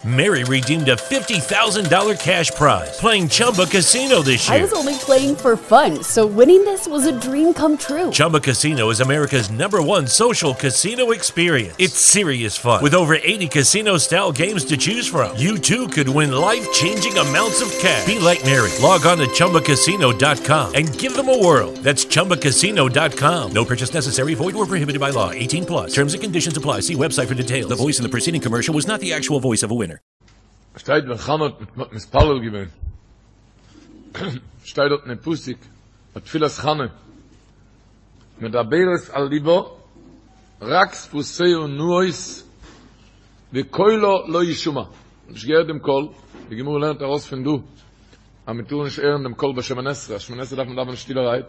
Mary redeemed a $50,000 cash prize playing Chumba Casino this year. I was only playing for fun, so winning this was a dream come true. Chumba Casino is America's number one social casino experience. It's serious fun. With over 80 casino style games to choose from, you too could win life changing amounts of cash. Be like Mary. Log on to chumbacasino.com and give them a whirl. That's chumbacasino.com. No purchase necessary, void or prohibited by law. 18 plus. Terms and conditions apply. See website for details. The voice in the preceding commercial was not the actual voice of a winner. שטייט ווען חנה האט מתפלל געווען, שטייט דארט אין פסוק, ביי תפילת חנה, מדברת על לבה, רק שפתיה נעות, וקולה לא ישמע. נישט געהערט דעם קול, די גמרא לערנט ארויס פון דא, אז מען טאר נישט הערן דעם קול ביי שמונה עשרה, שמונה עשרה דארף מען דאווענען שטילערהייט.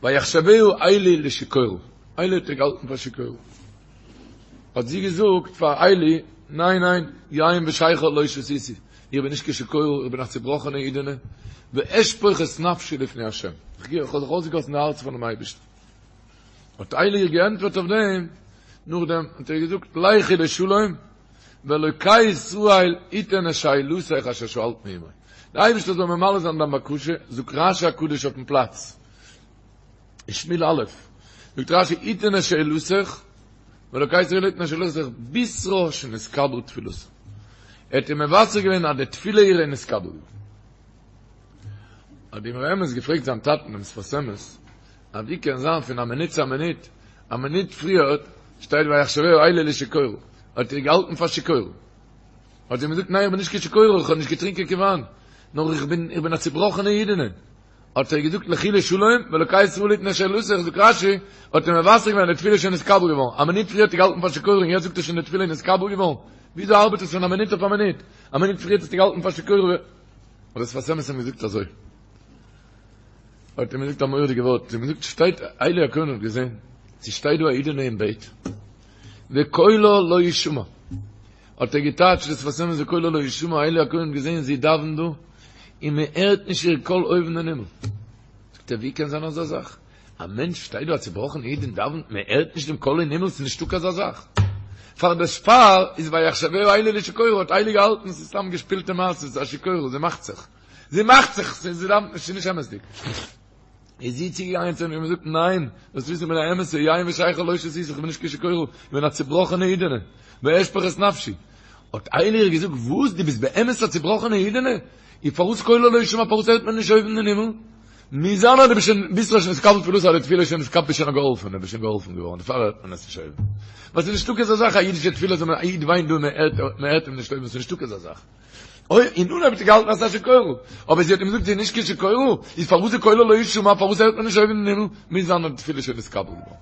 ויחשבה עלי לשיכורה, עלי האט איר געהאלטן פאר שיכורה. האט זי געזאגט פאר עלי, ניין ניין, יין ושכר לא שתיתי, איך בין נישט קיין שיכורה, איך בין א צובראכענע אידענע, ואשפוך את נפשי לפני ה', איך האב זיך אויסגעגאסן די הארץ פאר'ן אייבערשטן. האט עלי איר געענטפערט אויף דעם, נאכדעם האט ער געזאגט, לכי לשלום, ואלוקי ישראל יתן את שאלתך אשר שאלת מעמו. דער אייבערשטער זאל ממלא זיין דיין בקשה, זאגט רשי הקדוש אויפן פלאץ, אין שמואל א', זאגט רשי יתן את שאלתך, ואלוקי ישראל יתן את שאלתך, בישרה שנתקבלה תפילתה. ער האט איר מבשר געווען אז די תפילה אירע איז נתקבל געווארן. האט די אמרי אמת געפרעגט זיין טאטן דעם שפת אמת, אז ווי קען זיין פון א מינוט צו א מינוט, א מינוט פריער שטייט ויחשבה עלי לשיכורה, האט איר געהאלטן פאר שיכורה. האט זי אים געזאגט ניין איך בין נישט קיין שיכורה, איך האב נישט געטרינקען קיין וויין, נאר איך בין איך בין א צובראכענע אידענע. האט ער געזאגט לכי לשלום, ואלוקי ישראל יתן את שאלתך, זאגט רשי, האט ער מבשר געווען די תפילה איז שוין נתקבל געווארן, א מינוט פריער האט ער געהאלטן פאר שיכורה און יעצט זאגט ער שוין די תפילה איז נתקבל געווארן, וויאזוי ארבעט עס פון א מינוט אויף א מינוט? א מינוט פריער האט ער געהאלטן פאר שיכורה, האט דער שפת אמת אים געזאגט אזוי, האט אים געזאגט א מורא'דיגע ווארט, האט אים געזאגט שטייט עלי הכהן האט געזען, ס'שטייט דא א אידענע אין בעט, וקולה לא ישמע, האט ער געטייטשט דער שפת אמת וקולה לא ישמע, עלי הכהן האט געזען זי דאווענט דא, און מען הערט נישט איר קול אויבן אין הימל. זאגט ער ווי קען זיין אזא זאך? א מענטש שטייט דא א צובראכענע איד און דאווענט, מען הערט נישט דעם קול אין הימל, ס'איז נישטא קיין אזא זאך. פאר דערפאר איז ויחשבה עלי לשיכורה האט עלי געהאלטן ס'איז סתם געשפילטע מעשה, ס'איז א שיכורה, זי מאכט זיך. זי מאכט זיך, זי דאווענט נישט, ס'איז נישט אמת'דיג. איז זי צוגעגאנגען צו אים און געזאגט, ניין, זאלסט וויסן איך בין א אמת'ע, יין ושכר לא שתיתי, איך בין נישט קיין שיכורה, איך בין א צובראכענע אידענע, ואשפוך את נפשי. האט עלי איר געזאגט, וואס, דו ביסט באמת א צובראכענע אידענע? און פארוואס קולה לא ישמע, פארוואס הערט מען נישט אויבן אין הימל? מוז זיין אז דו ביסט שוין, בישרה שנתקבל תפילתה, אז די תפילה איז שוין נתקבל, ביסט שוין א געהאלפענע, ביסט שוין געהאלפן געווארן, דערפאר הערט מען עס נישט אויבן. ווייל ס'איז נישטא אזא זאך, א אידישע תפילה זאל מען, א איד וויינט דא און מען הערט אים נישט אויבן, ס'איז נישטא אזא זאך. אוי, אין אנהייב האט זי געהאלטן אז ס'איז א שיכורה, אבער זי האט אים געזאגט זי איז נישט קיין שיכורה, איז פארוואס איז קולה לא ישמע, פארוואס הערט מען נישט אויבן אין הימל, מוז זיין אז די תפילה איז שוין נתקבל געווארן.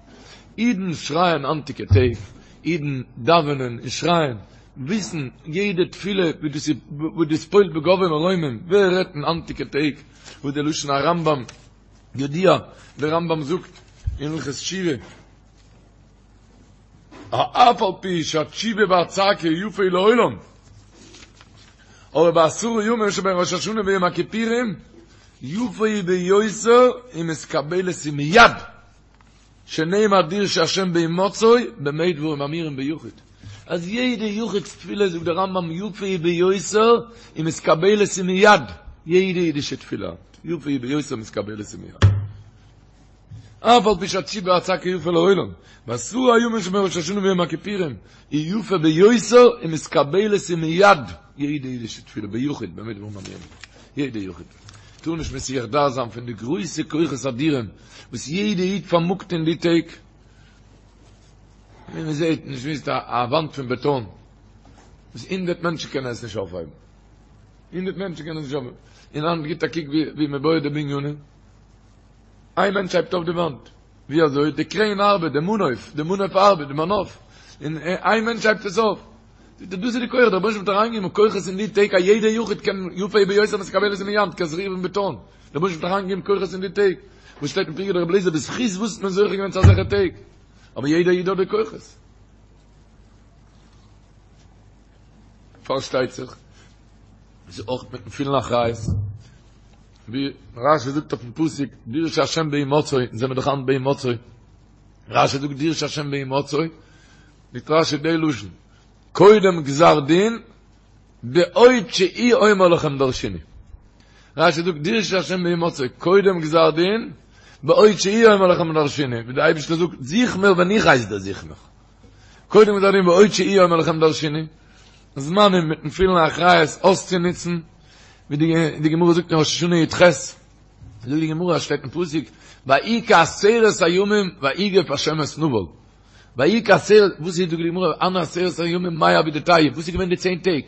אידן שרייען היינטיגע טעג, אידן דאווענען און שרייען, וויסן יעדע תפילה ווי דאס איז, וואס דאס פועל'ט בגבהי מרומים, ווער רעדט אין היינטיגע טעג וואס די לשון הרמב"ם, ידוע, דער רמב"ם זאגט אין הלכות תשובה, אף על פי שהתשובה והצעקה יפה היא לעולם, אבער בעשרה ימים שבין ראש השנה ויום הכיפורים יפה היא ביותר ומתקבלת היא מיד, שנאמר דרשו השם בהמצאו במה דברים אמורים ביחיד, אז יעדע יחיד'ס תפילה זאגט דער רמב"ם יפה היא ביותר ומתקבלת היא מיד, יעדע אידישע תפילה יפה היא ביותר ומתקבלת היא מיד. אף על פי שהתשובה והצעקה יפה לעולם, בעשרה הימים שבין ראש השנה ויום הכיפורים, היא יפה ביותר ומתקבלת היא מיד, יעדע אידישע תפילה ביחיד, במה דברים אמורים, יעדע יחיד, טאר נישט מסיח דעת זיין פון די גרויסע כוחות אדירים וואס יעדע איד פארמאגט אין די טעג, ווי מען זעט, נישט וויסט א וואנט פון בעטאן, וואס הונדערט מענטשן קענען עס נישט אויפהייבן, הונדערט מענטשן קענען עס נישט אויפהייבן, און היינט גיט א קוק ווי מען בויעט די בנינים. איין מענטש הייבט אויף די וואנט. ווי אזוי? די קרעין ארבעט, די מנוף, די מנוף ארבעט, די מנוף. און איין מענטש הייבט עס אויף. זאגט ער, דאס איז די כח, דער רבונו של עולם האט אריינגעגעבן כוחות אין די טעג, א יעדער יחיד קען יפה היא ביותר ומתקבלת היא מיד, קען זיך רירן בעטאן. דער רבונו של עולם האט אריינגעגעבן כוחות אין די טעג. וואס שטייט אין פרקי דרבי אליעזר, בזכות וואס האט מען זוכה געווען צו אזעלכע טעג? אבער יעדער איד האט די כוחות. פארשטייט זיך, עס איז אויך מיטן פולן אחריות. ווי רשי זאגט אויפן פסוק דרשו השם בהמצאו, אונז זעמיר דאך היינט בהמצאו, רשי זאגט דרשו השם בהמצאו, זאגט רשי די לשון, קודם גזר דין, בעוד שהוא אומר לכם דרשוני. רשי זאגט דרשו השם בהמצאו, קודם גזר דין, בעוד שהוא אומר לכם דרשוני, ווי דער אייבערשטער זאגט, זוך מיר ווען איך הייס דיר זוך מיך. קודם גזר דין בעוד שהוא אומר לכם דרשוני, זמנים מיטן פולן אחריות אויסצונוצן, ווי די גמרא זאגט אין ראש השנה י"ח, זאגט די גמרא, שטייט אין פסוק, ויהי כעשרת הימים ויגף השם את נבל. ויהי כעשרת, וואס איז זאגט די גמרא, הני עשרת הימים מאי עבידתייהו, וואס איז געווען די צען טעג?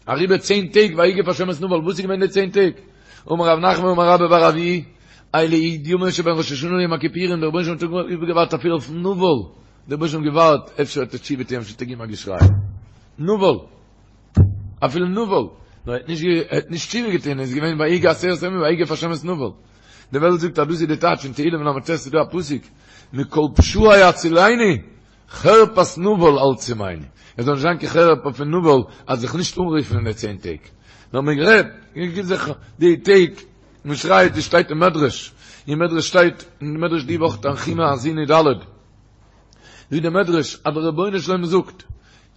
אריבער צען טעג ויגף השם את נבל, וואס איז געווען די צען טעג? אמר רב נחמן אמר רבה בר אבוה, אלו י' ימים שבין ראש השנה ליום הכיפורים, דער רבונו של עולם האט איבערגעווארט אפילו אויף נבל, דער רבונו של עולם האט געווארט, אפשר וועט ער תשובה טוען, אפשר וועט ער געבן א געשריי. נבל. אפילו נבל, נאר ער האט נישט ער האט נישט תשובה געטון, איז געווען ויהי כעשרת הימים ויגף השם את נבל. די וועלט זאגט אז דאס איז די טייטש אין תהילים ל"ט איז דא א פסוק, מכל פשעי הצילני, חרפת נבל אל תשימני. עס זאל נישט זיין קיין חרפה פון נבל אז זיך נישט אנרופן אין די צען טעג. נאר מען רעדט, מען גיבט זיך די טעג, מען שרייט, עס שטייט אין מדרש, אין מדרש שטייט, אין מדרש די וואך תנחומא האזינו ד', זאגט דער מדרש אז דער רבונו של עולם זאגט,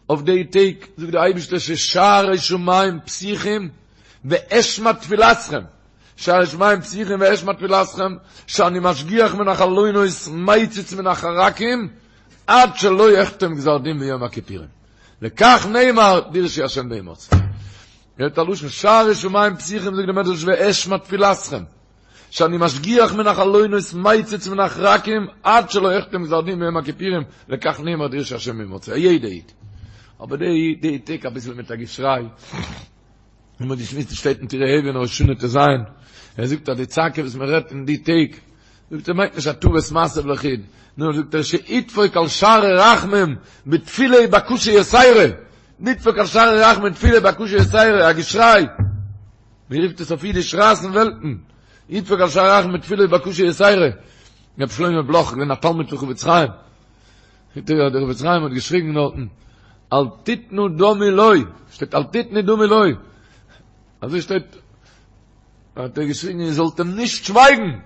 אויף די טעג זאגט דער אייבערשטער ששערי שמים פתוחים ואשמע תפילתכם, שערי שמים פתוחים ואשמע תפילתכם, שאני משגיח מן החלונות מציץ מן החרכים עד שלא אחתום גזר דין ביום הכיפורים. לכך נאמר דרשו השם בהמצאו. הערט א לשון שערי שמים פתוחים זאגט דער מדרש ואשמע תפילתכם. שאני משגיח מן החלונות מציץ מן החרכים עד שלא אחתום גזר דין ביום הכיפורים לכך נאמר דרשו השם בהמצאו א יעדע איד אבער די די טעג אביסל מיט א געשריי און מ'האט געשמועסט עס שטייט אין טורי אבן ראש השנה ט"ז ער זאגט אז די צעקה וואס מען רעדט אין די טעג זאגט ער מיינט נישט הטבת מעשה לחוד נאר זאגט ער שידפוק על שערי רחמים בתפילה ובקשה יתירה נדפוק על שערי רחמים בתפילה ובקשה יתירה א געשריי ווי רופט עס אויף אידיש רייסן וועלטן, ידפוק על שערי רחמים בתפילה ובקשה יתירה, רבי שלמה בלאך געווען א תלמיד פון חפץ חיים, זאגט ער דער חפץ חיים האט געשריגן דארטן, אל תתנו דמי לו, שטייט אל תתנו דמי לו, אזוי שטייט, האט ער געשריגן איר זאלט אים נישט שווייגן, איר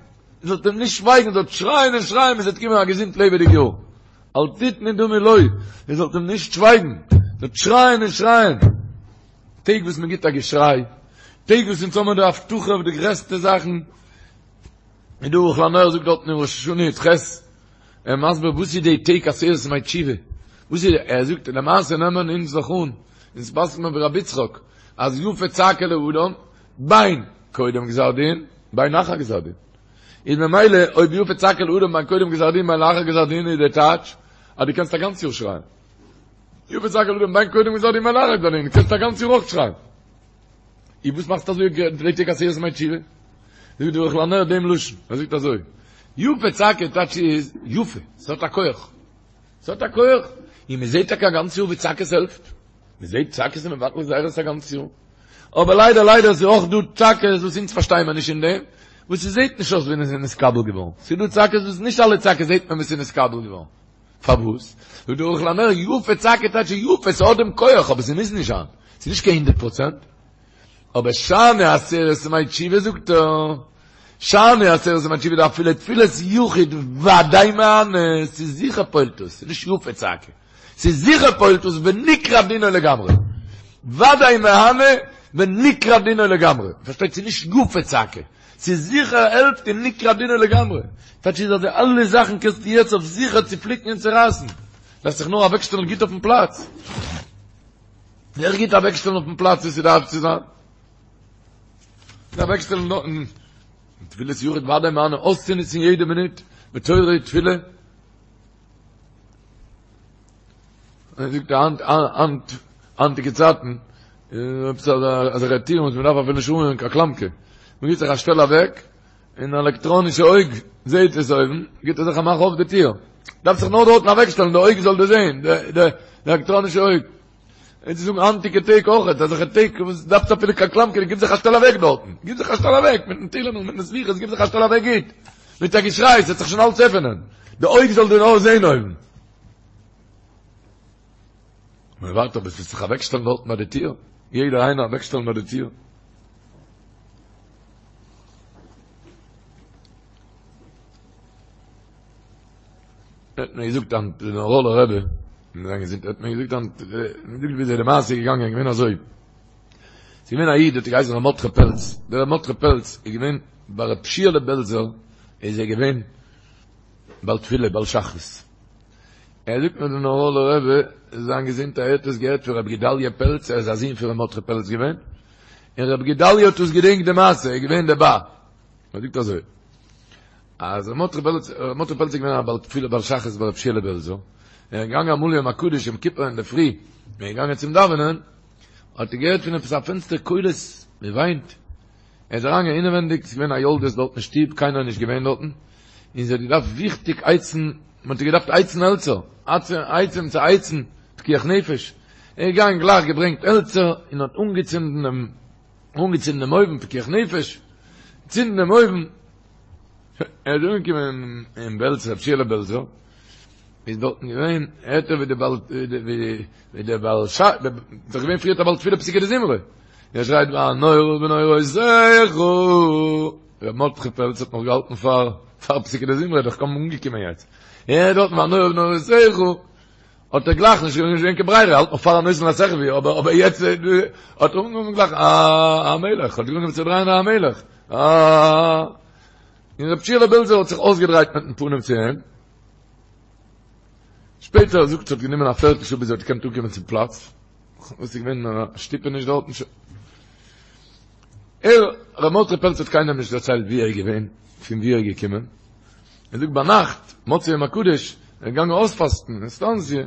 זאלט אים נישט שווייגן, איר זאלט שרייען און שרייען ביז עס וועט קומען א געזונט לעבעדיג יאר, אל תתנו דמי לו, איר זאלט אים נישט שווייגן, איר זאלט שרייען און שרייען. טעג וואס מען גיט א געשריי, טעג וואס אונז האבן די הבטחה אויף די גרעסטע זאכן, און דער ערוך לנר זאגט דארטן אין ראש השנה י"ח, ער מסביר וואס איז די טעג עשרת ימי תשובה, וואס איז, ער זאגט למעשה נעמען אונז דאך אן, אונז פסק'ט מען ווי רבי יצחק, אז יפה צעקה לאדם, בין קודם גזר דין, בין אחר גזר דין. איז ממילא אויב יפה צעקה לאדם בין קודם גזר דין בין לאחר גזר דין איז די טייטש אז דו קענסט א גאנץ יאר שרייען. יפה צעקה לאדם בין קודם גזר דין בין לאחר גזר דין, קענסט א גאנץ יאר אויך שרייען. אי וואס מאכסטו אזוי די טעג עשרת ימי תשובה? זאגט דער ערוך לנר דעם לשון, ער זאגט אזוי, יפה צעקה טייטש איז יפה, ס'האט א כח. ס'האט א כח. און מ'זעט טאקע א גאנץ יאר ווי צעקות העלפט. מ'זעט צעקות איז מבטל גזירות א גאנץ יאר. אבער ליידער ליידער איז אויך דא צעקות וואס אונז פארשטייען מיר נישט אין דעם, וואס ס'זעט נישט אויס ווי עס איז נתקבל געווארן. ס'איז דא צעקות וואס נישט אלע צעקות זעט מען ווי ס'איז נתקבל געווארן. פארוואס? זאגט דער ערוך לנר, יפה צעקה טייטש יפה, ס'האט דעם כח, אבער ס'מוז נישט זיין. ס'איז נישט קיין הונדערט פראצענט. אבער שאני עשרת ימי תשובה זאגט ער, שאני עשרת ימי תשובה דאפילו תפילת יחיד ודאי מהני, ס'איז זיכער פועל'ט עס, ס'איז נישט יפה צעקה. ס'איז זיכער פועל'ט עס ונקרע דינו לגמרי. ודאי מהני ונקרע דינו לגמרי. פארשטייט ס'איז נישט יפה צעקה. ס'איז זיכער העלפט און נקרע דינו לגמרי. טייטש איז אז די אלע זאכן קענסטו יעצט אויף זיכער צופליקן און צורייסן. דארפסט זיך נאר אוועקשטעלן גוט אויפן פלאץ. זיך גוט אוועקשטעלן אויפן פלאץ ווי ס'דארף צו זיין. אוועקשטעלן דארטן. תפילת יחיד ודאי מהני אויסצונוצן יעדע מינוט בתורה ותפילה. ער זאגט היינט היינט היינטיגע צייטן עפעס אזעלכע טירן וואס מען דארף אפילו נישט אנרירן קיין קלאמקע מען גיבט זיך א שטעל אוועק און א עלעקטראנישע אויג זעהט עס אויבן גיבט ער זיך א מאך אויף די טיר דארף זיך נאר דארטן אוועקשטעלן די אויג זאל דאס זעהן די די עלעקטראנישע אויג און צו זאגן היינטיגע טעג אויך אזעלכע טעג וואס דארפסט אפילו קיין קלאמקע גיב זיך א שטעל אוועק דארטן גיב זיך א שטעל אוועק מיטן תהילים און מיטן סליחות גיב זיך א שטעל אוועק גוט מיט א געשריי ס'וועט זיך שוין אלץ עפענען די אויג זאל דיר נאר זעהן אויבן מען ווארט אבער ס'וועט זיך אוועקשטעלן דארטן ביי די טיר יעדער איינער אוועקשטעלן ביי די טיר האט מיר געזאגט דער נאראלער רבי. זיין געזונט האט מיר געזאגט היינט, מיר געזאגט וויאזוי די מעשה איז געגאנגען, געווען אזוי, ס'איז געווען א איד האט געהייסן ר' מרדכי פעלץ, דער ר' מרדכי פעלץ איז געווען ביי ר' שיעלע בעלזער איז ער געווען בעל תפילה בעל שחרית, ער זאגט מיר דער נאראלער רבי זיין געזונט ער האט עס געהערט פון ר' גדליה פעלץ ער איז א זון פון ר' מרדכי פעלץ געווען, און ר' גדליה האט עס געדענקט די מעשה ער איז געווען דערביי, ער זאגט אזוי. אז ר' מרדכי פעלץ, ר' מרדכי פעלץ איז געווען א בעל תפילה בעל שחרית ביי ר' שיעלע בעלזער, ער איז געגאנגען אמאל יום הקדוש יום כיפור אינדערפרי, ער איז געגאנגען צום דאווענען, האט ער געהערט פון עפעס א פענסטער קולות, מען וויינט, ער איז אריינגעגאנגען אינעווענדיג, ס'איז געווען א יולדת דארט אין שטוב, קיינער איז נישט געווען דארטן, און זי האט געדארפט וויכטיג הייצן, מען האט איר געדארפט הייצן העלצער, עצים צו הייצן, פיקוח נפש, ער איז געגאנגען גלייך געברענגט העלצער און האט אנגעצינדן דעם, אנגעצינדן דעם אויוון, פיקוח נפש, צינדן דעם אויוון, ער איז אנגעקומען אין בעלז, רב שיעלע בעלזער, איז דארטן געווען, הערט ער ווי די בעל, ווי די בעל ש, דאך געווען פריערט א בעל תפילה פסוקי דזמרה, ער שרייט והנורא בנוראותיך, ר' מרדכי פעלץ האט נאך געהאלטן פאר פאר פסוקי דזמרה, דאך קוים אנגעקומען יעצט, ער הערט דארטן והנורא בנוראותיך, האט ער גלייך נישט געווען קיין ברירה, האלט נאך פאר הנותן לשכוי, אבער אבער יעצט האט ער אנגעהויבן גלייך א המלך, האט אנגעהויבן צו דרייען א המלך, א און רב שיעלע בעלזער האט זיך אויסגעדרייט מיטן פנים צו אים, שפעטער זאגט ס'האט גענומען א פערטל שעה ביז ער האט געקענט אנקומען צום פלאץ, וואס איז געווען א שטופעניש דארטן, ער, ר' מרדכי פעלץ האט קיינעם נישט דערציילט ווי ער איז געווען, פון ווי ער איז געקומען, ער זאגט ביינאכט, מוצאי יום הקדוש, ער איז געגאנגען אויספאסטן אין סטאנציע,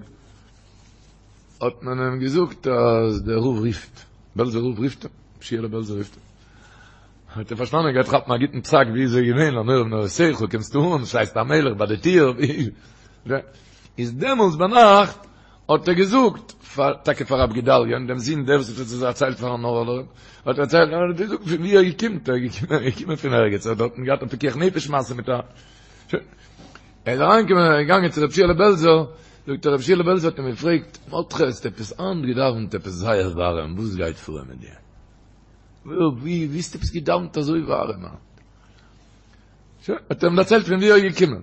האט מען אים געזאגט אז דער רב רופט, בעלזער רב רופט אים, ר' שיעלע בעלזער רופט אים. האט ער פארשטאנען ער גייט כאפן א גוטן פסק ווי איז ער געווען, הנורא בנוראותיך, קומסטו אן, שרייסט המלך ביי די טיר, איז דעמאלטס ביינאכט האט ער געזאגט פאר טאקע פאר רב גדליה'ן דעם זון דער וואס האט עס דערציילט פארן נאראלער, האט ער דערציילט, האט ער געזאגט פון ווי ער קומט, ער איז געקומען, ער איז געקומען פון ערגעץ, ער האט דארטן געהאט א פיקוח נפש מעשה מיט א, שוין, ער איז אריינגעקומען, ער איז געגאנגען צו רב שיעלע בעלזער, זאגט ער רב שיעלע בעלזער האט אים געפרעגט, מרדכי האסט עפעס היינט געדאווענט עפעס זייער ווארעם, וואס גייט פאר מיט דיר? ווי ווי האסטו עפעס געדאווענט אזוי ווארעם היינט? שוין, האט ער אים דערציילט פון ווי ער איז געקומען.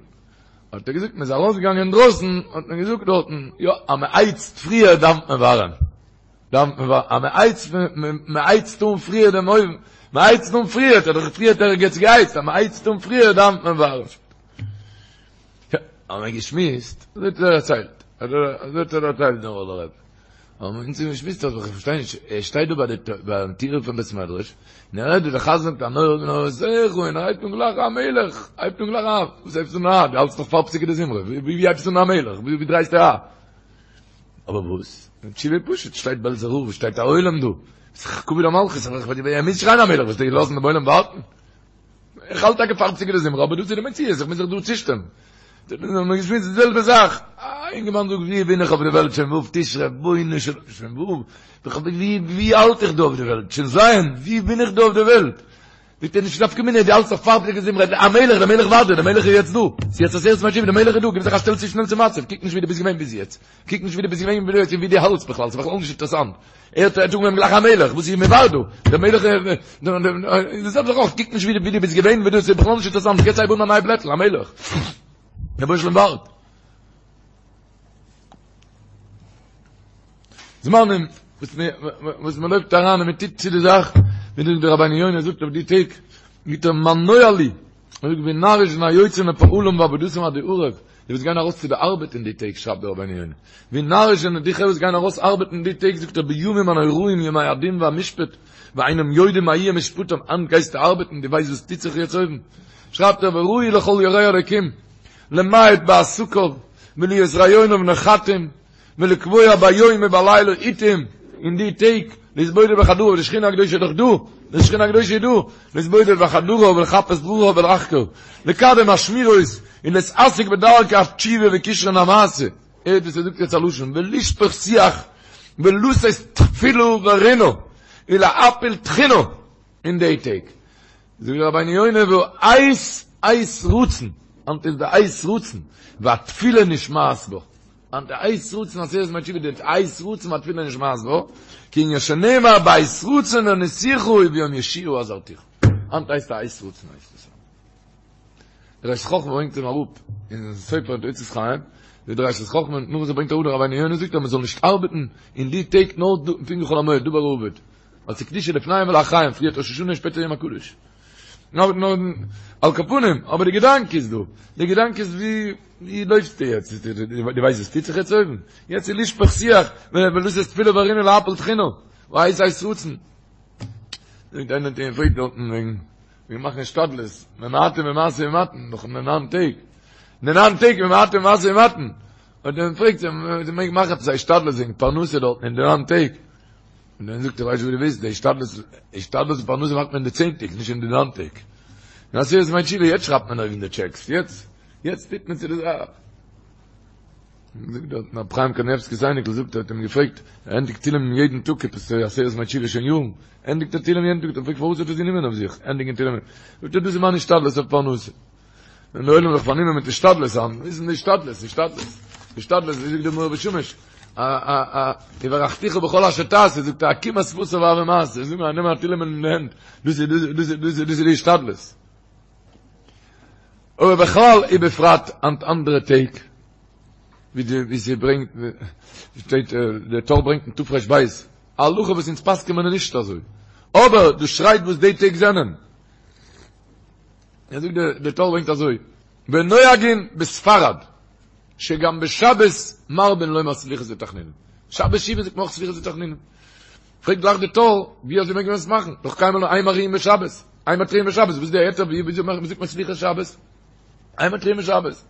האט ער געזאגט, מען איז ארויסגעגאנגען אינדרויסן, האט מען געזאגט דארטן, יא, אז מען הייצט פריער דאווענט מען ווארעם. דאווענט מען ווארעם. אז מען הייצט, מען הייצט אן פריער דעם אויוון, מען הייצט אן פריער, האט ער דאך פריער ערגעץ געהייצט, אז מען הייצט אן פריער דאווענט מען ווארעם. יא, האבן מיר געשמועסט, אזוי האט ער דערציילט, אזוי האט ער דערציילט דער נאראלער רבי. האבן מיר אונז געשמועסט אז איך פארשטיי נישט, ער שטייט דא ביי די ביים טיר פון בית מדרש, און ער הערט ווי דער חזן זאגט הנורא בנוראותיך, און ער הייבט אן גלייך המלך, הייבט אן גלייך א, וואס הייבסטו אן א, דו האלטסט נאך פאר פסוקי דזמרה, ווי ווי הייבסטו אן המלך, ווי דרייסטו א? אבער וואס? די תשובה איז פשוט, שטייט בעלזער רב, שטייט א עולם דא, ס'איז כבוד המלכות, ער מוז שרייען המלך, וועסטו לאזן דעם עולם ווארטן? איך האלט טאקע פאר פסוקי דזמרה, אבער דאס איז די מציאות, איך מוז זיך דא צושטעלן. האבן מיר געשמועסט די זעלבע זאך. א אינגערמאן זאגט, ווי בין איך אויף די וועלט שוין ו' תשרי, רבונו של עולם, שוין ו', ווי ווי האלט איך דא אויף די וועלט, שוין ז', ווי בין איך דא אויף די וועלט? זאגט ער, נישט נפקא מינה, דו האלטסט נאך פאר פסוקי דזמרה, המלך, דער מלך ווארט דיר, דער מלך איז יעצט דא, ס'איז יעצט עשרת ימי תשובה, דער מלך איז דא, גיב זיך א שטעל צו שנעל צום מצב, קוק נישט ווי דו ביסט געווען ביז יעצט, קוק נישט ווי דו ביסט געווען ביז יעצט און ווי דו האלטסט בכלל, ס'איז בכלל נישט אינטערעסאנט. ער האט אנגעהויבן גלייך המלך, וואס איז מ'ווארט דא? דער מלך די זעלבע זאך אויך, קוק נישט ווי דו ביסט געווען, ווי דו, ס'איז בכלל נישט אינטערעסאנט, יעצט הייב אן א ניי בלעטל, המלך. דער רבונו של עולם ווארט. זמנים וואס מען וואס מען לויפט אריין און מען טוט צו די זאך, ווי דער רבינו יונה זאגט אויף די טעג, מיט דער מה נואלו, ער זאגט ווי נאריש זענען היוצאים לפעלם ועבודתם עדי ערב, די וואס גייען ארויס צו די ארבעט אין די טעג שרייבט דער רבינו יונה, ווי נאריש זענען די חברה וואס גייען ארויס ארבעטן אין די טעג זאגט ער בימים הנוראים ימי הדין והמשפט ואינם יודעים מה יהיה משפטם, היינט גייסטו ארבעטן דו ווייסט וואס טוט זיך יעצט אויבן? שרייבט ער וראוי לכל ירא אלוקים למעט בעסקיו ולהיות רעיוניו נחתים ולקבוע ביום ובלילה עתים אין די טעג להתבודד בחדריו די שכינה הקדושה איז דאך דא, די שכינה הקדושה איז דא, להתבודד בחדריו ולחפש דרכיו ולחקור, לקדם השמירות און להתעסק בדרכי התשובה וכשרון המעשה, הערט וואס ער זאגט יעצט א לשון, ולשפוך שיח ולשאת תפילה ורינה ולהפיל תחינה אין די טעג, זאגט רבינו יונה והעת עת רצון, היינט איז די עת רצון, והתפילה נשמעת בו. היינט די עת רצון עשרת ימי תשובה די עת רצון והתפילה נשמעת בו, כענין שנאמר בעת רצון עניתיך וביום ישועה עזרתיך. היינט הייסט א עת רצון הייסט עס. דער ראשית חכמה ברענגט אים אראפ אין ספר אין אוצרות חיים. די דרשת חכמה, נאך וואס ער ברענגט אראפ דער רבינו יונה זאגט אז מען זאל נישט ארבעטן אין די טעג נאר פונקט ווי חול המועד, דבר האבד, ווייל ס'איז קדושה לפניהם ולאחריהם, פריערט ראש השנה און שפעטער יום הקדוש. נאר נאר על כל פנים, אבער די געדאנק איז דא, די געדאנק איז ווי ווי לויפסטו יעצט, דו ווייסט וואס טוט זיך יעצט אויבן? יעצט איז לשפוך שיח, ולתת תפילה ברינה להפיל תחינה, והעת עת רצון. זאגט איינער האט אים געפרעגט דארטן וועגן וועגן מאכן השתדלות, ממעטין במשא ומתן, נאך אין די ניין טעג, אין די ניין טעג ממעטין במשא ומתן, האט ער אים געפרעגט צו מען מעג מאכן עפעס א השתדלות וועגן פרנסה דארטן אין די ניין טעג, און דאן זאגט ער ווייסט וואס דו ווילסט, די השתדלות, השתדלות און פרנסה מאכט מען אין די צען טעג, נישט אין די ניין טעג. אין עשרת ימי תשובה, יעצט שרייבט מען אויבן די טשעקס, יעצט, יעצט טוט מען צו די זאך. זאגט דארט רב חיים קניבסקי'ס אייניקל זאגט ער האט אים געפרעגט, ער ענדיגט תהילים יעדן טאג עפעס עשרת ימי תשובה שוין יארן, ענדיגט ער תהילים יעדן טאג, האט ער געפרעגט פארוואס האט ער עס גענומען אויף זיך, ענדיגן תהילים, זאגט ער דאס איז מיין השתדלות אויף פרנסה. ווען די עולם איז זיך פארנומען מיט השתדלות היינט, וואס איז די השתדלות, השתדלות, השתדלות, ווי זאגט דער מאור ושמש, א א א, וברכתיך בכל אשר תעשה, זאגט ער עקימת שפתיו הוי מעשה, זאג נאר, נעם א תהילים אין די הענט, דאס איז דאס איז דאס איז דאס איז די השתדלות. אבער בכלל ובפרט היינט אנדערע טעג, ווי די ווי ס'ברענגט, שטייט דער טור ברענגט אין תר"ב, א הלכה וואס אונז פסק'ען מיר נישט אזוי, אבער דאס שרייט וואס די טעג זענען. ער זאגט דער טור ברענגט אזוי, ונוהגין בספרד שגם בשבת מרבין לומר סליחות ותחנונים, שבת שובה זאגט מען אויך סליחות ותחנונים, פרעגט גלייך דער טור, ווי אזוי מעג מען עס מאכן, דאך קיינמאל אין מריעין בשבת, אין מתריעין בשבת, וואס איז די היתר, ווי אזוי זאגט מען סליחות שבת, אין מתריעין בשבת,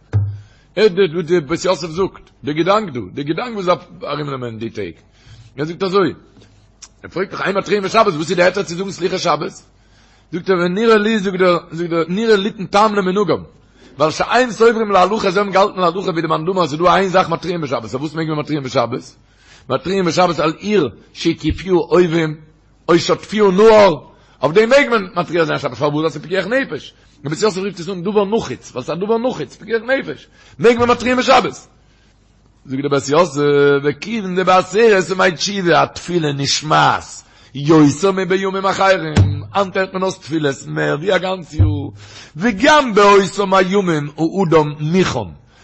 הערט די וואס די בית יוסף זאגט, די געדאנק דא, די געדאנק וואס דארף ארומנעמען די טעג, ער זאגט אזוי, ער פרעגט דאך אין מתריעין בשבת, וואס איז די היתר צו זאגן סליחות שבת? זאגט ער ונראה לי זאגט ער זאגט ער נראה ליתן טעם למנהגם ווייל שאין סוברים להלכה זיי האבן געהאלטן להלכה ווי די מאן דאמר אז ס'איז דא איין זאך מתריעים בשבת אויף וואס מעג מען מתריעים בשבת? מתריעים בשבת על עיר שהקיפוה אויבים או שטפוה נהר אויף דעם מעג מען מתריע זיין שבת פארוואס ווייל ס'איז פיקוח נפש דער בית יוסף רופט עס אן דבר נחוץ ווייל ס'איז א דבר נחוץ פיקוח נפש מעג מען מתריעים בשבת זאגט דער בית יוסף, וכיוון דבעשרת ימי תשובה התפילה נשמעת יותר מבימים אחרים, היינט הערט מען אויס תפילות מער ווי א גאנץ יאר, וגם באותם הימים האדם מוכן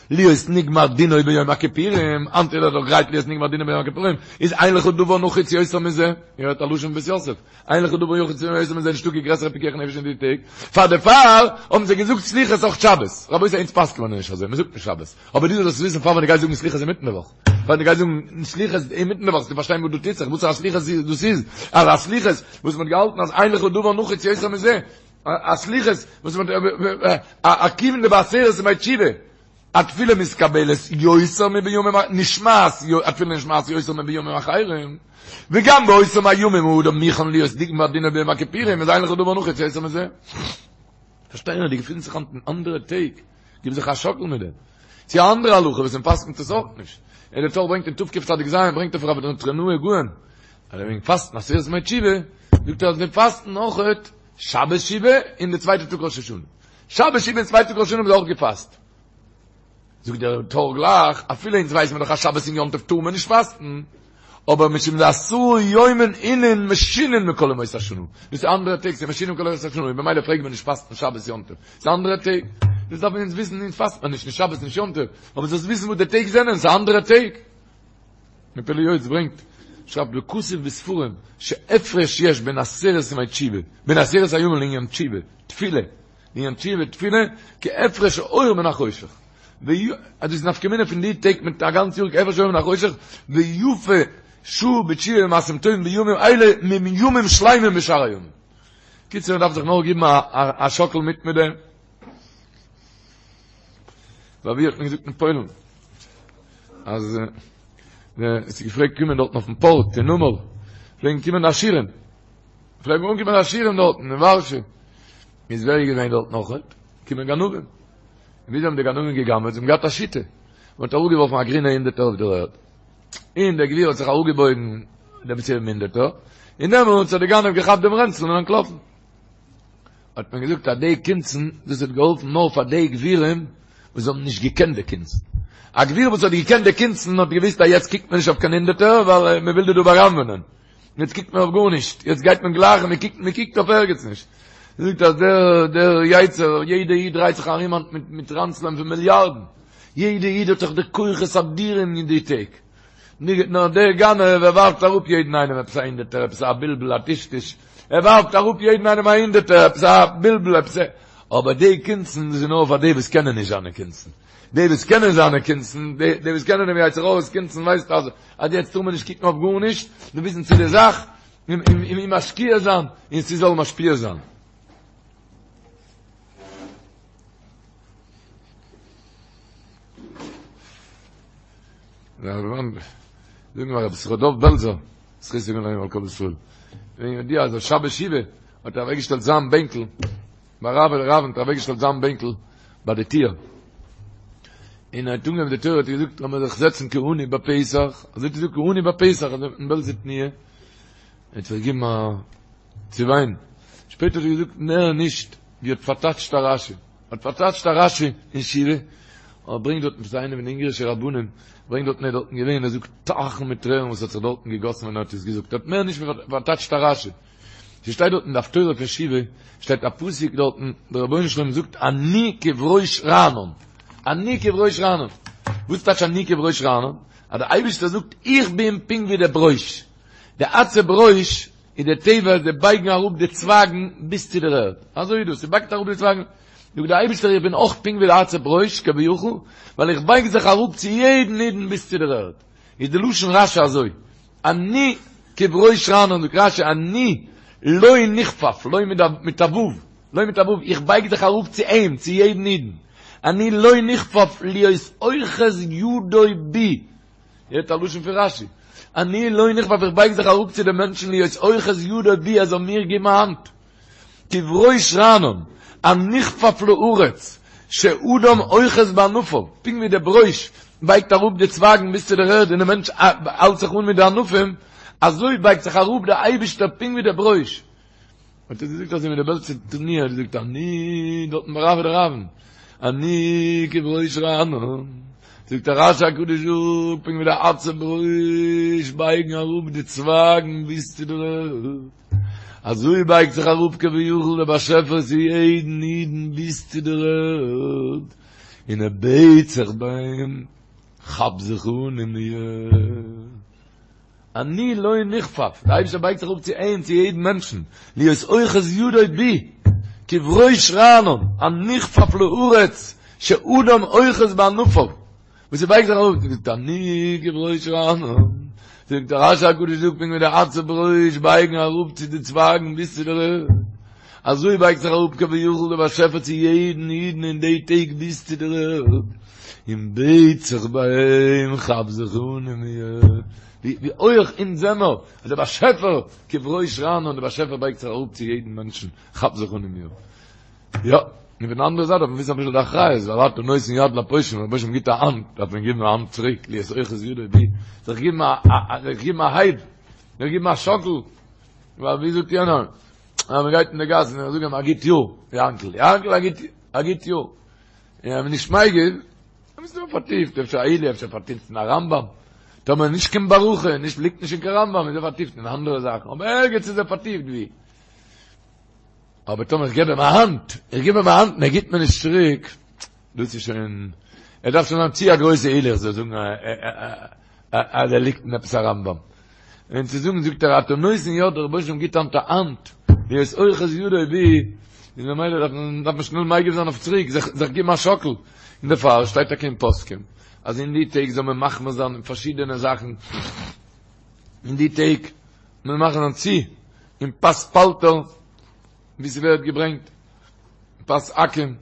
להיות נגמר דינו ביום הכיפורים, היינט איז ער דאך גרייט להיות נגמר דינו ביום הכיפורים, איז אין לך דבר נחוץ יותר מזה, איר הערט א לשון בית יוסף, אין לך דבר נחוץ יותר מזה, נישטא קיין גרעסערע פיקוח נפש אין די טעג, פאר דערפאר האבן זיי געזאגט סליחות אויך שבת, רבותי אונז פסק'ן מיר נישט אזוי, מען זאגט נישט שבת. אבער דו זאלסט וויסן פאר ווען דו גייסט זאגן סליחות אינמיטן די וואך, פאר דו גייסט זאגן סליחות אינמיטן די וואך, זאלסטו פארשטיין וואס דא טוט זיך, וואס א סליחות דאס איז, אז א סליחות וואס מ'האט געהאלטן אז אין לך דבר נחוץ יותר מזה, א סליחות וואס מ'האט א כיוון דבעשרת ימי תשובה, התפילה מתקבלת יותר מבימים נשמעת התפילה נשמעת יותר מבימים אחרים, וגם באותם הימים האדם מוכן להיות נגמר דינו ביום הכיפורים, איז אין לך דבר נחוץ יותר מזה. פארשטיי נאר, דו געפינסט זיך היינט אין אנדערע טעג. גיב זיך א שאקל מיט דעם. צו א אנדערע הלכה וואס מען פסק'נט עס אויך נישט. און דער טור ברענגט אין תקצ"ז ברענגט ער פון רבי נטרונאי גאון, אז וועגן פאסטן עשרת ימי תשובה, זאגט ער אז מיר פאסטן אויך שבת שובה און די צווייטע טאג ראש השנה. שבת שובה און צווייטע טאג ראש השנה האבן זיי אויך געפאסט. זאגט דער טור גלייך, אפילו אונז ווייסן מיר דאך אז שבת און יום טוב טאר מען נישט פאסטן, אבער משום דעשרה יומין אינון משונין מכל ימות השנה, דאס איז אנדערע טעג, ס'איז משונין מכל ימות השנה, און במילא פלעגט מען נישט פאסטן שבת יום טוב, ס'איז אנדערע טעג, דאס דארף מען אונז וויסן, אונז פאסט מען נישט, נישט שבת נישט יום טוב, אבער זאלסט וויסן וואס די טעג זענען, ס'איז אנדערע טעג. דער פלא יועץ ברענגט, שרייבט וכתוב בספרים, שהפרש יש בין עשרת ימי תשובה, בין עשרת הימים לעניין תשובה, תפילה, לעניין תשובה תפילה, כהפרש האור מן החושך. אז דאס איז נפקא מינה פון די טעג מיט א גאנץ יאר כהפרש האור מן החושך, ויפה שעה בתשובה ומעשים טובים בימים אלה מימים שלימים בשאר הימים. קיצור מען דארף זיך נאר גיבן א שאקל מיט מיט דעם. ווייל ווי האט מען געזאגט אין פוילן אז עס איז געפלעגט קומען דארטן אויפן פארט אין נמל פלעגן קומען עשירים פלעגן אנקומען עשירים דארטן אין ווארשע איז ווער איז געווען דארט נאכעט קומען גנבים וויאזוי האבן די גנבים געגנב'עט? זיי האבן געהאט א שיטה. מען האט אראפגעווארפן א גרינע הונדערטער אויף דער ערד. און דער גביר האט זיך אראפגעבויגן דעם צו דעם הונדערטער, און דעמאלטס האט דער גנב געכאפט דעם רענצל און אנטלאפן. האט מען געזאגט אז די קונצן, דאס האט געהאלפן נאר פאר די גבירים וואס האבן נישט געקענט די קונצן. א גביר וואס האט געקענט די קונצן האט געוואוסט אז יעצט קוקט מען נישט אויף קיין הונדערטער ווייל מען וויל דיר דא בא'גנב'ענען. יעצט קוקט מען אויף גארנישט, יעצט גייט מען גלייך און מען קוקט, מען קוקט אויף ערגעץ נישט. זאגט אז דער דער יצר, יעדע איד דרייט זיך ארום היינט מיט מיט ראנצלען פון מיליארדן. יעדע איד האט דאך די כוחות אדירים אין די טעג. נאר דער גנב ער ווארפט אראפ יעדן איינעם עפעס א הונדערטער, עפעס א בלבול א טשטוש, ער ווארפט אראפ יעדן איינעם א הונדערטער, עפעס א בלבול עפעס א, אבער די קונצן דאס איז נאר פאר די וואס קענען נישט זיינע קונצן, די וואס קענען זיינע קונצן, די וואס קענען דעם יצר הרע'ס קונצן ווייסט אז אז יעצט טאר מען נישט קוקן אויף גארנישט, נאר וויסן צו די זאך, און און משקיע זיין, און ס'זאל משפיע זיין. זאגן מיר רבי יששכר דוב בעלזער, זכותו יגן עלינו ועל כל ישראל. ווען ידוע אז שבת שובה האט ער אוועקגעשטעלט זיין בענקל, ביי רב און רב האט ער אוועקגעשטעלט זיין בענקל ביי די טיר. און ער האט אנגעהויבן די תורה האט ער געזאגט לאמיר זיך זעצן כעני בפתח, אזוי האט ער געזאגט כעני בפתח, אזוי אין בעלזער תנועה. ער האט זיך געגעבן א צו וויין. שפעטער האט ער געזאגט מער נישט ווי האט פארטייטשט א רשי. האט פארטייטשט א רשי אין שובה, ער ברענגט דארטן פון איינעם פון די אונגערישע רבנים, ברענגט דארטן ער איז דארטן געווען, ער זאגט טייכן מיט טרערן וואס האט זיך דארטן געגאסן ווען ער האט עס געזאגט, ער האט מער נישט פארטייטשט א רשי. ס'שטייט דארט אין די הפטורה פון שובה, שטייט א פסוק דארטן, דער רבונו של עולם זאגט אני כברוש רענן, אני כברוש רענן, וואס טייטש אני כברוש רענן? אז דער אייבערשטער זאגט איך בין פונקט ווי דער ברוש, די עצי ברוש איז די טבע זיי בייגן אראפ די צווייגן ביז צו דער ערד, אזוי איז דאס, ס'בייגט אראפ די צווייגן, זאגט דער אייבערשטער איך בין אויך פונקט ווי די עצי ברוש כביכול, ווייל איך בייג זיך אראפ צו יעדן אידן ביז צו דער ערד, איז די לשון רשי אזוי, אני כברוש רענן, זאגט רשי אני לו נכפף, לו מיט א ו', לו מיט א ו', איך בייג זיך אראפ צו אים, צו יעדן אידן, אני לו נכפף להיות אוחז ידו בי, הערט א לשון פון רשי, אני לו נכפף איך בייג זיך אראפ צו די מענטשן להיות אוחז ידו בי ער זאל מיר געבן א האנט, כברוש רענן, הנכפף לארץ, שאדם אוחז בענפיו, פונקט ווי די ברוש בייגט אראפ די צווייגן ביז צו דער ערד און די מענטש האלט זיך אן מיט די ענפים, אזוי בייגט זיך אראפ דער אייבישטער פונקט ווי דער ברוש. האט ער געזאגט אזוי מיט די בעלזער תנועה, האט געזאגט אני דארטן ביי רב דרבן, אני כברוש רענן, זאגט דער רשי הקדוש זאגט פונקט ווי די עצי ברוש בייגן אראפ די צווייגן ביז צו דער ערד, אזוי בייגט זיך אראפ כביכול דער באשעפער צו יעדן אידן ביז צו דער ערד, און ער בעט זיך ביי אים, כאפ זיך אן אין מיר. אני לו נכפף, דער אייבערשטער בייגט זיך אראפ צו אים, צו יעדן מענטשן, להיות אוחז ידו בי, כברוש רענן, הנכפף לארץ, שאדם אוחז בענפיו, וואס ער בייגט זיך אראפ, זאגט אני כברוש רענן, זאגט דער רשי הקדוש זאגט פונקט ווי די עצי ברוש בייגן אראפ צו די צווייגן ביז צו דער ערד, אזוי בייגט זיך אראפ כביכול דער באשעפער צו יעדן אידן אין די טעג ביז צו דער ערד, און בעט זיך ביי אים, כאפ זיך אן אין מיר, ווי הויך אונז זעמער, אז דער באשעפער כברוש רענן, דער באשעפער בייגט זיך אראפ צו יעדן מענטשן, כאפ זיך אן אין מיר. יא, און פון די אנדערע זייט דארף מען וויסן אביסל די אחריות, ווייל אתה נותן יד לפושעים, ווען דער באשעפער גיבט א האנט, דארף מען געבן א האנט צוריק, להיות אוחז ידו בי, זיך געבן א, זיך געבן א הייב, זיך געבן א שאקל, ווייל ווי זאגט יענער, אז מען גייט אין די גאס און איך זאג אים א גוט יאר, יאנקל, יאנקל א גוט, א גוט יאר. און אז מען נישט מגיב, דאן איז מען פארטיפט, אפשר א עילוי, אפשר פארטיפט אין א רמב"ם, טאמער נישט קיין ברכה, נישט ליגט נישט אין קיין רמב"ם, איז ער פארטיפט אין אנדערע זאכן, אבער ערגעץ איז ער פארטיפט ווי. אבער טאמער איך געב אים א האנט, איך גיב אים א האנט און ער גיבט מיר נישט צוריק, דאס איז שוין, ער דארף שוין זיין צו א גרויסע עילוי איך זאל זאגן אז ער ליגט אין עפעס א רמב"ם. און צו זאגן זאגט ער אתה נותן יד דער רבונו של עולם גיט היינט א האנט, להיות אוחז ידו בי, איז ממילא דארף מען דארף מען שנעל מגיב זיין אויף צוריק, זיך זיך גיבן א שאקל, און דערפאר שטייט טאקע אין פוסקים אז אין די טעג זאל מען מחמיר זיין אין פארשידענע זאכן, אין די טעג מען מחמיר זיין צו אין פת פלטר ווי ס'ווערט געברענגט פת עכו"ם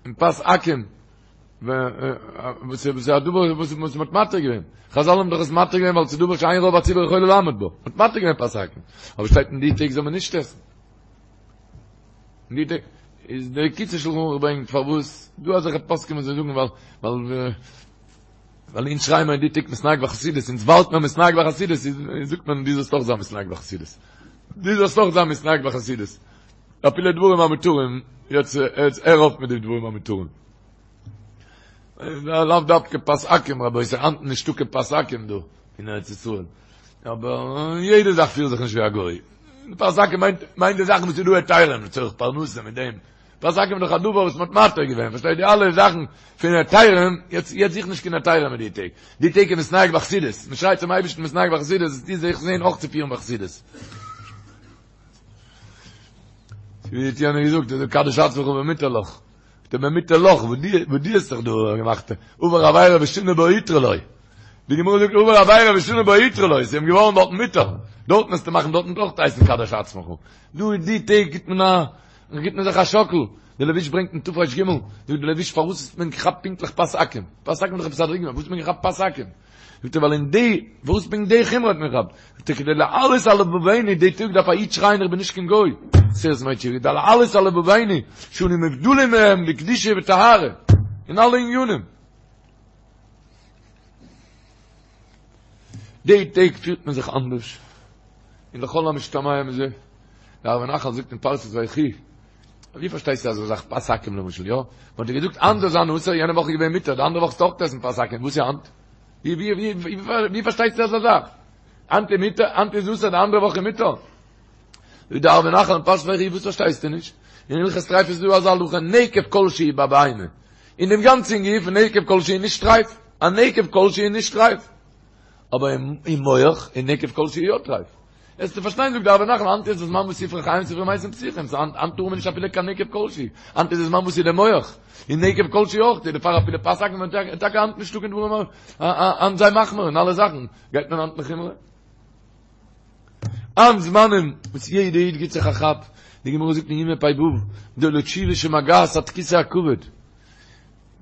אין פת עכו"ם וואס איז א דבר וואס וואס מ'האט מתיר געווען חזל האבן דאך עס מתיר געווען ווייל ס'איז דבר שאין רוב הציבור יכולה לעמוד בו מ'האט מתיר געווען פת עכו"ם אבער שטייט אין די טעג זאל מען נישט עסן אין די טעג איז דער קיצור שלחן ערוך ברענגט פארוואס דא אזעלכע פוסקים וואס זיי זאגן ווייל ווייל ווייל אונז שרייען מיר אין די טעג מתנהג בחסידות אונז ווארט מיר מתנהג בחסידות זאגט מען דו זאלסט אויך זיין מתנהג בחסידות דו זאלסט אויך זיין מתנהג בחסידות אפילו דברים המותרים יעצט יעצט הער אויף מיט די דברים המותרים לאו דווקא פת עכו"ם רבותי, היינט נישטא קיין פת עכו"ם דא אין ארץ ישראל. אבער יעדע זאך פיר זיך נישט ווי א גוי. פת עכו"ם מיינט מיינט די זאכן וואס איז דא היתרים לצורך פרנסה מיט דעם. פת עכו"ם איז דאך א דבר וואס מ'האט מתיר געווען, פארשטייט די אלע זאכן פון היתרים, יעצט יעצט זוך נישט קיין היתרים מיט די טעג, די טעג איז מתנהג בחסידות, מ'שרייט צום אייבערשטן מתנהג בחסידות, איז די זיך זעהן אויך צו פירן בחסידות. ווי האט יענער געזאגט, אז קדש עצמך במותר לך. דער במותר לך, וואס די וואס די האסט זיך דא געמאכט, עבר עבירה ושנה בה הותרה לו. די גמרא זאגט עבר עבירה ושנה בה הותרה לו, ס'איז אים געווארן דארטן מותר. דארטן וועסטו מאכן דארטן אויך הייסן קדש עצמך. דא אין די טעג גיט מען א גיט מען זיך א שאקל. דער לבוש ברענגט אין תר"ג, זאגט דער לבוש פארוואס האט מען געכאפט פונקטליך פת עכו"ם? פת עכו"ם איז דאך עפעס א דרגה, פארוואס האט מען געכאפט פת עכו"ם? זאגט ער ווייל אין די, וואס פונקט די חומרא האט מען געכאפט? זאגט ער כדי להעלות על לבבינו, די טאג דארף א איד שרייען איך בין נישט קיין גוי, עשרת ימי תשובה, כדי להעלות על לבבינו, שאנו מובדלים מהם בקדושה וטהרה, אין אלע עניינים. די טעג פירט מען זיך אנדערש, און לכל המשתמע מזה, דער ערבי נחל זאגט אין פרשת ויחי, ווי פארשטייסטו אזא זאך פת עכו"ם למשל, יא? מ'האט דיר געזאגט היינט זאל זיין אסור, יענע וואך איז געווען מותר, די אנדערע וואך זאלסטו אויך עסן פת עכו"ם, וואס איז היינט? ווי ווי ווי ווי פארשטייסטו אזא זאך? היינט איז מותר, היינט איז אסור, די אנדערע וואך איז מותר. זאגט דער ערבי נחל אין פרשת ויחי, וואס פארשטייסטו נישט? אין הלכות טריפות איז דא אזא הלכה, נקב כל שהוא בבהמה. אין דעם גאנצן גוף, נקב כל שהוא נישט טרייף. א נקב כל שהוא נישט טרייף. אבער אין מח איז נקב כל שהוא יא טרייף. וועסטו פארשטיין זאגט דער ערבי נחל היינט איז די זמן וואס ספרי חיים ספרי מתים פתוחים סא היינט היינט טאר מען נישט אפילו קיין נקב כל שהוא היינט איז די זמן וואס איז די מח און נקב כל שהוא אויך דערפאר אפילו פת עכו"ם טאקע היינט נישטא קיין דברים היינט זיי מחמיר אין אלע זאכן גייט מען היינט לחומרא היינט זמנים וואס יעדע איד גיט זיך א כאפ די גמרא זאגט אין יומא פ"ו גדולה תשובה שמגעת עד כסא הכבוד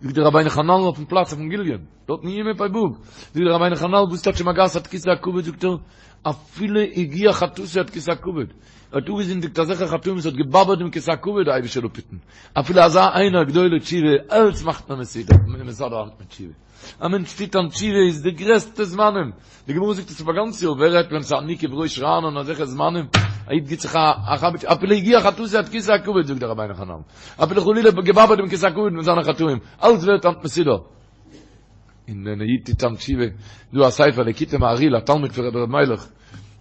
זאגט דער רבינו חננאל אויפן פלאץ אויפן גליון, דארט אין יומא פ"ו, זאגט דער רבינו חננאל וואס טייטש שמגעת עד כסא הכבוד, זאגט ער, אפילו הגיע חטאתו עד כסא הכבוד, ער האט אפגעזינדיגט אזעלכע חטאים וואס האט געבאדערט דעם כסא הכבוד, די אייבישטער זאל אפהיטן, אפילו אזא איינער גדולה תשובה, אלץ מאכט מען מסודר, מסדר היינט מיט תשובה. א מענטש טוט אן תשובה איז די גרעסטע זמנים, די גמרא זאגט עס אויף א גאנץ יאר, ווער רעדט ווען ס'איז אני כבראש רענן אזעלכע זמנים, א איד גיט זיך א כאפ, אפילו הגיע חטאתו עד כסא הכבוד זאגט דער רבינו חננאל, אפילו חלילה געבאדערט דעם כסא הכבוד מיט זיינע חטאים, אלץ ווערט היינט מסודר. און ווען א איד טוט אן תשובה, דא א ספר ליקוטי מהרי"ל א תלמיד פון רבי ר' מיילעך,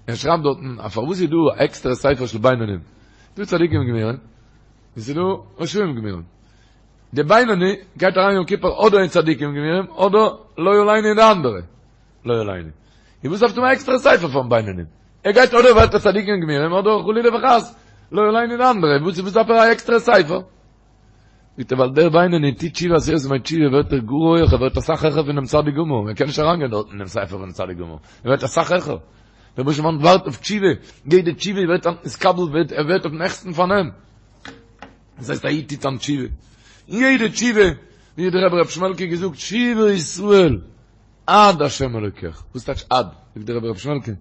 ער שרייבט דארטן אז פארוואס איז דא א עקסטערע ספר של בינונים, דא צדיקים גמורים, און ס'איז דא רשעים גמורים. די בינוני גייט אריין יום כיפור אדער אין צדיקים גמורים אדער לא עלינו אין די אנדערע לא עלינו. און וואס דארפסטו האבן א עקסטערע ספר פארן בינוני? ער גייט אדער ווערט ער צדיקים גמורים אדער חלילה וחס לא עלינו אין די אנדערע, וואס וואס דארף ער א עקסטערע ספר? זאגט ער ווייל דער בינוני טוט תשובה עשרת ימי תשובה ווערט ער גאר הויעך ער ווערט אסאך העכער פונעם צדיק גמור, ער קען נישט אריינגיין דארט אין דעם ספר פונעם צדיק גמור, ער ווערט אסאך העכער. דער רבונו של עולם ווארט אויף תשובה, יעדע תשובה ווערט נתקבל ווערט ער ווערט אויפן העכסטן פארנעם. דאס הייסט א איד טוט אן תשובה, און יעדע תשובה, ווי האט דער רבי ר' שמעלקע געזאגט, שובה ישראל עד השם אלוקיך, וואס טייטש עד? זאגט דער רבי ר' שמעלקע,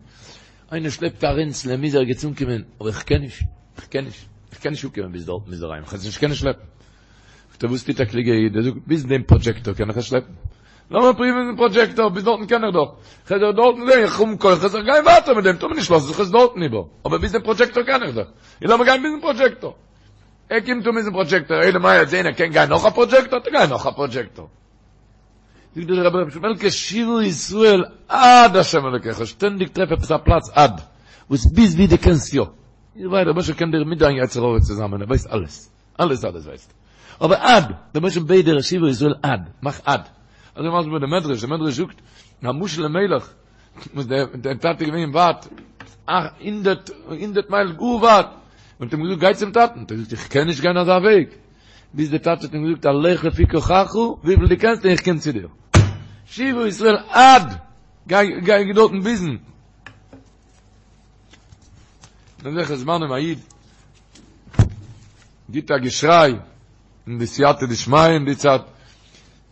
איינער שלעפט א רענצל ער מוז ערגעץ אנקומען, אבער איך קען נישט, איך קען נישט, איך קען נישט אנקומען ביז דארטן ביז דערהיים, איך וועל עס נישט קענען שלעפן. זאגט ער, וואס טוט א קלוגער איד? ער זאגט, ביז דעם פראדזשעקטאר קען איך עס שלעפן. לאמיר פרואוון מיטן פראדזשעקטאר, ביז דארטן קען איך דאך. איך וועל דארטן זען, איך האב כוחות, איך גיי ווייטער מיט דעם, טאמער נישט לאז איך עס דארטן איבער, אבער ביז דעם פראדזשעקטאר קען איך דאך. און לאמיר גיין ביזן פראדזשעקטאר. ער קומט אן ביזן פראדזשעקטאר, אלא מאי ער וועט זען ער קען גיין נאך א פראדזשעקטאר, וועט ער גיין נאך א פראדזשעקטאר. זאגט דער רבי ר' שמעלקע שובה ישראל עד השם אלוקיך, שטענדיג טרעף עפעס א פלאץ עד, וואס ביז ווי דו קענסט יא. איך ווייס, דער רבוש"ע קען דיר מיט דיין יצר הרע צוזאמען, ער ווייסט אלעס, אלעס אלעס ווייסט ער. אבער עד, דער רבוש"ע בעט דיר שובה ישראל עד, מאך עד. אזוי מסביר דער מדרש, דער מדרש זאגט, א משל למלך, וואס דער דער טאטע איז געווען ווייט, הונדערט, הונדערט מייל גאר ווייט, און האט אים געזאגט גיי צום טאטן, האט ער געזאגט איך קען נישט גיין אזא וועג, ביז דער טאטע האט אים געזאגט הלך לפי כוחך, וויפיל דו קענסט און איך קום צו דיר. שובה ישראל עד, גיי גיי דארטן ביזן. אין אזעלכע זמנים א איד גיט א געשריי אין די סייעתא דשמיא אין די צייט,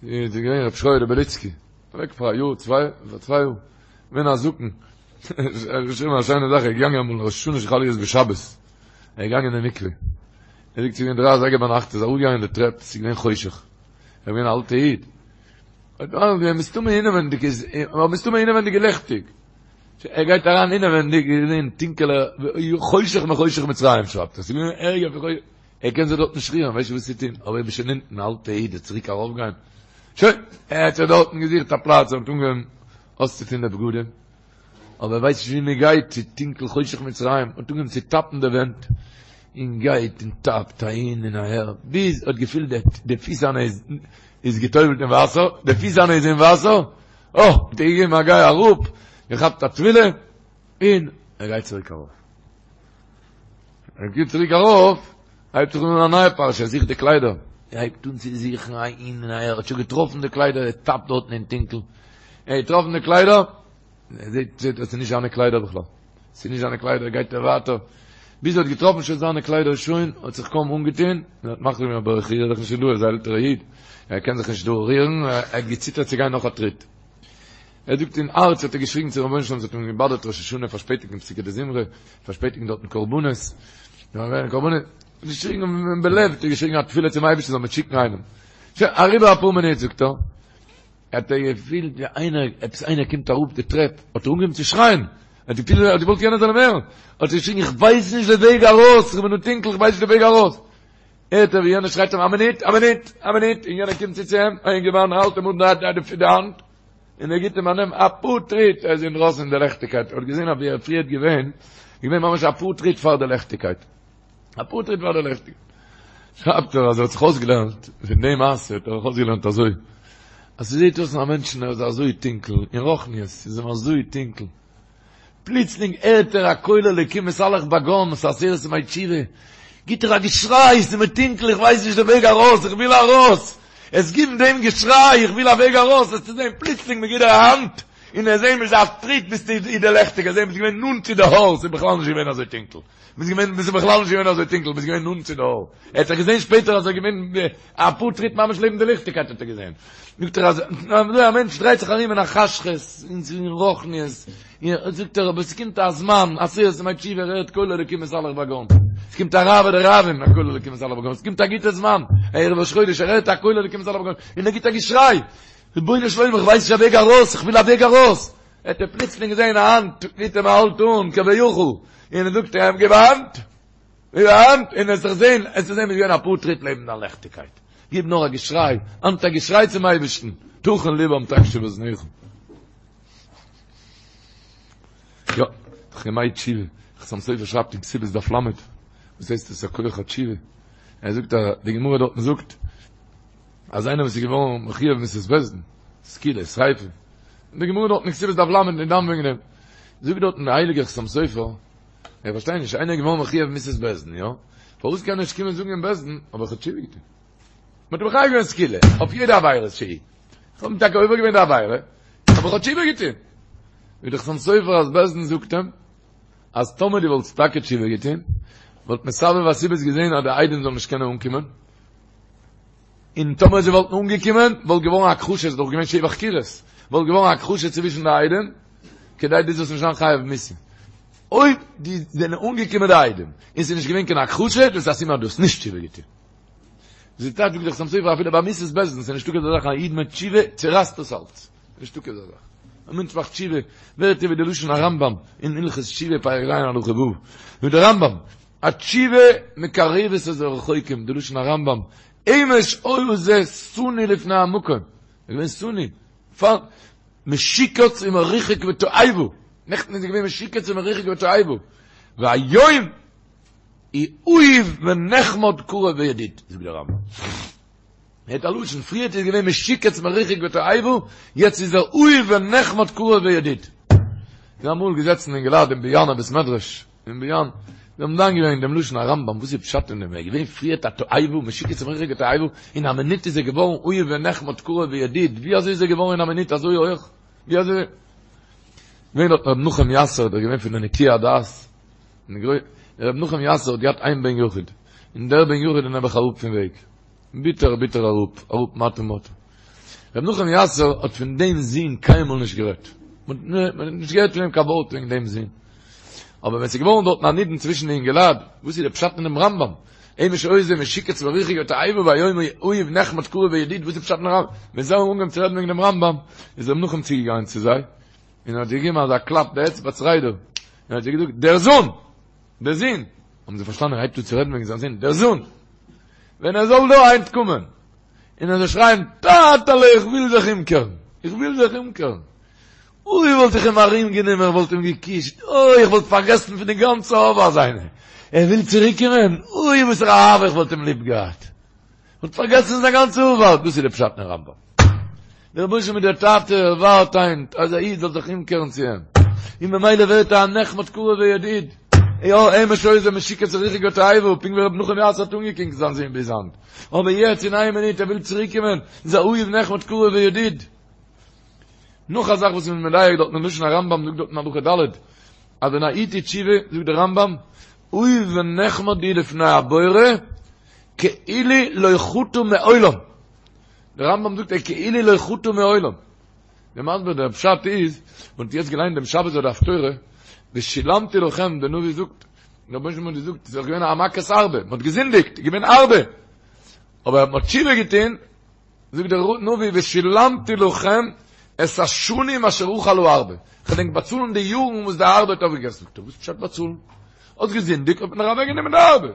איז געווען רב שריה בליצקי, אוועק פאר א יאר צוויי, פאר צוויי יאר, געווען א זקן, ער האט געשריבן א שיינע זאך, ער איז געגאנגען אמאל ראש השנה שחל להיות בשבת, ער איז געגאנגען אין מקווה, ער זאגט ס'איז געווען דריי אזייגער ביינאכט, ער איז אראפגעגאנגען די טרעפ, ס'איז געווען חושך, ער איז געווען א אלטע איד, האט געווען מסתמא אינעווענדיג איז, אבער מסתמא אינעווענדיג איז ליכטיג, ער גייט אריין אינעווענדיג איז געווען טונקעלע, חושך מחושך מצרים שרייבט ער, ס'איז געווען ערגער פון חושך, ער קען זיך דארט נישט רירן, ווייסט נישט וואס צו טון, אבער איך בין שוין אונטן, אלטע איד, צוריק ארויפגיין, שוין, ער האט זיך דארטן געזוכט א פלאץ, ער האט אנגעהויבן אויסצוטון די בגדים, אבער ער ווייסט נישט ווי מען גייט, ס'איז טונקל חושך מצרים, האט אנגעהויבן צו טאפן די ווענט. און גייט און טאפט אהין און אהער, ביז ער האט געפילט די פיס זיינע איז איז געטובלט אין וואסער, די פיס זיינע איז אין וואסער, אה, האט ער געגעבן א גיי אראפ, געכאפט א טבילה, און ער גייט צוריק ארויף. ער גייט צוריק ארויף, הייבט זיך אן א נייע פרשה, ער זוכט די קליידער, ער הייבט אן צו זוכן אהין און אהער, ער האט שוין געטראפן די קליידער, ער טאפט דארטן אין טונקל, ער האט געטראפן די קליידער, ער זעט זעט אז ס'איז נישט זיינע קליידער בכלל, ס'איז נישט זיינע קליידער, גייט ער ווייטער, ביז ער האט געטראפן שוין זיינע קליידער שוין, האט זיך קוים אנגעטון, און האט מחליט געווען אבער איך ריר זיך נישט פון דא, ער איז א עלטערע איד, ער קען זיך נישט דא רירן, ער האט געציטערט צו גיין נאך א טריט. ער זאגט אין הארץ האט ער געשריגן צום רבונו של עולם, ס'האט אים געבאדערט ראש השנה פארשפעטיגן פסוקי דזמרה, פארשפעטיגן דארטן קרבנות, קרבנות, געשריגן בלב האט ער געשריגן א תפילה צום אייבערשטן זאל מיר שיקן איינעם. שוין, אריבער אפאר מינוט זאגט ער, האט ער געפילט ווי איינער, עפעס איינער קומט אראפ די טרעפ, האט ער אנגעהויבן צו שרייען, ער האט געפילט ער האט געוואלט יענער זאל אים הערן, האט ער געשריגן איך ווייס נישט די וועג ארויס, איך בין דא טונקל איך ווייס נישט די וועג ארויס, הערט ער ווי יענער שרייט אים א מינוט, א מינוט, א מינוט, און יענער קומט צו צו אים, א אינגערמאן האלט אים אן די האנט, און ער גיט אים א נעם אפאר טריט, ער איז אינדרויסן אין די לעכטיגקייט, ער האט געזען אז ווי ער פריערט געווען, איז געווען ממש אפאר טריט פאר די לעכטיגקייט. אפאר טריט פאר די לעכטיגקייט. שרייבט ער אז ער האט זיך אויסגעלערנט פון די מעשה האט ער זיך אויסגעלערנט אזוי, אז ס'זעט אויס א מענטשן ער איז אזוי טונקל, אין רוחניות איז אים אזוי טונקל, פלוצלינג הערט ער א קול אלוקים מתהלך בגן, ס'איז עשרת ימי תשובה, גיט ער א געשריי, ס'איז מיר טונקל, איך ווייס נישט די וועג ארויס, איך וויל ארויס! עס גיבן דעם געשריי, איך וויל א וועג ארויס, וועסטו זען פלוצלינג מ'גיט דיר א האנט, און וועסט זען ביז א טריט ביסטו אין די לעכטיגע, זען ביסט געווען נאנט צו די אור, ס'איז בכלל נישט געווען אזוי טונקל. ביסט געווען, ביסט בכלל נישט געווען אזוי טונקל, ביסט געווען נאנט צו די אור. ער האט זיך געזען שפעטער אז ער איז געווען אפאר טריט ממש לעבן די ליכטיגקייט האט ער געזען. זאגט ער אז אזוי א מענטש דרייט זיך ארום אין א חשכות, אין רוחניות, זאגט ער אבער ס'קומט א זמן, עשרת ימי תשובה, ער הערט קול אלוקים מתהלך בגן. ס'קומט א רעוא דרעוין, א קול אלוקים מתהלך בגן. ס'קומט א גוטע זמן, ערב ראש חודש, ער הערט א קול אלוקים מתהלך בגן, און ער גיט א געשריי, רבונו של עולם איך ווייס נישט א וועג ארויס, איך וויל א וועג ארויס. האט ער פלוצלינג געזען א האנט גיט אים א האלט אן כביכול, און ער זאגט אים גיב א האנט, גיב א האנט, און וועסט זיך זען, וועסטו זען ביסט געווען אפאר טריט לעבן דיין לעכטיגקייט, גיב נאר א געשריי, היינט א געשריי צום אייבערשטן, תכין לבם תקשיב אזנך. יא, דאך ימי תשובה, חתם סופר שרייבט אין כתובות דף ל', וואס הייסט עס א כח התשובה? ער זאגט אז די גמרא דארטן זאגט, אז איינער וואס איז געווארן מחויב מיתת בית דין, סקילה, שריפה, און די גמרא דארט אין כתובות דף ל' איז דן וועגן דעם, זאגט דארטן דער הייליגער חתם סופר, איך פארשטיי נישט, איינער איז געווארן מחויב מיתת בית דין, יא? פארוואס קען ער נישט קומען זאגן אין בית דין, אבער איך האב תשובה געטון? מען האט אים מחייב געווען סקילה, אויף יעדע עבירה שהיא. איך האב טאקע עובר געווען די עבירה, אבער איך האב תשובה געטון. זאגט דער חתם סופר אז בית דין זאגט אים, אז טאמער דו וואלסט טאקע תשובה געטון, וואלט מסבב הסיבות געזען אז די עדים זאלן נישט קענען אנקומען, און טאמער זיי וואלטן אנגעקומען וואלט געווארן א הכחשה, ס'איז דאך געווען שבע חקירות, וואלט געווארן א הכחשה צווישן די עדים, כדי דו זאלסט נישט זיין חייב מיתה. אויב די זענען אנגעקומען די עדים, און ס'איז נישט געווען קיין הכחשה, דאס איז א סימן אז דו האסט נישט תשובה געטון. זי טייטש זאגט דער חתם סופר אפילו ביי מיתת בית דין, ס'איז נישטא כזה זאך א איד מיט תשובה צורייסט דאס אלץ. נישטא כזה זאך. א מענטש מאכט תשובה, ווערט ער ווי די לשון הרמב"ם אין הלכות תשובה פרק ז' הלכה ו', זאגט דער רמב"ם, התשובה מקרבת את הרחוקים, די לשון הרמב"ם, אמש היה זה שנאוי לפני המקום, ער איז געווען שנאוי, פאר משוקץ ומרוחק ותועבה, נעכטן איז ער געווען משוקץ ומרוחק ותועבה, והיום הוא אהוב ונחמד קרוב וידיד, זאגט דער רמב"ם. הערט א לשון, פריערט איז געווען משוקץ מרוחק ותועבה, יעצט איז ער אהוב ונחמד קרוב וידיד. איז אמאל געזעצן אינגעלייט אין באיאנער בית מדרש, אין באיאן, זיי האבן דן געווען דעם לשון הרמב"ם, וואס איז פשט אין דעם, ער איז געווען פריערט א תועבה, משוקץ מרוחק ותועבה, אין א מינוט איז ער געווארן אהוב ונחמד קרוב וידיד, ווי אזוי איז ער געווארן אין א מינוט אזוי הויך? ווי אזוי? געווען דארט ר' נחום יאסער, דער געווען פון די נקיי הדעת, ר' נחום יאסער האט געהאט איין בן יחיד, און דער בן יחיד איז נעבעך אראפ פון וועג. ביטער ביטער אראפ, אראפ מטה מטה. ר' נחום יאסער האט פון דעם זון קיינמאל נישט גערעדט. מען האט נישט געהערט פון אים קיין ווארט וועגן דעם זון. אבער ווען ס'איז געווארן דארטן א נידון צווישן די אינגעלייט, וואס איז די פשט אין דעם רמב"ם? אמש היה זה משוקץ מרוחק ותועבה והיום הוא אהוב נחמד קרוב וידיד, וואס איז פשט אין רמב"ם? ווען זיי האבן אנגעהויבן צו רעדן וועגן דעם רמב"ם, איז ר' נחום צוגעגאנגען צו זיי, און האט זיי געגעבן אזא קלאפ די אצבע צרידה, און האט זיי געזאגט, דער זון! דער זון! האבן זיי פארשטאנען ער הייבט אן צו רעדן וועגן זיין זון, דער זון! ווען ער זאל דא היינט קומען און ער זאל שרייען, טאטעלע איך וויל זיך אומקערן! איך וויל זיך אומקערן! אוי וואלט איך אים ארום גענומען, איך וואלט אים געקישט, אוי איך וואלט פארגעסן פון די גאנצע עבר זיינע, ער וויל צוריק קומען, אוי וואסערע אהבה איך וואלט אים ליב געהאט, וואלט פארגעסן זיין גאנצע עבר, דאס איז די פשט אין רמב"ם. דער רבונו של עולם איז דער טאטע, ער ווארט היינט אז א איד זאל זיך אומקערן צו אים, און ממילא ווערט ער א נחמד קרוב וידיד. יא, אמש היה זה משוקץ הרחק לתועבה, פונקט ווי רבי נחום יאסער האט אנגעקוקט זיין זון ביז היינט. אבער יעצט אין איין מינוט ער וויל צוריקקומען, איז א אהוב נחמד קרוב וידיד. נאך א זאך וואס מ'איז מדייק דארט אין לשון הרמב"ם זאגט דארט אין הלכה ד', אז ווען א איד טוט תשובה, זאגט דער רמב"ם, אהוב ונחמד הוא לפני הבורא, כאילו לא חטא מעולם. דער רמב"ם זאגט ער כאילו לא חטא מעולם. דער מסביר דער פשט איז, מען האט יעצט געליינט דעם שבת ביי די הפטורה, ושילמתי לכם, דער נביא זאגט, דער רבונו של עולם האט געזאגט, ס'איז דאך געווען א מכת ארבה, מען האט געזינדיגט, איז געווען ארבה, אבער מען האט תשובה געטון, זאגט דער נביא, ושילמתי לכם את השנים אשר אכל הארבה, איך וועל ענק באצאלן די יארן וואס די ארבה האט אויפגעגעסן, זאגט ער, וואס פשט באצאלן? האסט געזינדיגט האט מען דיר אוועקגענומען די ארבה.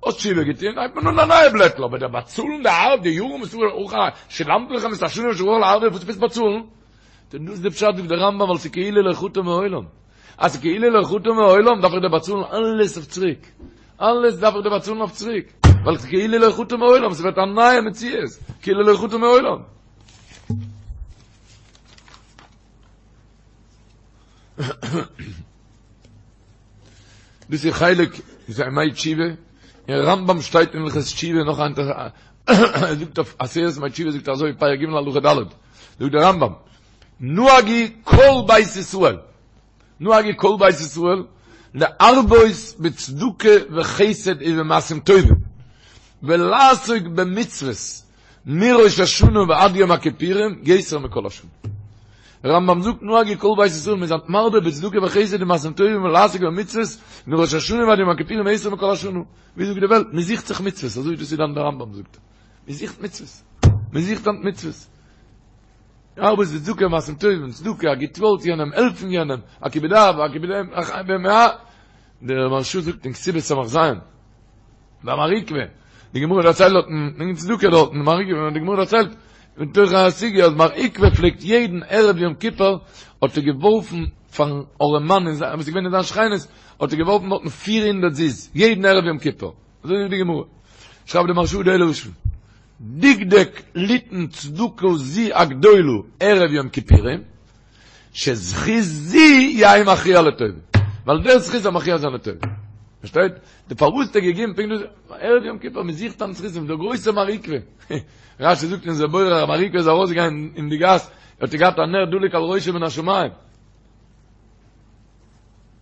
האסט תשובה געטון, הייבט מען אן א נייע בלעטל, אבער דער באצאלן די ארבה, די יארן וואס אכל, ושילמתי לכם את השנים אשר אכל הארבה, וואס עפעס באצאלן? דאס איז די פשט זאגט דער רמב"ם ווייל ס'איז כאילו לא חטא מעולם, אז ס'איז כאילו לא חטא מעולם דארף איך דיר באצאלן אלעס אויף צוריק, אלעס דארף איך דיר באצאלן אויף צוריק, ווייל ס'איז כאילו לא חטא מעולם, ס'ווערט א נייע מציאות, כאילו לא חטא מעולם. דאס איז חלק איז ימי תשובה, אין רמב"ם שטייט אין הלכות תשובה נאך א ער זאגט אויף עשרת ימי תשובה זאגט ער אזוי פרק ג' הלכה ד' זאגט דער רמב"ם נהגו כל בית ישראל נהגו כל בית ישראל להרבות בצדקה וחסד ובמעשים טובים ולעסוק במצוות מראש השנה ועד יום הכיפורים יותר מכל השנה. רמב"ם זאגט נהגו כל בית ישראל מ'איז מרבה בצדקה וחסד ומעשים טובים ולעסוק במצוות מראש השנה ועד יום הכיפורים יותר מכל השנה. ווי זאגט די וועלט? מען זוכט זיך מצוות, אזוי דאס איז דאן דער רמב"ם זאגט. מען זוכט מצוות. מען זוכט היינט מצוות. להרבות בצדקה ומעשים טובים, צדקה, א גוט ווארט יענעם, העלפן יענעם, א כיבוד אב, א כיבוד אם, דער מהרש"א זאגט אין כתובות ס"ז, ביי מר עוקבא, די גמרא דערציילט דארטן, וועגן צדקה דארטן, מר עוקבא, די גמרא דערציילט, בתוך הסוגיא אז מר עוקבא פלעגט יעדן ערב יום כיפור האט ער געווארפן פארן ארעמאן אין זיין, וואס איז געווען אין זיין שכנות, האט ער געווארפן דארטן פיר הונדערט זוז, יעדן ערב יום כיפור. אזוי זאגט די גמרא. שרייבט די מהרש"א די לשון, דקדק ליתן צדקה זו הגדולה ערב יום כיפורים, שזכות זו יהא מכריע לטובה. ווייל דער זכות זאל מכריע זיין לטובה. פארשטייט? די פארוואס האט ער געגעבן פונקט דאס ערב יום כיפור, מען זוכט אן זכותים, דער גרויסער מר עוקבא. רש"י זאגט אין זה בורר אז מר עוקבא איז ארויסגעגאנגען אין די גאס, האט ער געהאט א נר דלוק על ראשו מן השמים.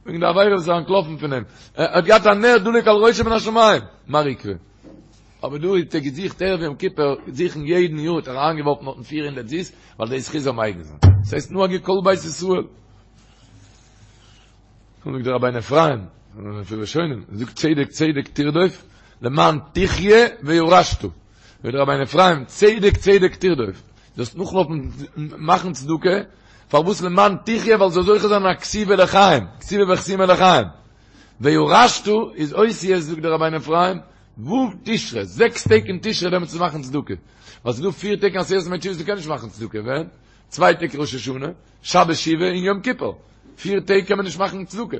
וועגן די עבירה וואס איז אנטלאפן פון אים. ער האט געהאט א נר דלוק על ראשו מן השמים. מר עוקבא. אבער דא האט ער געזוכט ערב יום כיפור, זוכן יעדן יאר האט ער אריינגעווארפן דארטן 400 זוז, ווייל די זכות זאל מגין זיין. דאס הייסט נהגו כל בית ישראל. זאגט דער רבינו אפרים, פון ראשונים, זאגט צדק צדק תרדוף, למען תחיה וירשת. זאגט דער רבינו אפרים, צדק צדק תרדוף. זאלסט נאכלויפן מאכן צדקה, פארוואס למען תחיה, ווייל זאל זוכה זיין א כתיבה לחיים, כתיבה וחתימה לחיים. וירשת איז אותיות זאגט דער רבינו אפרים, ו' תשרי, זעקס טעג אין תשרי דעמאלטס צו מאכן צדקה. ווייל ס'איז דא פיר טעג אין עשרת ימי תשובה וואס דו קענסט נישט מאכן צדקה, ווען? צוויי טעג ראש השנה, שבת שובה און יום כיפור. פיר טעג קען מען נישט מאכן צדקה.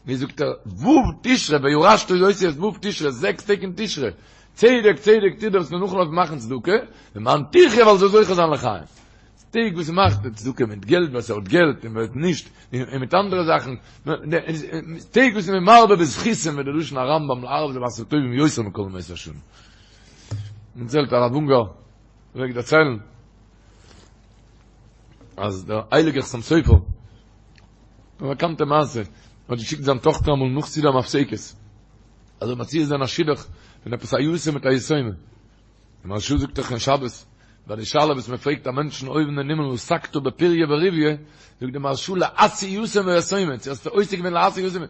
ווי זאגט ער, ו' תשרי, וירשת איז אותיות ו' תשרי, זעקס טעג אין תשרי. צדק צדק תרדוף זאלסט נאכלויפן מאכן צדקה, למען תחיה ווייל זאל זוכה זיין לחיים. טעג וואס מ'מאכט צדקה מיט געלט ווער ס'האט געלט און ווער נישט, און מיט אנדערע זאכן, טעג וואס מ'איז מרבה בזכותים ווי די לשון הרמב"ם להרבות במעשים טובים יותר מכל ימות השנה. מ'דערציילט הרב אונגאר פלעגט דערציילן אז דער הייליגער חתם סופר, א באקאנטע מעשה, האט געשיקט זיין טאכטער אמאל נאך סעודה המפסקת, אז ער מציע זיין א שידוך פון עפעס א יתום מיט א יתומה. די מהרש"א זאגט דאך אין שבת, ביי די שאלה וואס מען פרעגט א מענטשן אויבן אין הימל עסקת בפריה ורביה, זאגט די מהרש"א להשיא יתום ויתומה, צו האסטו עוסק געווען להשיא יתום,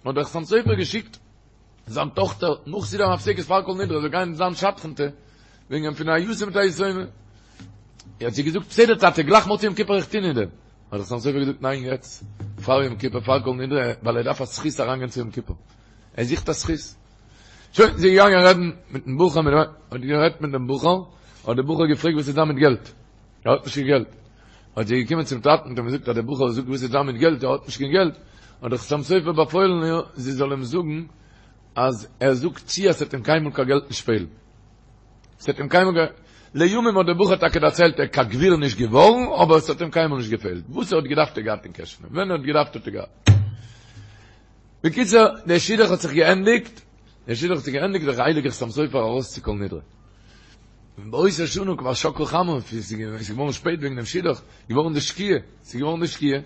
האט דער חתם סופר געשיקט זיין טאכטער נאך סעודה המפסקת פאר כל נדרי זאל גיין זיין שדכנ'טע וועגן פון א יתום מיט א יתומה. האט זי געזאגט בסדר טאטע גלייך מוצאי יום כיפור איך טוה אין דעם. האט דער חתם סופר געזאגט ניין יעצט פאר יום כיפור פאר כל נדרי ווייל ער דארף א זכות אריינגיין צו יום כיפור. ער זוכט א זכות. שוין, זי איז געגאנגען רעדן מיטן בחור, מיט דעם, האט גערעדט מיט דעם בחור, האט דער בחור געפרעגט וואס איז דא מיט געלט? ער האט נישט קיין געלט. האט זי געקומען צום טאטן און געזאגט אז דער בחור זאגט וואס איז דא מיט געלט, ער האט נישט קיין געלט, האט דער חתם סופר באפוילן איר זי זאל אים זאגן אז ער זאגט צו אז ס'וועט אים קיינמאל קיין געלט נישט פעלן. ס'האט אים קיינמאל גע. לימים האט דער בחור טאקע דערציילט ער איז קיין גביר נישט געווארן אבער עס האט אים קיינמאל נישט געפעלט, וואס ער האט געדארפט האט ער געהאט אין קעשענע, ווען ער האט געדארפט האט ער געהאט. בקיצור, דער שידוך האט זיך געענדיגט, דער שידוך האט זיך געענדיגט איז דער הייליגער חתם סופר ארויס צו כל נדרי. און באותה שנה כבר שקעה חמה, עס איז געווארן שפעט וועגן דעם שידוך, געווארן די שקיעה, עס איז געווארן די שקיעה,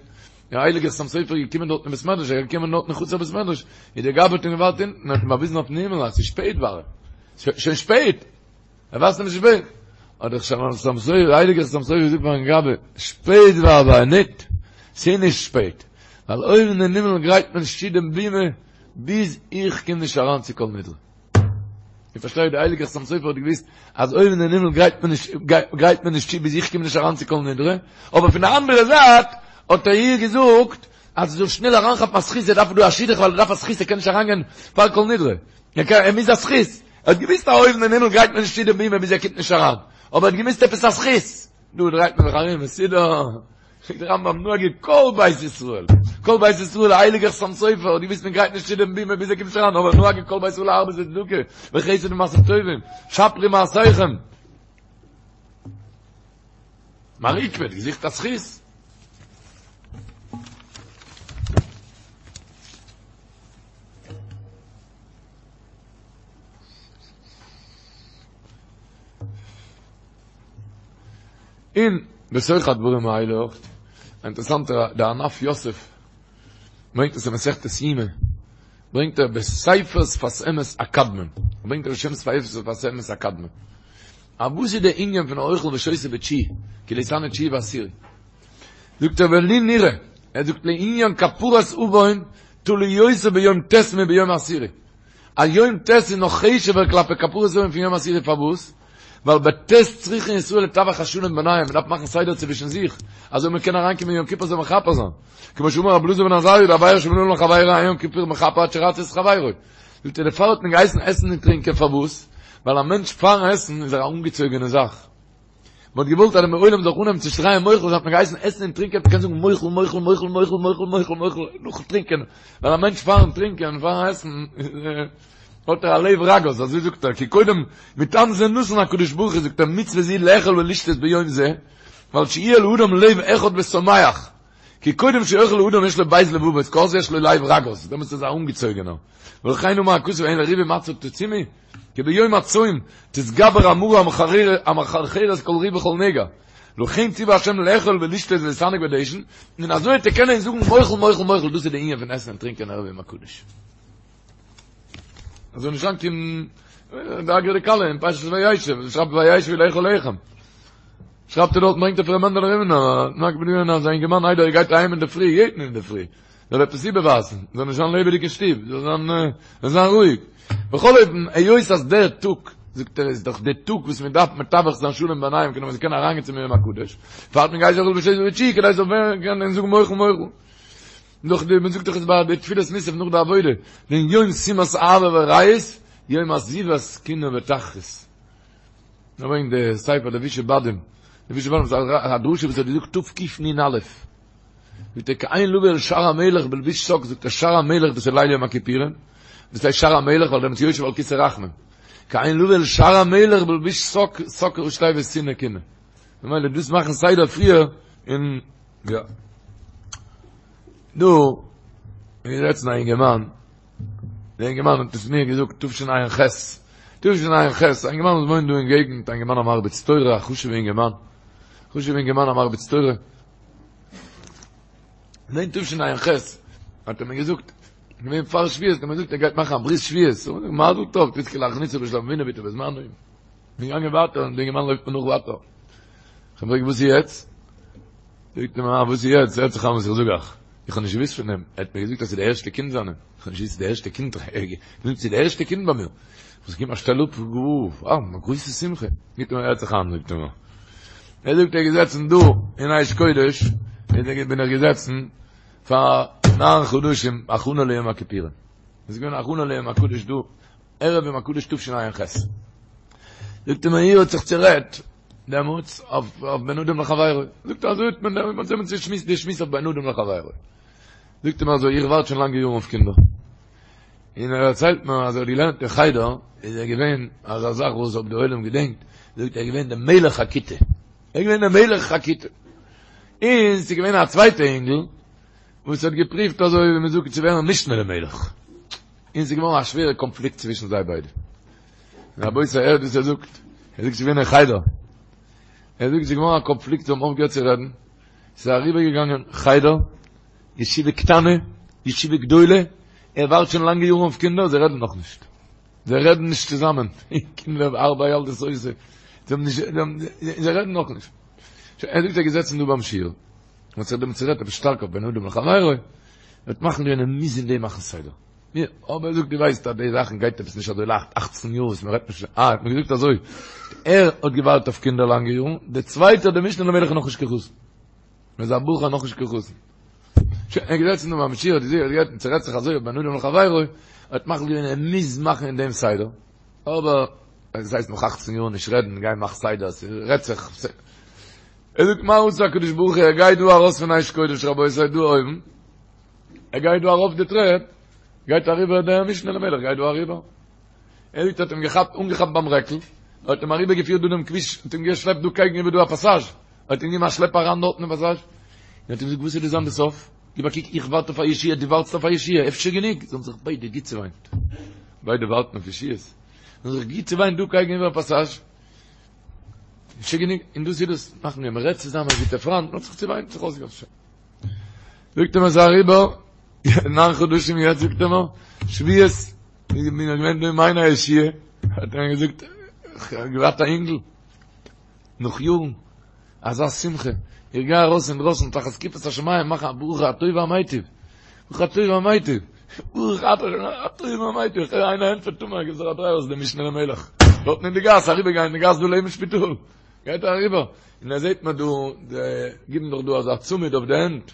דער הייליגער חתם סופר איז געקומען דארט אין בית מדרש, ער איז געקומען דארט אין חצר בית מדרש, איז דער גבאי האט אים געווארט אונטן, האט אים באוויזן אויפן הימל אז עס איז שפעט ווארע, שוין שפעט! ער ווייזט אים ס'איז שפעט! האט דער חתם סופר, דער הייליגער חתם סופר געזאגט פארן גבאי, שפעט ווארע ניט, ס'איז נישט שפעט, ווייל אויבן אין הימל גרייט מען נישט צו דעם בימה ביז איך קום נישט אריין צו כל נדרי. איר פארשטייט, דער הייליגער חתם סופר האט געוואוסט אז אויבן אין הימל גרייט מען נישט, גרייט מען נישט צו ביז איך קום נישט אריין צו כל נדרי, אבער פון די אנדערע זייט האט ער איר געזאגט אז זי זאל שנעל אריינכאפן א זכות, ער דארף דא א שידוך ווייל ער דארף א זכות, ער קען נישט אריינגיין פאר כל נדרי, ער מוז א זכות, ער האט געוואוסט אז אויבן אין הימל גרייט מען נישט צו די בימה ביז ער קומט נישט אריין, אבער ער האט געמוזט עפעס א זכות, דא דרייט מען זיך ארום מסודר, זאגט דער רמב"ם נהגו כל בית ישראל, כל בית ישראל, הייליגער חתם סופר האט געוואוסט מען גרייט נישט צו דעם בימה ביז ער קומט נישט אריין, אבער נהגו כל בית ישראל להרבות בצדקה וחסד ומעשים טובים, שפרו מעשיכם. מר עוקבא האט געזוכט א זכות. און בתוך הדברים האלה אויך, א אינטערעסאנטע, דער ענף יוסף ברענגט עס אין מסכת יומא, ברענגט ער בספר שפת אמת הקדמון, ברענגט ער בשם ספר שפת אמת הקדמון, א וואס איז דער ענין פון אוכל ושותה בתשיעי, כי לא יתענה תשיעי ועשירי? זאגט ער ולי נראה, ער זאגט לענין כפרת עוון תלוי יותר ביום ט' מביום עשירי, אז יום ט' איז נאך חשוב'ער כלפי כפרת עוון פון יום עשירי פארוואס? ווייל בט' צריכין ישראל לתווך השלום ביניהם, מען דארף מאכן סדר צווישן זיך, אזוי מען קען אריינקומען יום כיפור זאל מכפר זיין, כמו שאמר רבי אלעזר בן עזריה דעבירה שבין אדם לחבירו אין יום כיפור מכפר עד שירצה את חברו. זאגט ער דערפאר האט מען געהייסן עסן און טרינקען פארוואס? ווייל א מענטש פארן עסן איז ער א אנגעצויגענע זאך, מען האט געוואלט אז דער עולם זאל אנהייבן צו שרייען מוחל האט מען געהייסן עסן און טרינקען, מען קען זאגן מוחל מוחל מוחל מוחל מוחל מוחל מוחל נאכן טרינקען, ווייל א מענטש פארן טרינקען פארן עסן האט ער א לב רגוז, אזוי זאגט ער, כי קודם מטעם זה נתן הקדוש ברוך הוא זאגט ער מצוה זו לאכול ולשתות ביום זה, ווייל שיהיה לאדם לב אחד ושמח, כי קודם שיאכל האדם יש לו ב' לבבות, כי אז יש לו לב רגוז, דעמאלטס איז ער א אנגעצויגענער, ולכן אמר הכתוב הן לריבי מצה תצומו, כי ביום הצום תתגבר המרה המחרחרת כל ריב וכל נגע, לכן ציווה השם לאכול ולשתות ולהתענג בדשן, און אזוי וועט ער קענען זאגן מוחל מוחל מוחל, דאס איז די ענין פון עסן און טרינקען ערב יום הקדוש. אזוי נישט לאנג קומט די אגרא דכלה אין פרשת וישב, שרייבט וישבו לאכול לחם. שרייבט ער דארט ברענגט ער פון ר' מענדעלע רימינער, נאק בדיון אז א אינגערמאן איידער ער גייט אהיים אינדערפרי, יעדן אינדערפרי, זאל עפעס איבערווייזן, זאל נישט זיין לעבעדיג אין שטוב, זאל זיין, זאל זיין רואיג. בכל אופן, היות אז דער טאג, זאגט ער, איז דאך דער טאג וואס מען דארף מתווך זיין שלום ביניהם, כדי מען זאל קענען אריינגיין צום יום הקדוש, דערפאר האט מען געהייסן אוכל ושותה בתשיעי, כדי זאל ווערן קענען זאגן מוחל מוחל. נאך די, מען זאגט דאך עס ביי די תפילת מוסף נאך די עבודה, דעם יום שימת אהבה ורעות, יום עזיבת קנאה ותחרות. ער ברענגט די ספר לבושי בדים, לבושי בדים איז א דרשה וואס ער האט געזאגט תקנ"א, זאגט ער כעין לבוא אל שער המלך בלבוש שק, זאגט ער שער המלך דאס איז ליל יום הכיפורים, דאס הייסט שער המלך ווייל דעמאלטס יושב על כסא רחמים, כעין לבוא אל שער המלך בלבוש שק, שק ראשי תיבות שנאה קנאה, ממילא דאס מאכן סדר פריער און יא. דא איז געזעצן א אינגערמאן, דער אינגערמאן האט עס מיר געזאגט תשע"ח, תשע"ח, א אינגערמאן וואס וואוינט דא אין געגנט, א אינגערמאן א מרביץ תורה, א חשוב'ע אינגערמאן, חשוב'ע אינגערמאן א מרביץ תורה, און אין תשע"ח האט ער מיר געזאגט, געווען פאר שבועות, האט ער מיר געזאגט ער גייט מאכן א ברית שבועות, מזל טוב, תזכה להכניסו בשלום אבינו בעתו ובזמנו. כ'בין געגאנגען ווייטער, און דער אינגערמאן לויפט מיר נאך ווייטער. איך פרעג וואס איז יעצט? זאגט ער מיר, וואס איז יעצט? הערט זיך איין וואס איך זאג אייך. איך האב נישט געוואוסט פון דעם. ער האט מיר געזאגט אז ס'איז די ערשטע קינד זיינע. איך האב נישט געוואוסט ס'איז די ערשטע קינד. ער האט געזאגט ס'איז די ערשטע קינד ביי מיר. וואס גיב מיר א שטעל אפ, אה, א גרויסע שמחה. זאגט ער מיר, הערט זיך איין, זאגט ער מיר. ער זאגט ער איז געזעצן דא אין אש קודש, בין איך געזעצן פאר ניין חדשים הכנה ליום הכיפורים. עס איז געווען הכנה ליום הקדוש דא, ערב יום הקדוש תשע"ח. זאגט ער מיר, איר האט זיך צורעדט. דעמאלטס אויף בין אדם לחבירו. זאגט ער אזוי האט מען דעמאלטס האט מען צושמועסט די שמועס אויף בין אדם לחבירו. זאגט ער מיר אזוי איך ווארט שוין לאנגע יארן אויף קינדער. און ער דערציילט מיר אז ער האט געלערנט אין חדר איז ער געווען אזא זאך וואס אויב די עולם געדענקט זאגט ער איז געווען דער מלך הכיתה. ער איז געווען דער מלך הכיתה. און ס'איז געווען א צווייטע אינגל וואס האט געפריווט אזוי ווי מ'זאגט צו ווערן משנה למלך. און ס'איז געווארן א שווערע קאנפליקט צווישן זיי ביידע. רבותי הערט וואס ער זאגט, ער זאגט ס'איז געווען אין חדר, ער זאגט ס'איז געווארן א קאנפליקט זיי האבן אויפגעהערט צו רעדן, ס'איז אריבערגעגאנגען חדר, ישיבה קטנה, ישיבה גדולה, ער ווארט שוין לאנגע יארן אויף קינדער, זיי רעדן נאכנישט, זיי רעדן נישט צוזאמען, קינדער ארבע ילדות עושה, זיי האבן נישט, זיי רעדן נאכנישט. ער זאגט ער איז געזעצן דא ביים שיעור, און האט זיך דעמאלטס צורעדט עפעס שטארק אויף בין אדם לחבירו, ער האט מחליט געווען ער מוז אין דעם מאכן סדר. יא, אבער ער זאגט דו ווייסט אז די זאכן גייט עפעס נישט אזוי לייכט, אכצן יאר וואס מען רעדט נישט, אה, האט מיר געזאגט אזוי, ער האט געווארט אויף קינדער לאנגע יארן, דער צווייטער דער משנה למלך איז נאכנישט קיין חתן, ער איז א בחור נאכנישט קיין חתן. שוין, ער איז געזעצן דא ביים שיעור, האט געזעהן, האט געהערט, צערעדט זיך אזוי אויף בין אדם לחבירו, ער האט מחליט געווען ער מוז מאכן אין דעם סדר, אבער, עס הייסט נאך אכצן יאר נישט רעדן, גיי מאך סדר, ס'רעדט זיך, ער זאגט מה עשה הקדוש ברוך הוא, ער גייט דא ארויס פון אש קודש רבותי דא אויבן, ער גייט דא ארויף די טרעפ, גייט אריבער דער משנה למלך גייט דא אריבער. ער זאגט האט אים געכאפט, אנגעכאפט ביים רעקל, האט אים אריבער געפירט דא דעם כביש, האט אים געשלעפט דא קעגן איבער דא א פאסאזש, האט אים געגעבן א שלעפ אריין דארטן אין פאסאזש, און האט אים געזאגט וואס איז דא זיין די סוף? גיב א קוק איך ווארט אויף א ישועה, דו ווארטסט אויף א ישועה, אפשר גענוג? זיי האבן זיך ביידע גוט צעוויינט, ביידע ווארטן אויף ישועות, זיי האבן זיך גוט צעוויינט דא קעגן איבער פאסאזש, אפשר גענוג, און דאס איז דאס, מאכן מיר, מען רעדט צוזאמען גוטע פריינט, מען האט זיך צעוויינט, זיך אויסגעלאזט. זאגט ער מיר ס'איז אריבער ניין חדשים יעצט זאגט ער מיר שבועות איך בין געווען דא אין מעייני הישועה האט ער מיר געזאגט איך האב געהאט א אינגל נאך יארן אזא שמחה איך גיי ארויס אינדרויסן תחת כיפת השמים מאכן א ברוך הטוב והמיטיב ברוך הטוב והמיטיב ברוך אתה הטוב והמיטיב איך הער איינער ענטפערט תאמר גיב זיך א דריי אויס דער משנה למלך דארטן אין די גאס אריבערגיין אין די גאס דא לעבן שפיטאל גייט ער אריבער, און ער זעט מען דא, זיי גיבן דאך דא אזא צמיד אויף די הענט,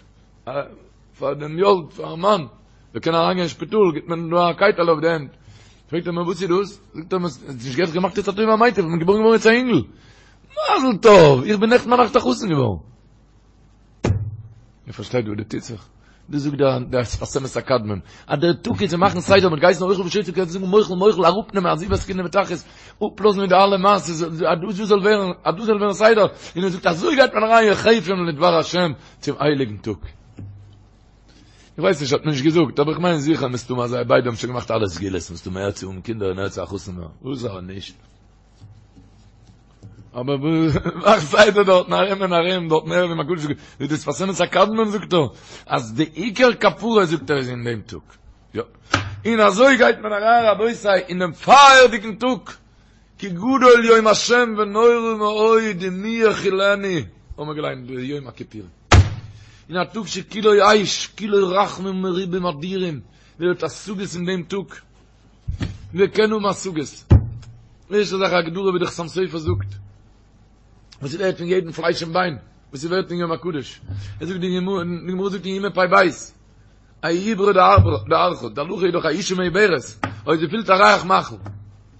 פאר דעם יולד, פארן מאן, זאל קענען אריינגיין אין שפיטאל, גיבט מען דא א קייטעלע אויף די הענט. פרעגט ער מיר וואס איז דאס? זאגט ער מיר, האסט נישט געהערט געמאכט יעצט הטוב והמיטיב, איך בין געבוירן געווארן יעצט א אינגל. מזל טוב! איך בין נעכטן ביינאכט א חתן געווארן. איר פארשטייט וואס דא טוט זיך? דאס זאגט דער דער שפת אמת הקדמון, אז דער טאג איז צו מאכן סדר מיט גייסן אוכל ושותה קענסט זאגן מוחל מוחל אראפנעמען עזיבת קנאה ותחרות, אפלאזן מיט די אלע מעשות, אז דאס זאל ווערן, אז דאס זאל ווערן סדר, און ער זאגט אזוי גייט מען אריין יחפים לדבר השם צום הייליגן טאג. איך ווייס נישט האט מען נישט געזאגט, אבער איך מיין זיכער מסתמא אז זיי ביידע האבן שוין געמאכט אלע סגולות, מסתמא ער צו האבן קינדער און ער צו א חתן ווערן, וואס אבער נישט. אבער מאך סדר דארטן ארום און ארום דארטן ערב יום הקדוש ווי דער שפת אמת הקדמון זאגט ער אז די עיקר כפרה זאגט ער איז אין דעם טאג יא און אזוי גייט מען אריין רבותי אין דעם פייערדיגן טאג כי גדול יום השם ונורא מאוד ומי יכילנו האבן מיר געליינט די יום הכיפורים אין א טאג שכולו אש כולו רחמים מרובים אדירים ווער האט השגות אין דעם טאג ווער קען האבן השגות? ערשטע זאך א הגדרה ווי די חתם סופר זאגט, וואס איז ווערט פון יעדן פלייש און ביין, וואס איז ווערט אין יום הקדוש. ער זאגט די גמרא, די גמרא זאגט אין יומא פ"ב, עוברה דארחא, די הלכה איז דאך א אשה מעוברת, אויב זי פילט א ריח מאכל,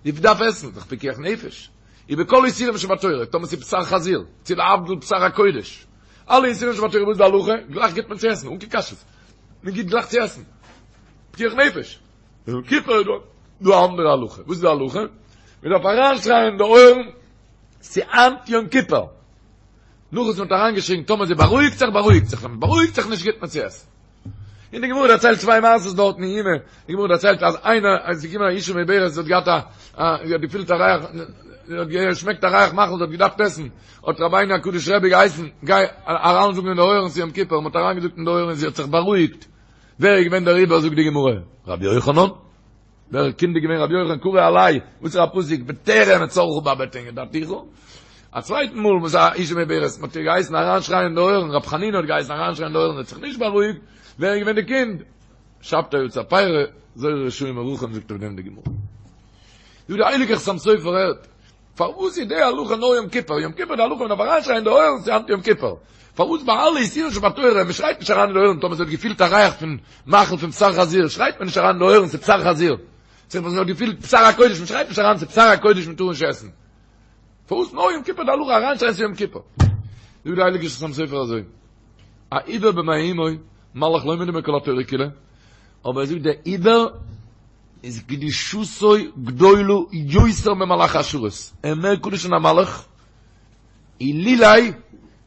זי דארף עסן, דאך פיקוח נפש. ובכל איסורים שבתורה, טאמער ס'איז בשר חזיר, צו להבדיל בשר הקודש, אלע איסורים שבתורה וואס איז די הלכה? גלייך גיט מען צו עסן, אן קיין קשיות. מען גיט גלייך צו עסן. פיקוח נפש. יום כיפור איז דא א אנדערע הלכה. וואס איז די הלכה? מען דארף אריינשרייען אין די אויערן, ס'היינט יום כיפור. נאך וואס מען האט אריינגעשריגן, טאמער זי בארואיגט זיך, בארואיגט זיך, ווען מען בארואיגט זיך נישט גיט מען צו עסן. און די גמרא דערציילט צוויי מעשות דארטן אין יומא, די גמרא דערציילט אז איינער, אז ס'איז געקומען א אשה מעוברת, זי האט געהאט א, זי האט געפילט א ריח, זי האט געשמעקט א ריח מאכל, זי האט געדארפט עסן, האט רבינו הקדוש רבי געהייסן, גיי אריינזאגן אין די אויערן ס'איז יום כיפור, מען האט אריינגעזאגט אין די אויערן און זי האט זיך בארואיגט. ווער איז געווען דער עובר זאגט די גמרא? רבי יוחנן. דער קינד איז געווען רבי יוחנן קרא עליה, וואס איז א פסוק בטרם אצורך בבטן ידעתיך. א צווייטן מאל וואס א אשה מעוברת מ'האט איר געהייסן אריינשרייען אין די אויערן, רבי חנינא האט געהייסן אריינשרייען אין די אויערן, האט זיך נישט בארואיגט, ווער איז געווען די קינד? שבתאי יצר פירא, זורע רשעים מרחם זאגט אויף דעם די גמרא. זאגט דער הייליגער חתם סופר הערט, פארוואס איז די הלכה נאר יום כיפור? יום כיפור די הלכה מען דארף אריינשרייען אין די אויערן ס'איז היינט יום כיפור. פארוואס ביי אלע איסורים שבתורה מען שרייט נישט אריין אין די אויערן טאמער זי האט געפילט א ריח פון מאכל פון בשר חזיר שרייט מען נישט אריין אין די אויערן ס'איז בשר חזיר. זי האט געפילט בשר הקודש מען שרייט נישט אריין ס'איז בשר הקודש מען טאר נישט עסן. פארוואס נאר יום כיפור די הלכה אריינשרייען ס'איז יום כיפור? זאגט די הייליגע חתם סופר אזוי, א עובר במעי אמו, מלאך לא מדומה כל התורה כולה, אבער ער זאגט דער עובר איז קדושתו גדולה יותר ממלאכי השרת, ער איז מער קדוש פון א מלאך, אילולי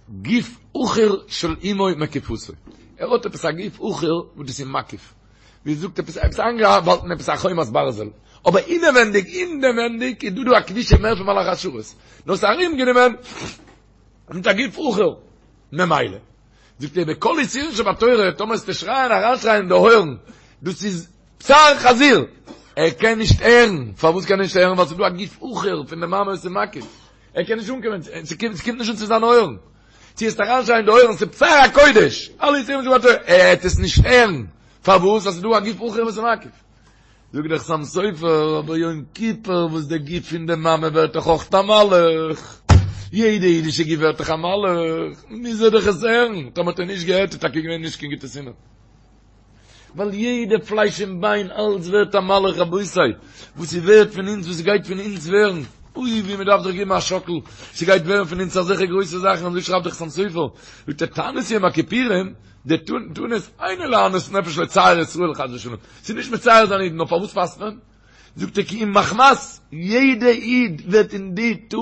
גוף אחור של אמו מקיפתו, ער האט עפעס א גוף אחור וואס דאס איז מקיף, ווי זאגט עפעס עפעס איינגעהאלטן עפעס א חומת ברזל, אבער אינעווענדיג אינעווענדיג איז דא דא א קדושה מער פון מלאכי השרת, נאר ס'איז ארומגענומען מיט א גוף אחור, ממילא זאגט ער בכל איסורין שבתורה טאמער וועסטו שרייען אריינשרייען אין די אויערן דאס איז בשר חזיר, ער קען נישט הערן, פארוואס קען ער נישט הערן? ווייל ס'איז דא א גוף אחור פון די מאמע וואס איז מקיף, ער קען נישט אנקומען, ס'קומט נישט אן צו זיינע אויערן, צו וועסט אריינשרייען אין די אויערן ס'איז בשר הקודש, אלע איסורים שבתורה, ער העט עס נישט הערן, פארוואס? ווייל ס'איז דא א גוף אחור וואס איז מקיף. זאגט דער חתם סופר, אבער יום כיפור וואס דער גוף פון די מאמע ווערט דאך אויך א מלאך, יעדע אידישע גוף ווערט דאך א מלאך, מוז ער דאך עס הערן, טאמער האט ער נישט געהערט איז טאקע געווען נישט קיין גוטע סימן. ווייל יעדע פלייש און ביין אלץ ווערט א מלאך רבותי, וואס ס'ווערט פון אונז וואס ס'גייט פון אונז ווערן, אוי ווי מ'דארף זיך געבן א שאקל, ס'גייט ווערן פון אונז אזעלכע גרויסע זאכן, אזוי שרייבט דער חתם סופר, זאגט ער תענית יום הכיפורים, די תענית אינו לענות נפש לצער ישראל חס ושלום, ס'איז נישט מצער זיין אידן, נאר פארוואס פאסט מען? זאגט ער כי אם מחמת יעדע איד ווערט אין די טאג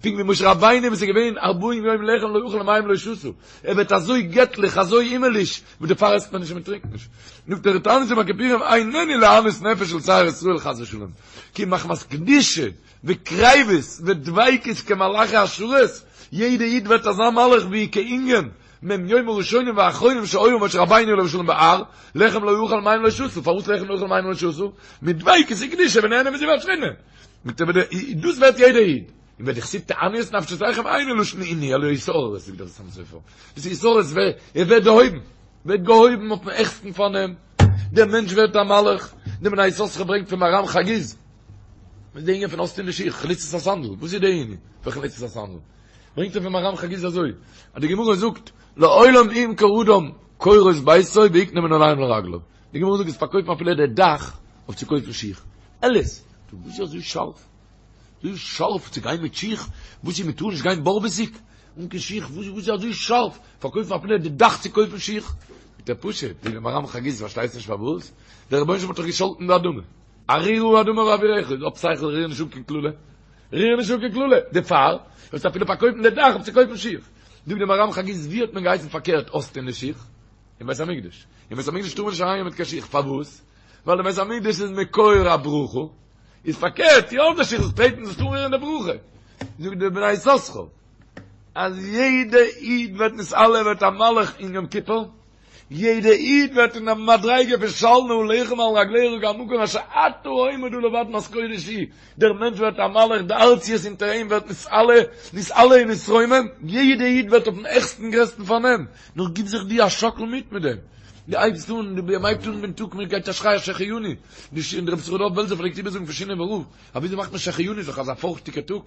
פונקט ווי משה רבינו וואס איז געווען ארבעים יום לחם לא אכל ומים לא שתה, ער ווערט אזוי געטליך אזוי הימעליש וואס דערפאר עסט מען נישט און מען טרינקט נישט. זאגט ער תענית יום הכיפורים איננו לענות נפש לצער ישראל חס ושלום, כי אם מחמת קדושה וקריבות ודביקות כמלאכי השרת, יעדע איד ווערט אזא מלאך ווי כענין מ' יום הראשונים והאחרונים שהיה משה רבינו עליו השלום בהר, לחם לא אכל מים לא שתה, פארוואס לחם לא אכל מים לא שתה? מדביקות וקדושה ונהנה מזיו השכינה. דאס ווערט יעדער איד. און ודכתיב תענו את נפשותיכם אינו לשון עינוי אלא התעוררות זאגט דער חתם סופר. דאס איז התעוררות ער ווערט דערהויבן. ווערט געהויבן אויפן העכסטן פארנעם. דער מענטש ווערט א מלאך. דער בני יששכר ברענגט פון מהר"ם חגיז. וואס איז די ענין פון אויסטון די שיך? חליצת הסנדל. וואס איז די ענין פון חליצת הסנדל? ברענגט ער פון מהר"ם חגיז אזוי, אז די גמרא זאגט, לעולם ימכור אדם קורות ביתו ויקנה מנעליים לרגליו. די גמרא זאגט עס פארקויפן אפילו די דאך אויף צו קויפן שיך. אלעס. דו וואס איז אזוי שארף? אזוי שארף צו גיין מיט שיך? וואס איז מ'טאר נישט גיין בארוועסיג אן קיין שיך? וואס איז אזוי שארף פארקויפן אפילו די דאך צו קויפן שיך? זאגט ער פשוט, זאגט דער מהר"ם חגיז פארשטייסט נישט פארוואס? דער רבונו של עולם האט דאך געשאלטן די אדמה. ארורה האדמה בעבורך, איז האב שכל ריר נישט אן קיין קללה. ריר נישט אן קיין קללה, דערפאר וועסטו אפילו פארקויפן די דאך אויף צו קויפן שיך. זאגט דער מהר"ם חגיז, ווי האט מען געהייסן פארקערט אויסטון די שיך? אין בית המקדש. אין בית המקדש טאר מען נישט אריינגיין מיט קיין שיך, פארוואס? ווייל די בית המקדש איז מקור הברכה, איז פארקערט, טו אויס די שיך, זאלסט טרעטן, זאלסט אנרירן די ברכה. זאגט דער בני יששכר, אז יעדע איד ווערט נתעלה, ווערט א מלאך אין יום כיפור, יעדע איד ווערט אין א מדריגה פון של נעליך מעל רגליך כי המקום אשר אתה עומד עליו אדמת קודש היא, דער מענטש ווערט א מלאך, די ארציות אונטער אים ווערט נתעלה, נתעלה און נתרומם, יעדע איד ווערט אויפן העכסטן גרעסטן פארנעם, נאר גיב זיך דו א שאקל מיט מיט דעם, דו הייבסט אן, דו הייבט אן דעם טאג, מען גייט א שריי א שהחיינו, די ש, דער רבי יששכר דוב בעלזער פלעגט איבערזאגן פון שינאווער רב, אז וויאזוי מאכט מען שהחיינו איז דאך אזא פארכטיגע טאג,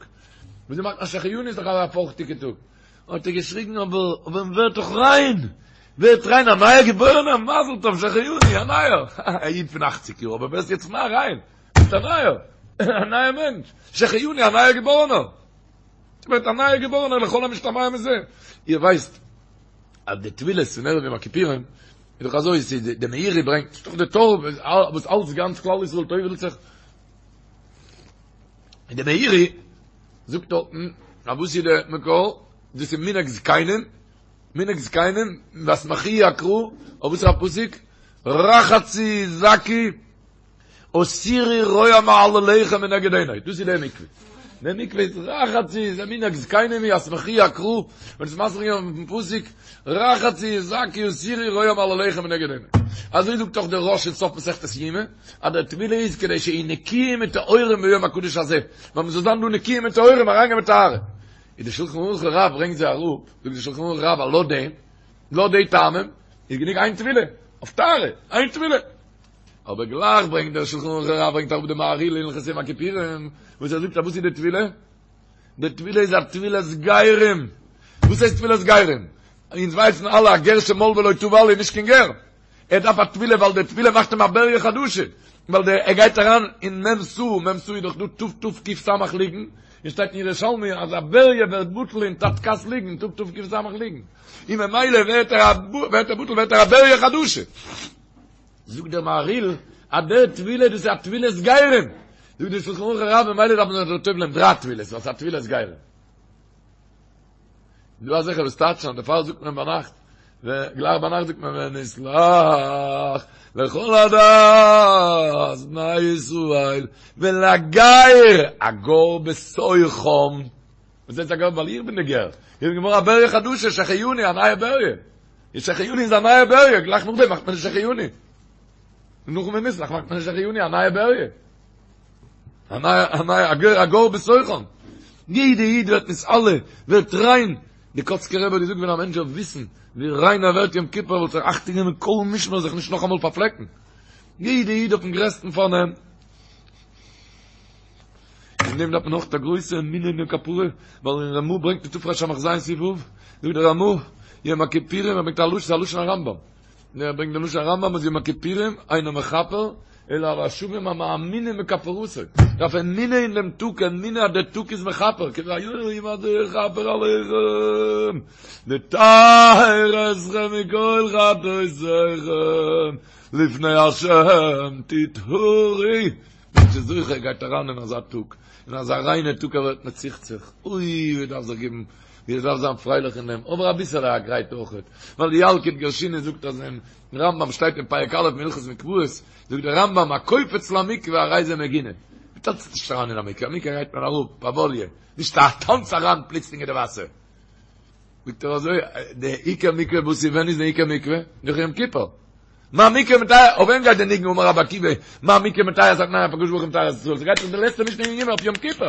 וויאזוי מאכט מען שהחיינו איז דאך אזא פארכטיגע טאג. האט ער געשריגן אבער אבער מען ווערט דאך ריין, ווערט ריין א נייער געבוירענער, מזל טוב שהחיינו, א נייער, א איד פון אכציג יאר, אבער ווערסט יעצט מער ריין, ביסט א נייער, א נייער מענטש, שהחיינו א נייער געבוירענער, ווערט א נייער געבוירענער לכל המשתמע מזה, איר ווייסט אז די טבילות פון ערב יום הכיפורים איז דאך אזוי, ס'איז די מאירי ברענגט, ס'איז דאך די טור וואס אלץ גאנץ כלל ישראל טובל'ט זיך, און די מאירי זאגט דארטן אז וואס איז די מקור? דאס איז מנהג זקנים, מנהג זקנים, ויסמכוהו הקרא, אויף וואס איז א פסוק? רחצו זכו הסירו רוע מעלליכם מנגד עיני, דאס איז די מקווה. די מקווה איז רחצו, איז א מנהג זקנים, ויסמכוהו הקרא, און עס מסביר געווען אויפן פסוק, רחצו זכו הסירו רוע מעלליכם מנגד עיני. אזוי זאגט אויך דער רא"ש אין סוף מסכת יומא, אז דער טבילה איז כדי שיהיו נקיים וטהורים ביום הקדוש הזה, ווייל מ'זאל זיין דא נקיים וטהורים אריינגיין מיט טהרה. איז די שלחן ערוך הרב ברענגט זיי אראפ, זאגט די שלחן ערוך הרב אז לויט דעם, לויט די טעמים, איז גענוג איין טבילה, אויף טהרה, איין טבילה. אבער גלייך ברענגט דער שלחן ערוך הרב ברענגט אראפ די מהרי"ל אין הלכות יום הכיפורים, וואס ער זאגט אז וואס איז די טבילה? די טבילה איז א טבילת גרים. וואס הייסט טבילת גרים? אונז ווייסן אלע א גר שמל ולא טבל איז נישט קיין גר. ער דארף א טבילה ווייל די טבילה מאכט אים א בריה חדשה, ווייל די ער גייט אריין אין מ' סאה, מ' סאה איז דאך דא ת' ת' ק' ס' לוגין, און שטייט אין ירושלמי אז א בריה ווערט בטל אין תתק"ס לוגין, אין טאג תק"ס לוגין. און ממילא ווערט ער ווערט ער בטל ווערט ער א בריה חדשה. זאגט דער מהריל אז דער טבילה דאס איז א טבילת גרים. זאגט דער שלחן ערוך הרב ממילא דארף מען זיך טובל'ען דריי טבילות ווייל ס'איז א טבילת גרים. דא אזעלכע וואס טייטשן אז דערפאר זאגט מען ביינאכט, גלייך ביינאכט זאגט מען ונסלח לכל עדת בני ישראל ולגר הגר בתוכם. וואס הייסט הגר? ווייל איך בין די גר. איך בין געווארן א בריה חדשה, שהחיינו, א נייע בריה. די שהחיינו איז א נייע בריה, גלייך נאכדעם מאכט מען די שהחיינו. און נאכן ונסלח מאכט מען די שהחיינו, א נייע בריה. א נייע, א נייע, הגר הגר בתוכם. יעדע איד ווערט נתעלה, ווערט ריין. די קאצקער רבי האט געזאגט ווען א מענטש זאל וויסן ווי ריין ער ווערט יום כיפור וואלט ער אכטונג גענומען מכל משמר זיך נישט נאכאמאל פארפלעקן. יעדע איד אויפן גרעסטן פארנעם. אין דעם דארף מען אויך א גרויסע אמונה אין דעם כפרה, ווייל אין רמא ברענגט אין תרס"ז סעיף ו', זאגט דער רמא, יום הכיפורים, ער ברענגט א לשון, א לשון הרמב"ם. ער ברענגט דעם לשון הרמב"ם אז יום הכיפורים אינו מכפר אלא על השבים המאמינים בכפרתו. דארף אמונה אין דעם טאג, אמונה אז דער טאג איז מכפר, כי ביום הזה יכפר עליכם, לטהר אתכם מכל חטאותיכם, לפני השם תטהרו. מענטש איז זוכה ער גייט אריין אין אזא טאג, אין אזא ריינע טאג ער ווערט מצוחצח, אוי ווי דארף זיך געבן, ווי ער דארף זיין פרייליך אין דעם, אבער אביסעלע א גרייט אויכעט, ווייל די ילקוט גרשוני זאגט אז אין רמב"ם שטייט אין פרק א' מהלכות מקוואות, זאגט דער רמב"ם הקופץ למקווה הרי זה מגונה, מען טאנצט נישט אריין אין א מקווה, א מקווה גייט מען אראפ פאוואליע, נישט א טאנץ אריין פלוצלינג אין די וואסער. זאגט ער אזוי, די עיקר מקווה וואס איז ווען איז די עיקר מקווה? נאך יום כיפור. מה מקווה מטהר, אויף וועם גייט די ניגון אמר רבי עקיבא, מה מקווה מטהר את הטמאים אף הקדוש ברוך הוא מטהר את ישראל, ס'גייט דאך די לעצטע משנה אין יומא אויף יום כיפור.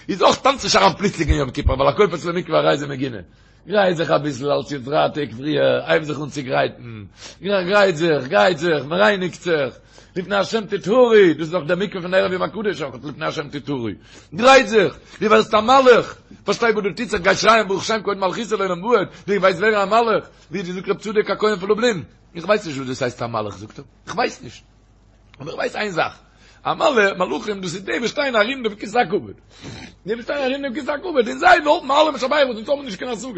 איז אויך טאנץ נישט אריין פלוצלינג אין יום כיפור, ווייל הקופץ למקווה הרי זה מגונה. גרייט זיך אביסל אלץ יעצט דריי טעג פריער, הייב זיך אן צו גרייטן, גרייט זיך, גרייט זיך, מ'רייניגט זיך, לפני השם תטהרו, דאס איז דאך דער מקווה פון ערב יום הקדוש אויך, לפני השם תטהרו, גרייט זיך, דו ווערסט א מלאך, פארשטיי וואס דא טוט זיך, גיי שרייען ברוך שם כבוד מלכותו לעולם ועד, דו ווייסט ווערן א מלאך, ווי האט געזאגט רב צדוק הכהן פון לובלין, איך ווייס נישט וואס דאס הייסט א מלאך, זאגט ער, איך ווייס נישט, אבער איך ווייס איין זאך, א מלאך, מלאכים דאס איז די וואס שטייען ארום דעם כסא הכבוד, די וואס שטייען ארום דעם כסא הכבוד, און זיי האבן אלע משבח וואס אונז האבן נישט קיין השגות.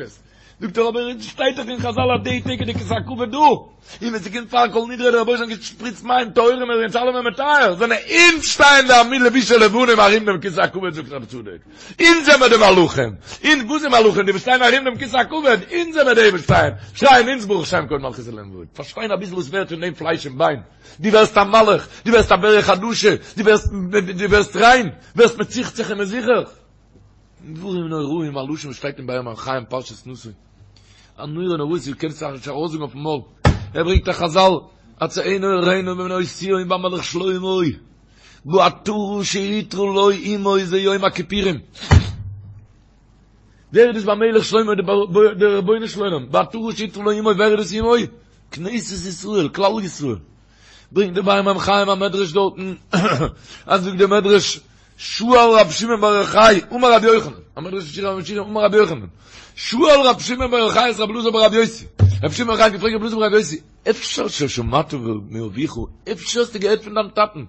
זאגט ער אבער עס שטייט דאך אין חזל אז די טעג איז די כסא הכבוד דא, און ווען ס'קומט פאר כל נדרי דער רבונו של עולם שפריצט מים טהורים און אונז אלעמען מטהר, זענען אונז שטייען די עמי לבושי לבנים ארום דעם כסא הכבוד זאגט רב צדוק, אונז זעמער די מלאכים, אונז וואס איז מלאכים די וואס שטייען ארום דעם כסא הכבוד, אונז זעמער די וואס שטייען, שרייען אונז ברוך שם כבוד מלכותו לעולם ועד, פארשטיין אביסל וואס ווערט פון דעם פלייש און ביין, דו ווערסט א מלאך, דו ווערסט א בריה חדשה, דו ווערסט דו ווערסט ריין, ווערסט מצוחצח און מזוכך. דברים נוראים, א לשון וואס שטייט אין באר מים חיים פרשת נשא. א נורא נוראות דו קענסט זיך נישט ארויסזאגן אויפן מויל. ער ברענגט א חזל, הצאנו הראינו בבנות ציון במלך שלמה, בעטרה שעטרה לו אמו זה יום הכיפורים. ווער איז דאס במלך שלמה דער רבונו של עולם, בעטרה שעטרה לו אמו, ווער איז דאס אמו? כנסת ישראל, כלל ישראל. ברענגט דער באר מים חיים א מדרש דארטן, אז זאגט דער מדרש, שאל רב שמעון בר יוחאי, אמר רבי יוחנן, א מדרש אין שיר השירים, אמר רבי יוחנן, שאל רב שמעון בר יוחאי את רבי אלעזר ברבי יוסי, רב שמעון בר יוחאי האט געפרעגט רבי אלעזר ברבי יוסי, אפשר ששמעת מאביך, אפשר האסטו געהערט פון דיין טאטן,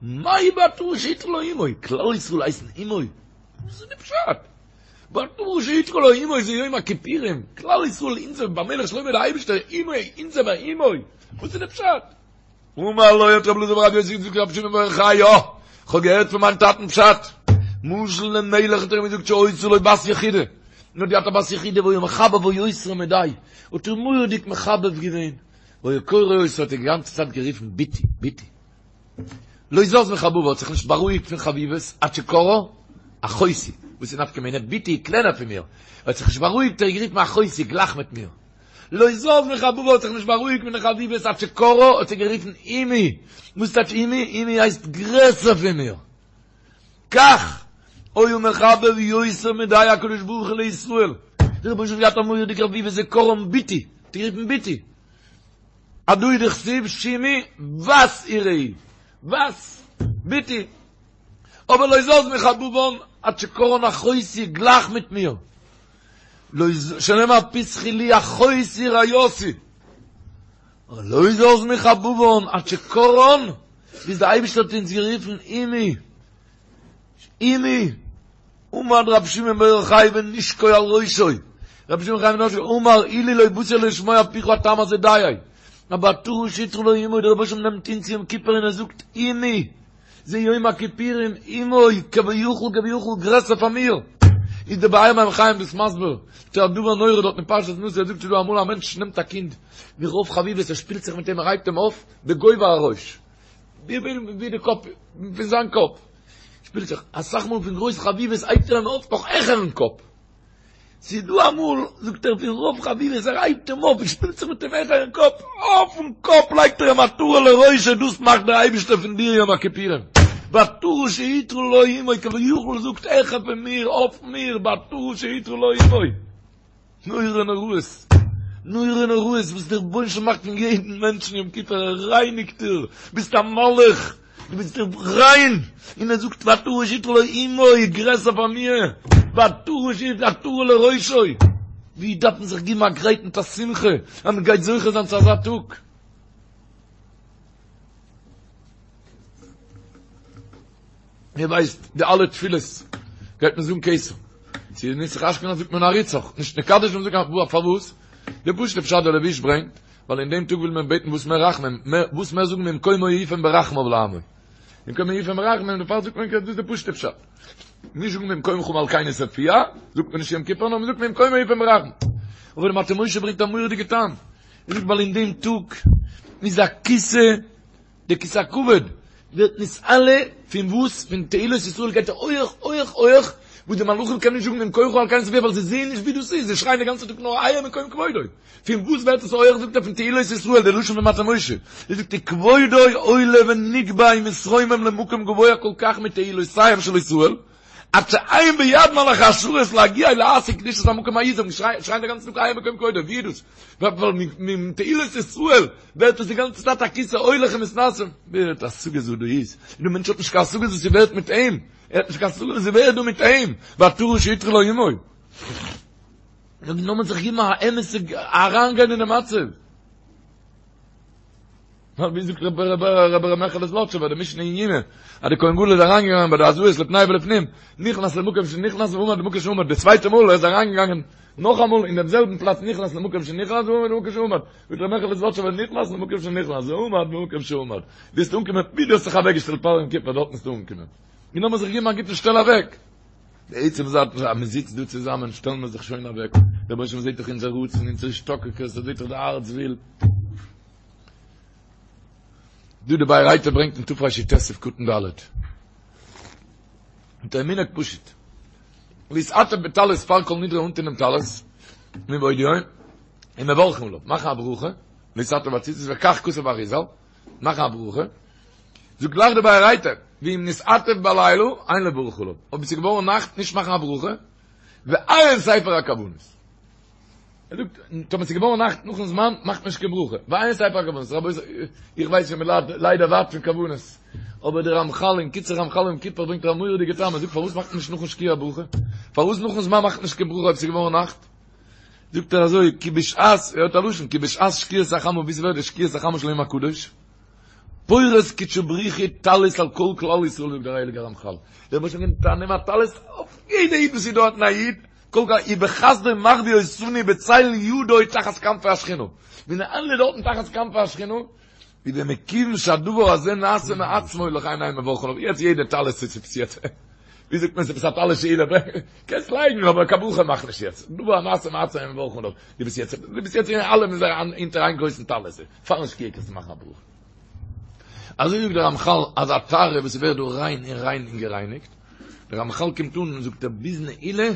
מאי בעטרה שעטרה לו אמו, כלל ישראל הייסן אמו? וואס איז די פשט? בעטרה שעטרה לו אמו זה יום הכיפורים, כלל ישראל אונזער במלך שלמה דער אייבישטער אמו אונזער ביי אמו, וואס איז די פשט? אמר לו האט רבי אלעזר ברבי יוסי געזאגט רבי שמעון בר יוחאי יא, כ'האב געהערט פון מיין טאטן פשט, משל למלך האט ער אים געזאגט שהיתה לו בת יחידה, און האט געהאט א בת יחידה והיה מחבבה יותר מדי, האט איר מורא'דיג מחבב געווען, והיה קורא אותה האט איר די גאנצע צייט גערופן בתי, בתי. לא זז מחבבה האט זיך נישט בארואיגט פון חביבות עד שקראה אחותי, וואס איז נפקא מינה, בתי איז קלענער פון מיר, ער האט זיך נישט בארואיגט ער האט גערופן אחותי גלייך מיט מיר, לא זז מחבבה האט זיך נישט בארואיגט פון די חביבות עד שקראה האט זי גערופן אמי, וואס טייטש אמי? אמי הייסט גרעסער פון מיר, כך היה מחבב יותר מדי הקדוש ברוך הוא לישראל, דער רבונו של עולם האט געהאט א מורא'דיגע חביבות איז קראן בתי, האט גערופן בתי. הדא הוא דכתיב שמעי בת וראי, בת, בתי, אבער לא זז מחבבן עד שקראן אחותי גלייך מיט מיר, לא ז שנאמר פתחי לי אחותי רעיתי, לא זז מחבבן עד שקראן, ביז דער אייבערשטער האט אונז גערופן אמי, אמי. עמד רבי שמעון בר יוחאי ונשקו על ראשו, רבי שמעון בר יוחאי אמר אילו לא באתי אלא לשמוע מפיך הטעם הזה דיי, בעטרה שעטרה לו אמו, דער רבוש ע נעמט אונז יום כיפור און ער זאגט עמי, זה יום הכיפורים עמו, כביכול כביכול גרעסער פאר מיר, איז דער באר מים חיים דאס מסביר, ס'איז א דבר נורא דארט אין פרשת נשא, ער זאגט ס'איז דא אמאל א מענטש נעמט א קינד מרוב חביבות ער שפילט זיך מיט אים ער הייבט אים אויף בגובה הראש, ווי די קאפ פון זיין קאפ, שפילט זיך, אסאך מאל פון גרויס חביבות הייבט ער אים אויף נאך העכערן קאפ. ס'איז דא אמאל, זאגט ער, פון רוב חביבות ער הייבט אים אויף און שפילט זיך מיט אים העכערן קאפ, אויפן קאפ לייגט ער אים עטרה לראשו, דאס מאכט דער אייבערשטער פון דיר יום הכיפורים. בעטרה שעטרה לו אמו, כביכול זאגט העכער פון מיר, אויף מיר, בעטרה שעטרה לו אמו. נורא נוראות, נורא נוראות וואס דער רבונו של עולם מאכט פון יעדן מענטשן יום כיפור, ער רייניגט דיר, ביסט א מלאך, דו ביסט ריין, און ער זאגט בעטרה שעטרה לו אמו, גרעסער פאר מיר, בעטרה שעטרה עטרה לראשו, ווי דארף מען זיך גיבן א גרייט מיט א שמחה אז מען גייט זוכה זיין צו אזא טאג. איר ווייסט די אלע תפילות גייט מען זאגן כתר. צו נוסח אשכנז זאגט מען נעריצך, נישט נקדש מען זאגט פארוואס? די פשוט'ע פשט דער לבוש ברענגט, ווייל אין דעם טאג וויל מען בעטן וואס מער רחמים, וואס מער זאגן ממקומו יפן ברחמיו לעמו. ממקומו יפן ברחמים, דערפאר זאגט מען כתר, דאס איז די פשוט'ע פשט. נישט זאגן ממקומך מלכנו תופיע, זאגט מען נישט יום כיפור, נאר מען זאגט ממקומו יפן ברחמים. אבער דער מטה משה ברענגט א מורא'דיגע טעם. ער זאגט ווייל אין דעם טאג איז א כסא די כסא הכבוד ווערט נתעלה פון וואס? פון תהילות ישראל גייט ער הויעך הויעך הויעך, וואס די מלאכים קענען נישט זאגן ממקומך מלכנו תופיע ווייל זיי זעען נישט ווי דאס איז, זיי שרייען די גאנצע טאג נאר איה מקום כבודו. פון וואס ווערט עס הויעך זאגט ער פון תהילות ישראל, די לשון פון מטה משה, ער זאגט וכבודו עולה ונגבה ומתרומם למקום גבוה כל כך מתהילותיהם של ישראל, עד שאין ביד מלאכי השרת להגיע ולהשיג קדושת המקום ההוא, זיי שרייען די גאנצע טאג איה מקום כבודו, ווי איז דאס? ווייל מתהילות ישראל ווערט עס די גאנצע צייט א כסא הולך ומתנשא, ווער האט השגות וואס דא איז? און דער מענטש האט נישט קיין השגות וואס ס'ווערט מיט אים, ער האט נישט קיין השגות וואס ס'ווערט דא מיט אים, בעטרה שעטרה לו אמו. לאמיר זיך געבן א אמת'ע אריינגיין אינעם מצב. ווייל ווי זאגט רבי רבי רבי ר' מעכעלע זלאטשובער די משנה אין יומא אז די כהן גדול איז אריינגעגאנגען ביי די הזאות לפני ולפנים נכנס למקום שנכנס ועמד במקום שעמד די צווייטע מאל ער איז אריינגעגאנגען נאכאמאל אין דעם זעלבן פלאץ נכנס למקום שנכנס ועמד במקום שעמד זאגט ר' מעכעלע זלאטשובער נכנס למקום שנכנס ועמד במקום שעמד ביסט אנגעקומען ווי דו האסט זיך אוועקגעשטעלט פאר יום כיפור דארט ביסטו אנגעקומען און לאמיר זיך געבן א גוטן שטעל אוועק די עצם זאך אז מען זיצט דא צוזאמען שטעלן מיר זיך שוין אוועק דער רבונו של עולם זעט דאך אונזער רצון אונזער השתוקקות ער זעט דאך די הארץ וויל דא די באר היטב ברענגט אין תרי"ט סעיף קטן ד' מיט א מנהג פשוט להתעטף בטלית פאר כל נדרי אנטון דעם טלית מבעוד יום און מברכין עליו מאכן א ברכה להתעטף בציצית וכך כתב האריז"ל מאכן א ברכה זאגט גלייך די באר היטב ואם נתעטף בלילה אין לברך עליו אויב עס איז געווארן נאכט נישט מאכן א ברכה ועיין ספר הכוונות ער זאגט, טאמער ס'איז געווארן נאכט נאכן זמן, מאכט מען נישט קיין ברכה. ועיין ספר הכוונות. רבותי, איך ווייס שוין מ'ליידט ליידער ווייט פון כוונות. אבער דער רמחל אין קיצור רמחל יום כיפור ברענגט ער א מורא'דיגע טעם. ער זאגט פארוואס מאכט מען נישט נאכן שקיעה א ברכה? פארוואס נאכן זמן מאכט מען נישט קיין ברכה אויב ס'איז געווארן נאכט? זאגט ער אזוי, כי בשעת, ער האט א לשון, כי בשעת שקיעת החמה, ווי ס'ווערט די שקיעת החמה של יום הקדוש, פורס קודשא בריך הוא טלית על כל כלל ישראל זאגט דער הייליגער רמחל. דער רבוש"ע נעמט א נעם א טלית אויף יעדע איד וואס איז דארטן א איד, כל כך ובחסדו מחביא אותנו בצל ידו תחת כנפי השכינה, מיר זענען אלע דארטן תחת כנפי השכינה, איז ומכיוון שהדבר הזה נעשה מעצמו לכן אין מברכין עליו, יעצט יעדע טלית איז עפעס יעצט, ווי זאגט מען עפעס א טלית שאולה, קענסט לייגן אבער קיין ברכה מאך נישט יעצט, דבר הנעשה מעצמו אין מברכין עליו, דו ביסט יעצט, דו ביסט יעצט אין אלע מיר זענען אונטער איין גרויסן טלית, פארן שקיעה קענסטו מאכן א ברכה. אזוי זאגט דער רמחל אז א טהרה וואס ווערט דא ריין און ריין און גערייניגט, דער רמחל קומט אן און זאגט ער ביז נעילה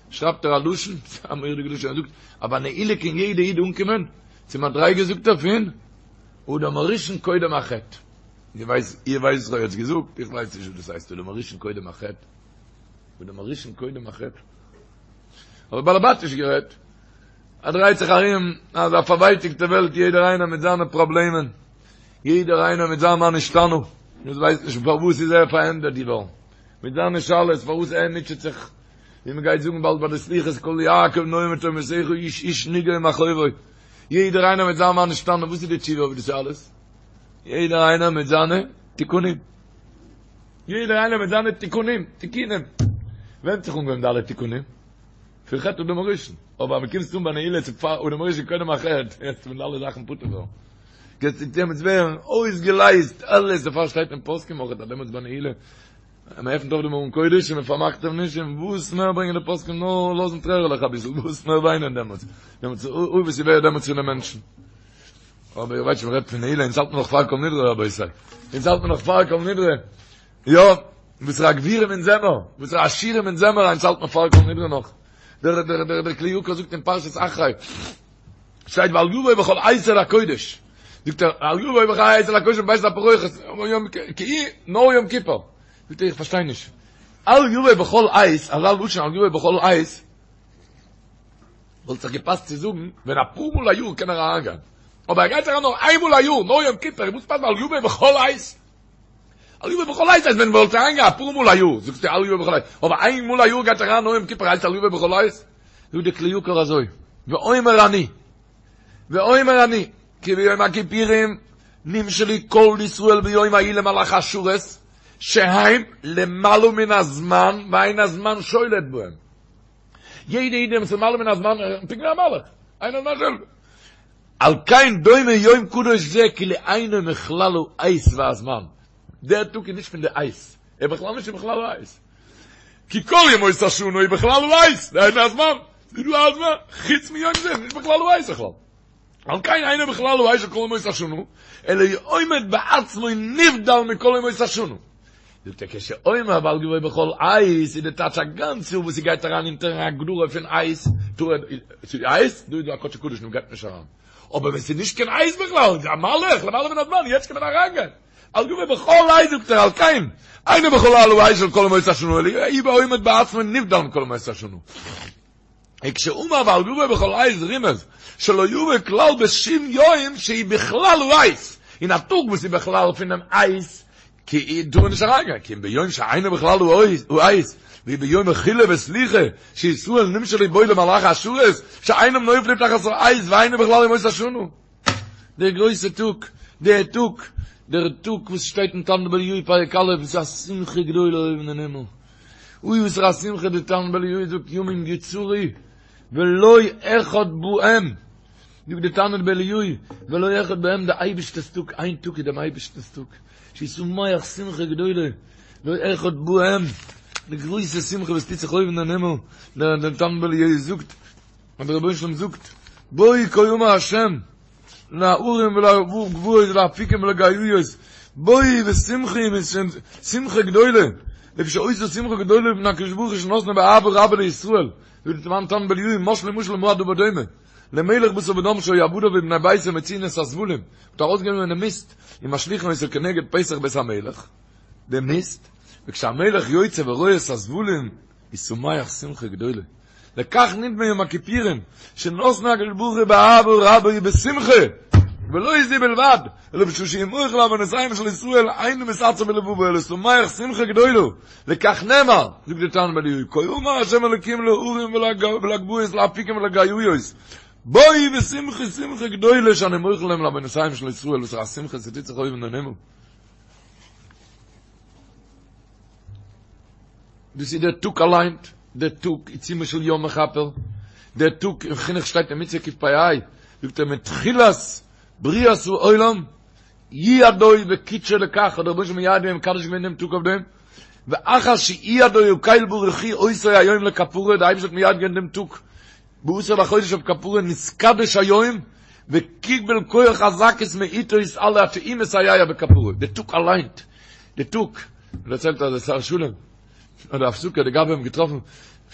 שרייבט ער א לשון, א מורא'דיגע לשון, ער זאגט אז ביי נעילה קען יעדע איד אנקומען צו מדריגה זאגט ער פון אדם הראשון קודם החטא, איר ווייסט איר ווייסט וואס איך האב יעצט געזאגט? איך ווייס נישט וואס דאס הייסט אדם הראשון קודם החטא, אדם הראשון קודם החטא, אבער באלעבאטיש גערעדט, עס דרייט זיך ארום אזא פארווייטיגטע וועלט יעדער איינער מיט זיינע פראבלעמען, יעדער איינער מיט זיין מה נשתנה, מען ווייסט נישט פארוואס איז ער פארענדערט געווארן, מיט זיינע שאלות פארוואס ער מוטשעט זיך, ווי מען גייט זאגן באלד ביי די סליחות קול יעקב נוהם מתהומותיך איש איש נגעו מכאובו, יעדער איינער מיט זיין מה נשתנה, וואס איז די תשובה אויף די שאלות? יעדער איינער מיט זיינע תיקונים. יעדער איינער מיט זיינע תיקונים, תיקונים. ווען האט זיך אנגעהויבן די אלע תיקונים? פון חטא אדם הראשון. אבער אז מ'קומט אן ביי נעילה צו פאר אדם הראשון קודם א חטא, יעצט פון די אלע זאכן פטור ווערן. גייט דעמאלטס ווערן אויסגעלייזט אלעס, דערפאר שטייט אין פוסקים אויך אז דעמאלטס ביי נעילה, מען עפנט אויף דעם ארון קודש און מען פארמאכט אים נישט, און וואס מער ברענגען די פוסקים נאר לאזן טרערעלעך אביסל, וואס מער וויינען דעמאלטס, דעמאלטס אוי וואס איז ווערט דעמאלטס פון די מענטשן. אבער איר ווייסט שוין מ'רעדט פון נעילה, אונז האלט מען נאך פאר כל נדרי רבותי, אונז האלט מען נאך פאר כל נדרי, יא, וואסערע גבירים אונז זעמער, וואסערע עשירים אונז זעמער, אונז האלט מען פאר כל נדרי נאך. דער דער דער דער כלי יקר זאגט אין פרשת אחרי, שטייט ואל יבוא בכל עת אל הקודש, זאגט ער, אל יבוא בכל עת אל הקודש מבית הפרוכת, כי נאר יום כיפור, זאגט ער איך פארשטיי נישט, אל יבוא בכל עת, אזא לשון אל יבוא בכל עת, וואלט זיך געפאסט צו זאגן ווען אפאר מאל א יאר קען ער אריינגיין, אבער ער גייט אריין נאר איין מאל א יאר, נאר יום כיפור, וואס פאסט אל יבוא בכל עת? אל יבוא בכל עת הייסט ווען וואלט אריינגיין אפאר מאל א יאר, זאגסטו אל יבוא בכל עת, אבער איין מאל א יאר גייט אריין נאר יום כיפור הייסט אל יבוא בכל עת? זאגט די כלי יקר אזוי, ואומר אני, ואומר אני, כי ביום הכיפורים נמשלו כל ישראל ביום ההוא למלאכי השרת, שהם למעלה מן הזמן ואין הזמן שולט בהם. יעדע איד איז למעלה מן הזמן, פונקט ווי א מלאך, אין הזמן שולט. על כן דומה יום קדוש זה כאילו אינו מכלל העת והזמן. דער טאג איז נישט פון די עת, ער איז בכלל נישט אין בכלל העת. כי כל ימות השנה היא בכלל העת, דהיינו הזמן, ס'איז דא א זמן, חוץ מיום זה, נישט בכלל העת בכלל. על כן אינו בכלל העת של כל ימות השנה, אלא הוא עומד בעצמו נבדל מכל ימות השנה. זאגט ער כשאומר ואל יבוא בכל עת איז די טייטש א גאנץ יאר וואס ס'גייט אריין אונטערן הגדרה פון עת, ס'איז עת, דא איז דא א קדשי קדשים מ'גייט נישט אריין, אבער ווען ס'איז נישט קיין עת בכלל, איז א מלאך למעלה מן הזמן, יעצט קען מען אריינגיין. אל יבוא בכל עת זאגט ער על כן אינו בכלל העת של כל ימות השנה אלא הוא עומד בעצמו נבדל מכל ימות השנה. וכשאמר ואל יבוא בכל עת רימז שלא יבוא כלל בשום יום שהיא בכלל העת, אין א טאג וואס איז בכלל פונעם עת כי טאר מען נישט אריינגיין, כי אם ביום שאינו בכלל העת, והוא ביום מחילה וסליחה, שישראל נמשלו בו למלאכי השרת, שאינם נופלים תחת העת ואינו בכלל ימות השנה. דער גרויסע טאג, דער טאג, דער טאג וואס שטייט אין תנא דבי אליהו פרק א', איז א שמחה גדולה אויבן אין הימל. אוי וואס פאר א שמחה די תנא דבי אליהו זאגט ימים יוצרו ולא אחד בהם, זאגט די תנא דבי אליהו ולא אחד בהם די אייבערשטער'ס טאג, איין טאג איז דעם אייבערשטנ'ס טאג, שישמח שמחה גדולה, לא אחד בהם, די גרויסע שמחה וואס טוט זיך אויבן אין הימל, דער תנא דבי אליהו זאגט, און דער רבונו של עולם זאגט, בואו כה אמר השם, להרים ולגבעות ולאפיקים ולגאיות, בואו ושמחו שמחה גדולה, לפי שהיתה שמחה גדולה לפני הקדוש ברוך הוא שנתנו באהבה רבה לישראל, זאגט דער תנא דבי אליהו, משלו משל למה הדבר דומה, למלך בשר ודם שהיו עבדיו ובני ביתו מוציאין את הזבלים, מ'האט ארויסגענומען די מיסט, ומשליכין אותו כנגד פתח בית המלך, די מיסט, וכשהמלך יוצא ורואה את הזבלים, איז שמח שמחה גדולה. לכך נדמה יום הכיפורים, שנתנו הקדוש ברוך הוא באהבה רבה ובשמחה, ולא זו בלבד, אלא בשעה שהוא מוחל לעוונותיהם של ישראל, אינו מתעצב בלבבו, אלא שמח שמחה גדולה. לכך נאמר, זאגט דער תנא דבי אליהו, כה אמר השם אלוקים להרים ולגבעות ולאפיקים ולגאיות, בואו ושמחו שמחה גדולה שאני מוחל להם לעוונותיהם של ישראל, וואס פאר א שמחה ס'טוט זיך אויבן אין הימל. דאס איז דער טאג אליין, דער טאג עיצומו של יום מכפר, דער טאג אין חינוך שטייט אין מצוה קפ"ה, זאגט ער מתחילת בריאת העולם יעדו וקידשו לכך, האט דער רבונו של עולם מייעד געווען מקדש געווען דעם טאג אויף דעם, ואחר שיעדו הקל ברוך הוא אותו היום לכפרה, דער אייבערשטער האט מייעד געווען דעם טאג בעשור לחודש אויף כפרה, נתקדש היום וקיבל כח הזכות מאיתו יתעלה עד שהוא מסייע בכפרה, דער טאג אליין, דער טאג. מען דערציילט אז דער שר שלום האט די הפסקה די גבאי אים געטראפן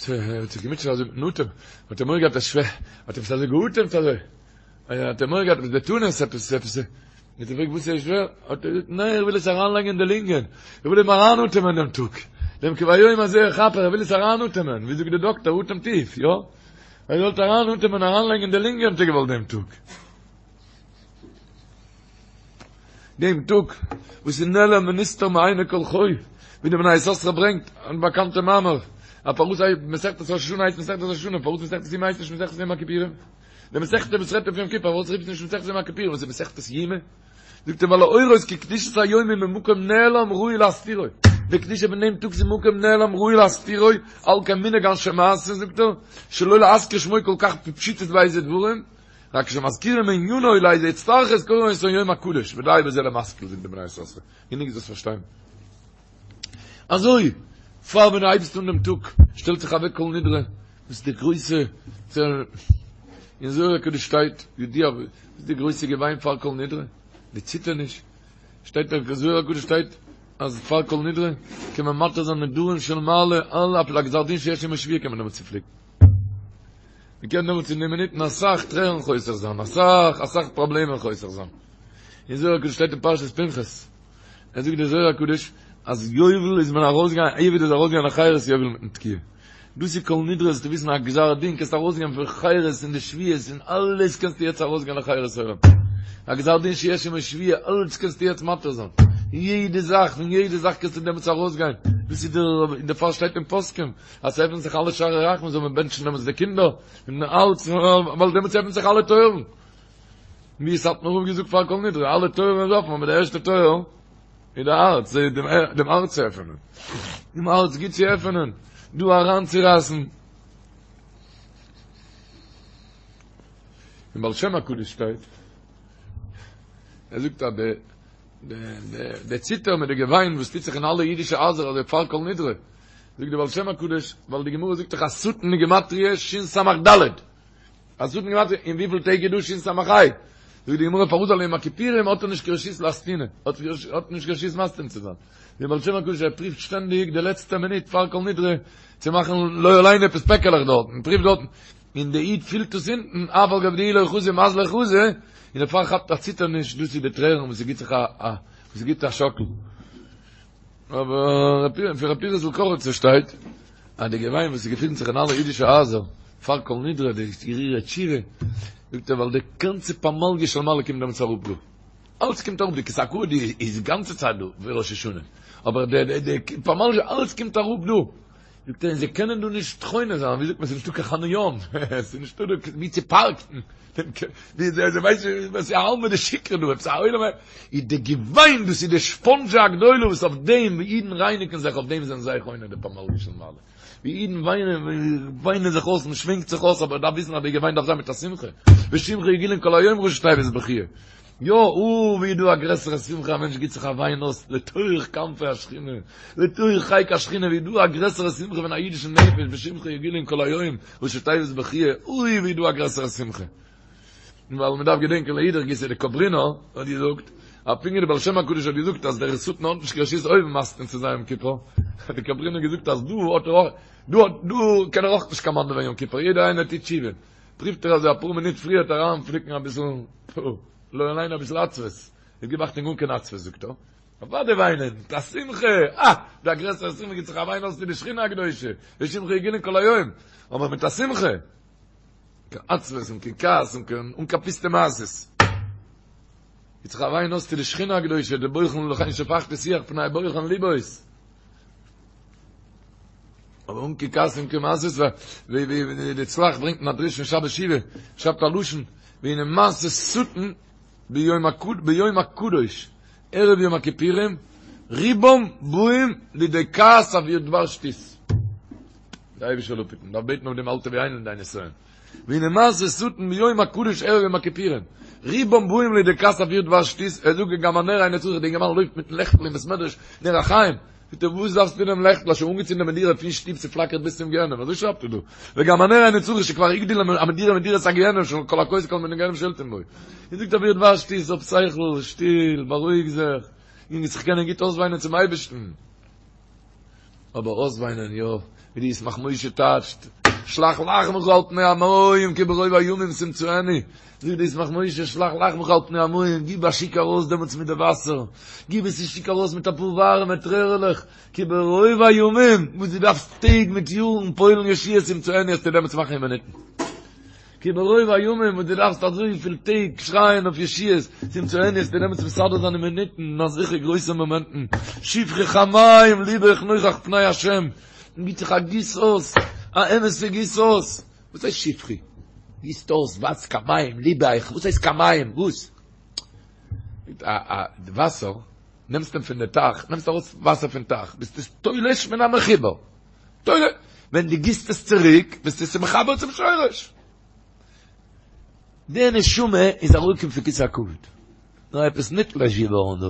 האט זיך געמוטשעט אזוי מיטן אטעם האט ער מורא געהאט אז שווער האט עפעס אזוי געאטעמט אזוי האט ער מורא געהאט עפעס די תנועות עפעס עפעס האט ער געפרעגט וואס איז שווער האט ער געזאגט ניין איך וויל עס אריינלייגן אין די לונגען איך וויל אים אריינאטעמען דעם טאג דעם כי ביום הזה יכפר איך וויל עס אריינאטעמען ווי זאגט די דאקטער אטעם טיף יא ער זאל אריינאטעמען אריינלייגן אין די לונגען האט ער געוואלט דעם טאג דעם טאג וואס איז נעלם ונסתר מעיני כל חי, ווי די בני יששכר ברענגט אן באקאנטע מאמר, א פארוואס הייסט מסכת ראש השנה הייסט מסכת ראש השנה, פארוואס מסכת יומא הייסט נישט מסכת יום הכיפורים? די מסכת וואס רעדט אויף יום כיפור, פארוואס רופט נישט מסכת יום הכיפורים, וואס איז מסכת יומא? זאגט ער ווייל להורות כי קדושת היום היא ממקום נעלם ראוי להסתירו. די קדושה פון דעם טאג ס'איז מקום נעלם ראוי להסתירו, על כן מנהג אנשי מעשה זאגט ער, שלא להזכיר שמו כל כך בפשיטות באיזה דברים, רק כשמזכירים ענינו לאיזה הצטרכות קוראים אותו יום הקדוש, ודי בזה למשכיל זאגט די בני יששכר, גענוג דאס פארשטיין. אזוי, פאר ווען דו הייבסט אן דעם טאג, שטעלט זיך אוועק כל נדרי, וואס איז די גרויסע צער, אין זוהר הקדוש שטייט, ידוע, וואס איז די גרויסע געוויין פאר כל נדרי, די ציטערניש, שטייט אין זוהר הקדוש שטייט, אז פאר כל נדרי, קען מען מתיר זיין נדרים של מעלה, אלע אפילו א גזר דין שיש עמו שבועה קען מען דעמאלטס צופליקן. מען קען דעמאלטס אין די מינוטן אסאך טרערן חוסך זיין, אסאך אסאך פראבלעמען חוסך זיין. אין זוהר הקדוש שטייט אין פרשת פנחס, ער זאגט דער זוהר הקדוש אז יובל איז מען ארויסגעגאנגען, עבד איז ארויסגעגאנגען לחירות יובל מיטן תקיעה. דאס איז כל נדרי זאלסטו וויסן א גזר דין קענסט ארויסגיין פון חירות און די שבועות און אלעס קענסטו יעצט ארויסגיין לחירות עולם. א גזר דין שיש עמו שבועה אלעס קענסטו יעצט מתיר זיין. יעדע זאך פון יעדע זאך קענסטו דעמאלטס ארויסגיין. דאס איז דער און דערפאר שטייט אין פוסקים אז ס'עפנט זיך אלע שערי רחמים זאל מען בענטשן דעמאלטס די קינדער און אלץ ווייל דעמאלטס עפנט זיך אלע טויערן. ווי סאטמאר רב האט געזאגט פאר כל נדרי, אלע טויערן איז אפן, אבער די ערשטע טויער איז די הארץ, דעם הארץ צו עפענען, דעם הארץ גוט צו עפענען, דא אריינצורייסן. אין בעל שם הקדוש שטייט, ער זאגט אז די די ציטער מיט די געוויין וואס טוט זיך אין אלע אידישע הייזער אזוי פאר כל נדרי, זאגט די בעל שם הקדוש, ווייל די גמרא זאגט דאך השטן איז גימטריא שין סמך ד', השטן גימטריא, און וויפיל טעג איז דא שין סמך ה'? זאגט די גמרא פארוואס ווייל יום הכיפורים האט ער נישט קיין רשות לאסטונא, האט נישט קיין רשות מסטין צו זיין. דער בעל שם הקדוש ער פריווט שטענדיג די לעצטע מינוט פאר כל נדרי צו מאכן לא עלינו עפעס פעקעלעך דארט, און פריווט דארטן, און די איד פילט עס אונטן, אף על גב דאיהו לא חזי מזליה חזי, און דערפאר כאפט א ציטערניש, דאס איז די טרערן וואס ס'גיט זיך א א וואס ס'גיט א שאקל. אבער פון ר' פנחס'ל קאריצער שטייט אז די געוויין וואס ס'געפינט זיך אין אלע אידישע הייזער פאר כל נדרי די הרהורי תשובה, זאגט ער ווייל די גאנצע פמליא של מעלה קומט דעמאלטס אראפ דא, אלץ קומט אראפ, די כסא הכבוד איז גאנצע צייט דא ווי ראש השנה, אבער די די פמליא אלץ קומט אראפ דא, זאגט ער און זיי קענען דא נישט חונה זיין, ווי זאגט מען ס'איז נישטא קיין חניון, ס'איז נישטא דא ווי צו פארקן, ווי זיי ווייסן וואס איז עלמא דשיקרא דא, עפעס א עולם איז די געוויין דאס איז די ספאנדזשע הגדולה וואס אויף דעם ווי אידן רייניגן זיך אויף דעם זענען זיי חונה די פמליא של מעלה, ווי אידן וויינען וויינען זיך אויס מען שווענקט זיך אויס אבער דארף וויסן אז די געוויין דארף זיין מיט א שמחה, בשמך יגילון כל היום ראשי תיבות בכיה. יא, אוי ווי איז דא א גרעסערע שמחה, א מענטש גיט זיך א וויין אויס לתוך כנפי השכינה, לתוך חיק השכינה, ווי איז דא א גרעסערע שמחה פון א אידישן נפש, בשמך יגילון כל היום, ראשי תיבות בכיה, אוי ווי איז דא א גרעסערע שמחה. ווייל מען דארף געדענקען לאידך גיסא די קאברינער האט געזאגט, אז פונקט ווי די בעל שם הקדוש האט געזאגט אז דער שטן האט נישט קיין רשות אויבן מסטין צו זיין יום כיפור, האט די קאברינער געזאגט אז דא האט ער אויך, דא האט דא קען ער אויך נישט קאמאנדעווען יום כיפור, יעדער איינער טוט תשובה. פריווט ער אזוי אפאר מינוט פריערט אריינפליקן אביסל, פו, לא עלינו אביסל עצבות, איז גיב אכטונג אן קיין עצבות זאגט ער, אוודאי וויינען, מיט א שמחה, אה, דא א גרעסערע שמחה גיט זיך א וויין אויס צו די שכינה הקדושה, בשמך יגילון כל היום, אבער מיט א שמחה, קיין עצבות און קיין כעס און קיין, אן קיין פוסטע מעשות. גיט זיך א וויין אויס צו די שכינה הקדושה, די בוחן לכן שפכתי שיח פני בוחן לבות. אבער אן קיין כעס און קיין מעשות ווי ווי די צלח ברענגט אין א דרוש פון שבת שובה שרייבט א לשון והנה מעשה שטן ביום הקד ביום הקדוש ערב יום הכיפורים רובם באים לידי כעס עבור דבר שטות די אייבישטער זאל אפהיטן דארף בעטן אויף דעם אל תביאנו לידי נסיון והנה מעשה שטן ביום הקדוש ערב יום הכיפורים רובם באים לידי כעס עבור דבר שטות ער זאגט וגם הנר אינו צריך די אינגערמאן לויפט מיטן לעכטל אין בית מדרש נר החיים זאגט ער וואס דארפסטו דעם לעכטל האסט שוין אנגעצינדען די מדורה פון שטוב ס'פלאקערט ביז צום גיהנום אזוי שרייבט ער דא וגם הנר אינו צריך שכבר הגדיל המדורה מדורת הגיהנום שכל הכועס כל מיני גיהנום שולטים בו און זאגט עבור דבר שטות האב שכל שטיל בארואיג זיך און זיך קענען גוט אויסוויינען צום אייבערשטן אבער אויסוויינען יא, ווי די ישמח משה טייטשט, שלח לחמך על פני המים כי ברוב הימים תמצאנו, זאגט די ישמח משה שלח לחמך על פני המים, גיב א שיק ארויס דעמאלטס מיט די וואסער, גיב עס א שיק ארויס מיט אפאר ווארעמע טרערעלעך, כי ברוב הימים, וואס דו דארפסט טעג מיט יארן פועל'ן ישועות תמצאנו וועסטו דעמאלטס מאכן אין מינוטן. כי ברוב הימים וואס דו דארפסט אזויפיל טעג שרייען אויף ישועות, תמצאנו וועסטו דעמאלטס מסדר זיין אין מינוטן, אין אזעלכע גרויסע מאמענטן, שפכי כמים לבך נוכח פני השם, און גיט זיך א גיס אויס, א אמת'ע גיס אויס, וואס הייסט שפכי? גיסט אויס וואס כמים לבך, וואס הייסט כמים? וואס? א א וואסער. נעמסט אים פון די טייך, נעמסט ארויס וואסער פון טייך, ביסט עס תולש מן המחובר. תולש, ווען דו גיסט עס צוריק, ביסטו עס מחבר צום שורש. די נשמה איז אראפגעקומען פון כסא הכבוד. נאר עפעס נתלש געווארן דא.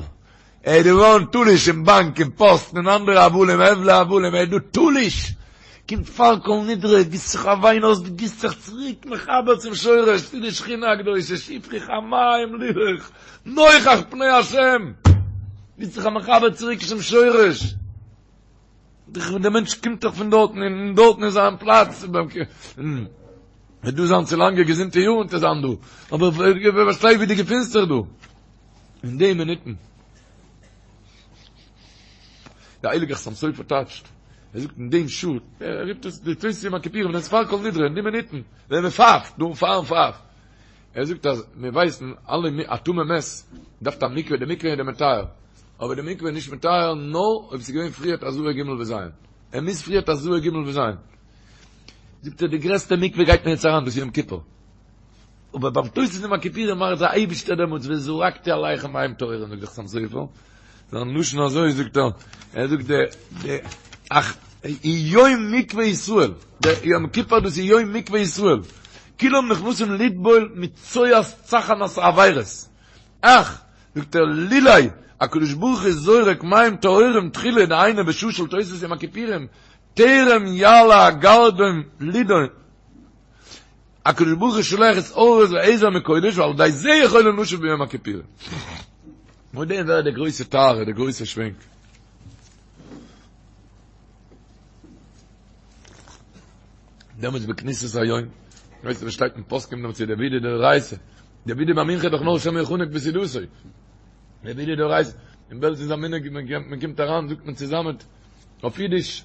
ער איז געווארן תלוש אין באנק אין פאסט און אנדערע הבלים הבלי הבלים ער איז דא תלוש. קומט פאר כל נדרי, גיסט זיך א וויין אויס, דו גיסט זיך צוריק מחבר צום שורש, צו די שכינה הקדושה, שפכי כמים לבך, נוכח פני השם. גיסט זיך א מחבר צוריק צום שורש. דער מענטש קומט דאך פון דארטן און דארטן איז זיין פלאץ. וועט דא זיין צו לאנגע געזונטע יארן צו זיין דא, אבער ווער פארשטייט ווי דו געפינסט זיך דא אין די מינוטן. דער הייליגער חתם סופר טייטשט, ער זאגט אין דעם שעה, ער רופט עס די תוס' יום הכיפורים, ווען עס איז פאר כל נדרי, אין די מינוטן, ווען מען פייפט, דא פארן פייף, ער זאגט אז מיר ווייסן אלע א טמא מת דארף א מקווה, די מקווה איז די מטהר, אבער די מקווה איז נישט מטהר נאר אויב עס איז געווען פריערט הזאה ג' וז', ער מוז פריערט הזאה ג' וז'. זאגט ער די גרעסטע מקווה גייט מען יעצט אריין דאס יום כיפור, אבער ביים תוס' יום הכיפורים מאכט דער אייבישטער דעמאלטס וזרקתי עליכם מים טהורים זאגט דער חתם סופר, זיין לשון אזוי זאגט ער, ער זאגט די די אך יום מקווה ישראל, די יום כיפור דאס איז יום מקווה ישראל, כולם נכנסים לטבול מצואת צחנת העבירות, אך זאגט ער לולא הקדוש ברוך הוא זורק מים טהורים תחילה דהיינו בשעה של תוס' יום הכיפורים טרם יעלה הגרדום לידון, הקדוש ברוך הוא שולח התעוררות ועזר מקודש ועל ידי זה יכולים לשוב ביום הכיפורים. מיט דעם ווערט די גרויסע טהרה, די גרויסע שווענק. דעמאלטס בכניסת היום, ווייסט וואס שטייט אין פוסקים דעמאלטס איז דער וידוי דאורייתא, דער וידוי ביי מנחה איז דאך נאר שמא יחנק בסעודתו. דער וידוי דאורייתא, אין בעלז איז א מנהג מען קומט אריין זאגט מען צוזאמען אויף אידיש,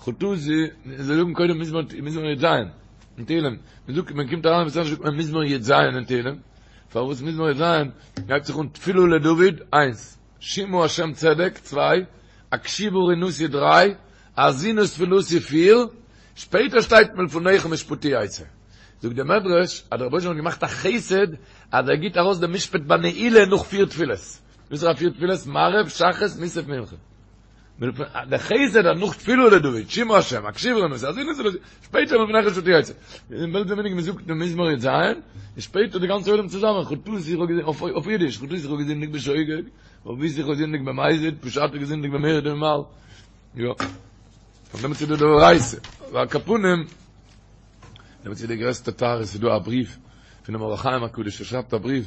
חטאתי, זיי זאגן קודם מזמור, מזמור י"ז, אין תהילים, מען זאגט, מען קומט אריין אין בית מדרש זאגט מען מזמור י"ז אין תהילים, פארוואס מזמור י"ז, הייבט זיך אן תפילה לדוד, איינס, שמעה השם צדק, צוויי, הקשיבה רנתי, דריי, האזינה תפילתי, פיר, שפעטער שטייט מלפניך משפטי יצא. זאגט דער מדרש, אז דער רבונו של עולם האט געמאכט א חסד, אז ער גיט ארויס דעם משפט ביי נעילה נאך פיר תפילות. וואס איז א פיר תפילות? מעריב, שחרית, מוסף, מנחה. דער חסד אז נאך תפילה לדוד, שמעה השם, הקשיבה רנתי, האזינה תפילתי, שפעטער מלפניך משפטי יצא. אין בעלז מנהג מ'זאגט דעם מזמור י"ז, און שפעטער די גאנצע עולם צוזאמען, חטאתי איך האב געזינדיגט, אויף אידיש, חטאתי איך האב געזינדיגט בשוגג, עויתי איך האב געזינדיגט במזיד, פשעתי איך געזינדיגט במרמה ומעל. יא. פון דעם איז דא דאורייתא. ועל כל פנים, דעמאלטס איז די גרעסטע טהרה, ס'איז דא א בריוו פונעם אור החיים הקדוש, ער שרייבט א בריוו,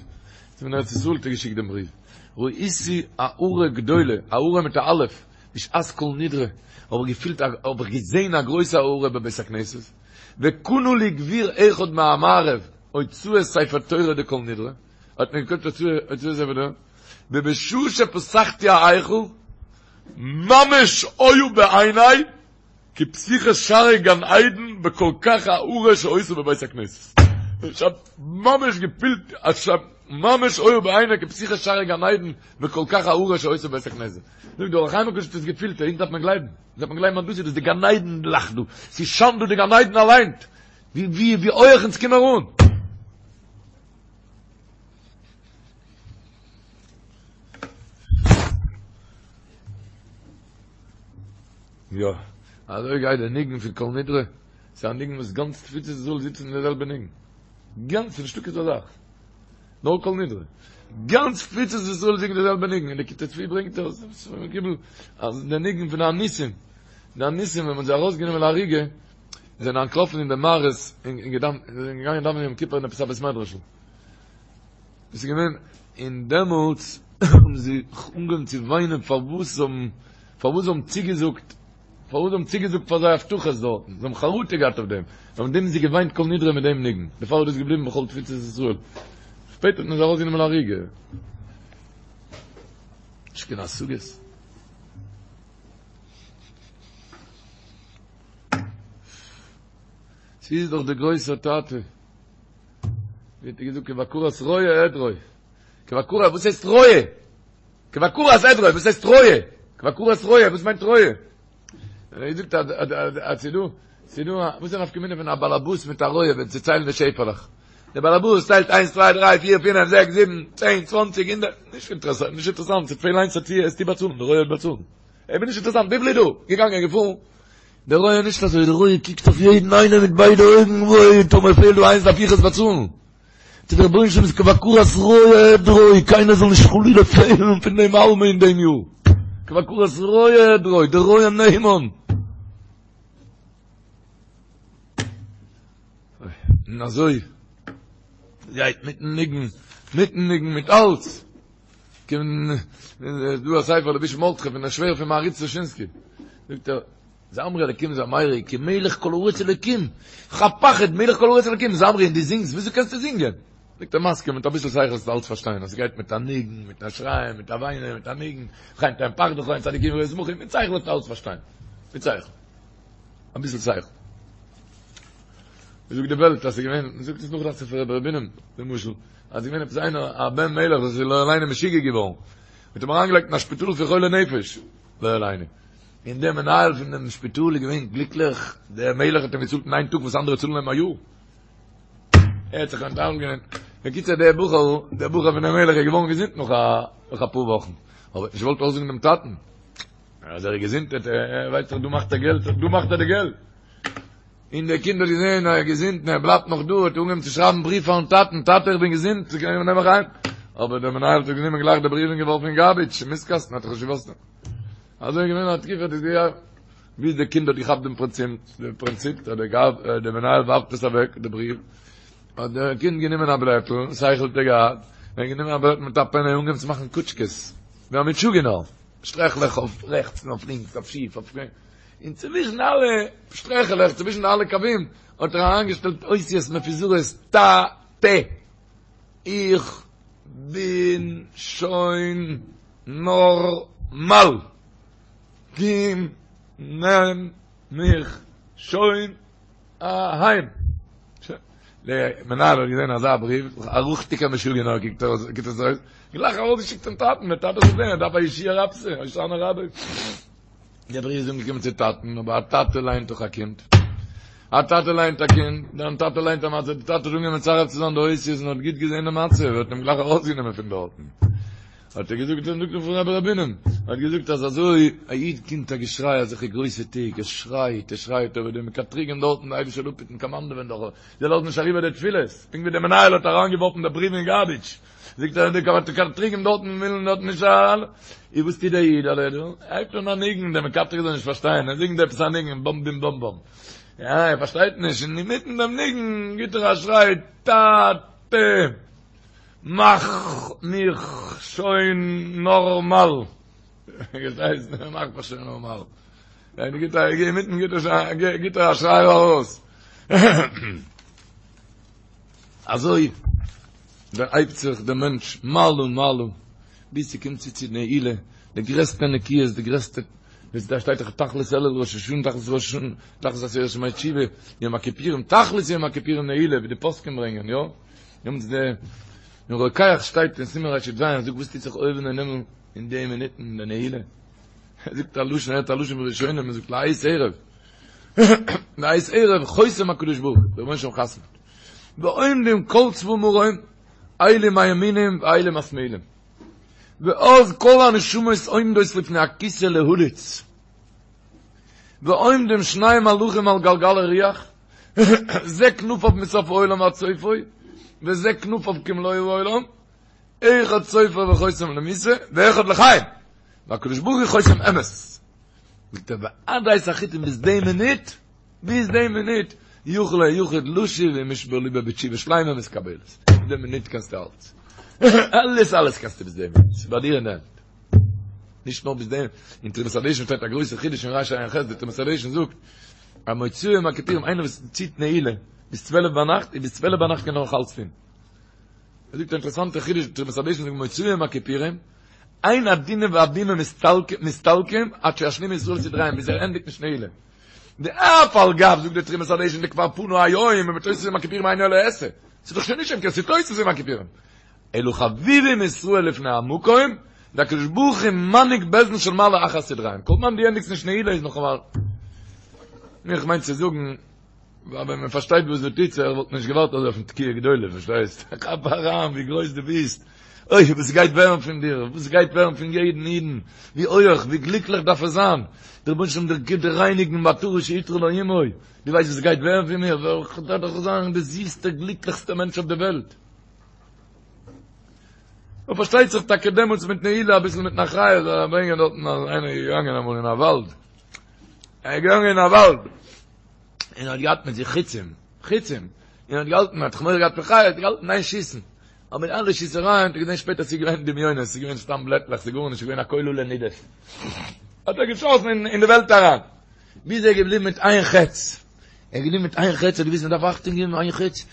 פון ארץ ישראל האט ער געשיקט דעם בריוו, ראיתי הארה גדולה, הארה מיט א אלף, בשעת כל נדרי, האב איך געפילט, האב איך געזען א גרויסע הארה בבית הכנסת, וקנה לי גביר אחד מהמערב הוצאת ספר תורה דכל נדרי, האט מיר געקויפט הוצאת ספר תורה, ובשעה שפתחתי ההיכל, ממש היו בעיני, כפתיחת שערי גן עדן וכל כך הארה שהיתה בבית הכנסת. איך האב ממש געפילט אז ממש היו בעיני כפתיחת שערי גן עדן וכל כך הארה שהיתה בבית הכנסת. זאגט דער אור החיים הקדוש האט עס געפילט, אונז דארף מען גלייבן, אונז דארף מען גלייבן אז דאס איז דאס די גן עדן לאכט דא, ס'שיינט דא די גן עדן אליין, ווי ווי ווי הויעך אונז קומען אן. יא, אזוי גייט די ניגון פון כל נדרי, ס'איז א ניגון וואס גאנץ תפוצות ישראל זיצן אין די זעלבע ניגון, גאנץ, ס'נישטא כזאת זאך, נאר כל נדרי, גאנץ תפוצות ישראל זינגט די זעלבע ניגון, און די כתבי צבי ברענגט עס, אז די ניגון פון די אנוסים, די אנוסים ווען מ'האט זיי ארויסגענומען להריגה, זענען אנטלאפן אין די מערות און געגאנגען דאווענען יום כיפור אין עפעס א בית מדרש'ל. דאס איז געווען און דעמאלטס האבן זיי אנגעהויבן צו וויינען פארוואס זיי האבן פארוואס זיי האבן צוגעזאגט פארוואס זיי האבן צוגעזאגט פאר זיי הבטחות דארטן, זיי האבן חרטה געהאט אויף דעם, און אויף דעם האבן זיי געוויינט כל נדרי מיט דעם ניגון, דערפאר איז דאס געבליבן בכל תפוצות ישראל. שפעטער האט מען זיי ארויסגענומען להריגה. נישט קיין השגות. ס'איז דאך דער גרויסער טאטע. ווי האט ער געזאגט כבקרת רועה עדרו. כבקרת, וואס הייסט רועה? כבקרת עדרו, וואס הייסט רועה? כבקרת רועה, וואס מיינט רועה? ער זאגט אז אז אז ס'דא, ס'דא, וואס איז א נפקא מינה פון א באלעבאס מיט א רועה ווען צו ציילן די שעפעלעך? דער באלעבאס ציילט איינס צוויי דריי פיר פינף זעקס זיבן צען צוואנציג הונדערט, נישט אינטערעסאנט, נישט אינטערעסאנט, ס'וועט פעלן איינס וועסטו באצאלן, דער רועה וועט באצאלן. איך בין נישט אינטערעסאנט, וויפיל איז דא? געגאנגען געפארן. דער רועה נישט אזוי, דער רועה קוקט אויף יעדן איינעם מיט ביידע אויגן, וואוי, טאמער פעלט דא איינס דארף איך עס באצאלן. צו דער רבונו של עולם איז כבקרת רועה עדרו, קיינער זאל נישט חלילה פעלן פון דעם עלמא אין דעם יאר. כבקרת רועה עדרו, דער רועה נאמן. און אזוי גייט מיטן ניגון, מיטן ניגון, מיט אלץ. קומט דא א ספר לבוש מרדכי פון דער שווער פון מהרי"ץ דושינסקי. זאגט ער, זמרו אלקים זמרו, כי מלך כל הארץ אלקים. כ'האב פחד, מלך כל הארץ אלקים, זמרו און דו זינגסט, וויאזוי קענסטו זינגען? זאגט ער מסכים, מיט אביסל שכל וועסטו אלץ פארשטיין, אז ס'גייט מיט א ניגון, מיט א שרייען, מיט א וויינען, מיט א ניגון, וכן תן פחדך הן צדיקים ישמחו, מיט שכל וועסטו אלץ פארשטיין. מיט שכל. אביסל שכל. ווי זאגט די וועלט אז ס'איז געווען, מ'זאגט עס נאך דאכט זיך פון רבי ר' בונם, למשל, אז ס'איז געווען עפעס איינער א בן מלך וואס איז לא עלינו משוגע געווארן, מ'האט אים אריינגעלייגט אין א שפיטאל פון חולי נפש, לא עלינו. און דער מנהל פון דעם שפיטאל איז געווען גליקליך, דער מלך האט אים געצאלט אין איין טאג וואס אנדערע צאלן אים א יאר. ער האט זיך אנטאנגען. בקיצור דער בחור, דער בחור פון דעם מלך איז געווארן געזונט נאך א נאך אפאר וואכן, אבער האט נישט געוואלט אויסזאגן דעם טאטן אז ער איז געזונט, ער ווייסט דאך דא מאכט ער געלט, דא מאכט ער די געלט. און דער קינד האט געזען אז ער איז געזונט און ער בלייבט נאך דא, האט ער אנגעהויבן צו שרייבן בריוו פארן טאטן, טאטע איך בין געזונט, נעם מיך אהיים. אבער דער מנהל האט גענומען גלייך די בריוו און געווארפן אין גארביטש, אין מיסט קאסטן, האט ער נישט געוואוסט. אזוי איז געווען א תקופה, דאס געיאר, ביז דער קינד האט געכאפט דעם פרינציפ, דעם פרינציפ, אז דער גאב, דער מנהל ווארפט עס אוועק, די בריוו, האט דער קינד גענומען א בלעטל, שכל האט ער געהאט, ער האט גענומען א בלעטל מיט א פענע און אנגעהויבן צו מאכן קוטשקעס, ווי א משוגענער, שטרעכלעך אויף רעכטס און אויף לינקס, אויף שיף, אויף קרום, און צווישן אלע שטרעכעלעך, צווישן אלע קווים, האט ער אריינגעשטעלט אותיות מפוזרות, טא, טע, איך בין שוין נארמאל, קום נעם מיך שוין אהיים. דער מנהל האט געזען אזא בריוו, א ריכטיגער משוגענער קוקט עס אויס, גלייך ארויסגעשיקט צום טאטן, דער טאטע זאל זען, ער דארף א ישועה רבתי, הושענא רבה. דער בריוו איז אנגעקומען צו טאטן, אבער א טאטע ליינט דאך א קינד. א טאטע ליינט א קינד, דיין טאטע ליינט א מצב, דער טאטע האט אנגעהויבן מצרף צו זיין די אותיות און האט גוט געזען די מצב, האט אים גלייך ארויסגענומען פון דארטן. האט ער געזאגט, זאגט ער פון רבי ר' בונם, האט געזאגט אז אזוי א איד קומט א געשריי אזעלכע גרויסע טעג, ער שרייט, ער שרייט, אבער די מקטריגים דארטן, די אייבישטער זאל אפהיטן קאמאנדעווען דאך, זיי לאזן נישט אריבער די תפילות, פונקט ווי דער מנהל האט אריינגעווארפן די בריוו אין גארביטש, זאגט ער, די מקטריגים דארטן ווילן דארט נישט אריין, איז וואס טוט דער איד, ער הייבט אן א ניגון, דער מקטריג זאל נישט פארשטיין, ער זינגט עפעס א ניגון, באם בים באם באם, יא, ער פארשטייט נישט, און אינמיטן דעם ניגון גיט ער א שריי, טאטע! מאך מיך שוין נארמאל. פארשטייסט? מאך מיך שוין נארמאל. ווען גיט ער אינמיטן גיט ער גיט ער א שריי ארויס. אזוי דערהייבט זיך דער מענטש מעלה מעלה ביז ס'קומט צו צו נעילה, די גרעסטע נקיות, די גרעסטע, ווי דא שטייט דאך תכלית אלול ראש השנה, תכלית ראש השנה, תכלית עשרת ימי תשובה, יום הכיפורים, תכלית יום הכיפורים נעילה, ווי די פוסקים ברענגען, יא? נעמט די אין רוקח שטייט אין סימן רי"ז זאגט וואס טוט זיך אויבן אין הימל אין די מינוטן אין די נעילה ער זאגט א לשון ער האט א לשון פון ראשונים ער זאגט לעת ערב לעת ערב חותם הקדוש ברוך הוא דער רבונו של עולם חתמ'ט ועומדים כל צבא מרום אלו מימינים ואלו משמאילים ואז כל הנשמות עומדות לפני הכיסא להליץ ועומדים שני מלאכים על גלגל הירח זה כנפיו מסוף העולם ועד סופו, וזה כנפיו כמלוא העולם, אחד סופר וחותם למיתה, ואחד לחיים. והקדוש ברוך הוא חותם אמת. זאגט ער, ועד עת החיתום ביז די מינוט, ביז די מינוט, יכול היחיד לשוב ומשבר ליבו בתשובה שלימה מתקבלת. ביז די מינוט קענסטו אלץ. אלעס אלעס קענסטו ביז די מינוט. ס'איז ביי דיר אין די הענט. נישט נאר ביז דעם, אין תרומת הדשן שטייט א גרויסע חידוש אין רע"ח, די תרומת הדשן זאגט, אז מוצאי יום הכיפורים איינער וואס ציט נעילה ביז צוועלף ביינאכט, איז ביז צוועלף ביינאכט קען ער נאך אלץ טון. ער זאגט א אינטערעסאנטע חידוש, די תרומת הדשן זאגט מוצאי יום הכיפורים, אין הדינים והבימה מסתלקים עד שישלימו ישראל סדריהם, ביז ער ענדיגט נישט נעילה. ואף על גב, זאגט די תרומת הדשן, דכבר פנה היום, ובתוספת יום הכיפורים אינו אלא עשה. ס'איז דאך שוין נישט יום כיפור, ס'איז תוספת יום הכיפורים. אלא חביבים ישראל לפני המקום, והקדוש ברוך הוא מנהיג בית דין של מעלה אחר סדריהם. כל זמן דו ענדיגסט נישט נעילה איז נאך אמאל. איך מיין צו זאגן. ווייל ווען מען פארשטייט וואס דא טוט זיך וואלט מען נישט געווארט אזוי אויפן תקיעה גדולה, פארשטייסט? כאפ אריין ווי גרויס דו ביסט, אוי וואס גייט ווערן פון דיר, וואס גייט ווערן פון יעדן אידן, ווי הויעך, ווי גליקליך דארף ער זיין, דער רבונו של עולם גיט דיר רייניגן בעטרה שעטרה לו אמו, דו ווייסט וואס גייט ווערן פון מיר, וועל איך דאך זיין די זיסטע גליקליכסטע מענטש אויף די וועלט. און פארשטייט זיך טאקע דעמאלטס מיט נעילה אביסל מיטן אחריות זאל ער ברענגען דארטן אז איינער איז געגאנגען אמאל אין א וואלד, ער איז געגאנגען אין א וואלד און האט געהאט מיט זיך חיצים, חיצים, און האט געהאלטן, האט זיך מורא געהאט פון חיות, האט געהאלטן איין שיסן, אבער די אלע שיסערייען האט ער געזען שפעטער ס'איז געווען דמיונות, ס'איז געווען סתם בלעטלעך, ס'איז גארנישט געווען א קול עלה נידף. האט ער געשאסן אין די וועלט אריין, ביז ער איז געבליבן מיט איין חץ. ער איז געבליבן מיט איין חץ, ער האט געוואוסט מען דארף אכטונג געבן איין חץ,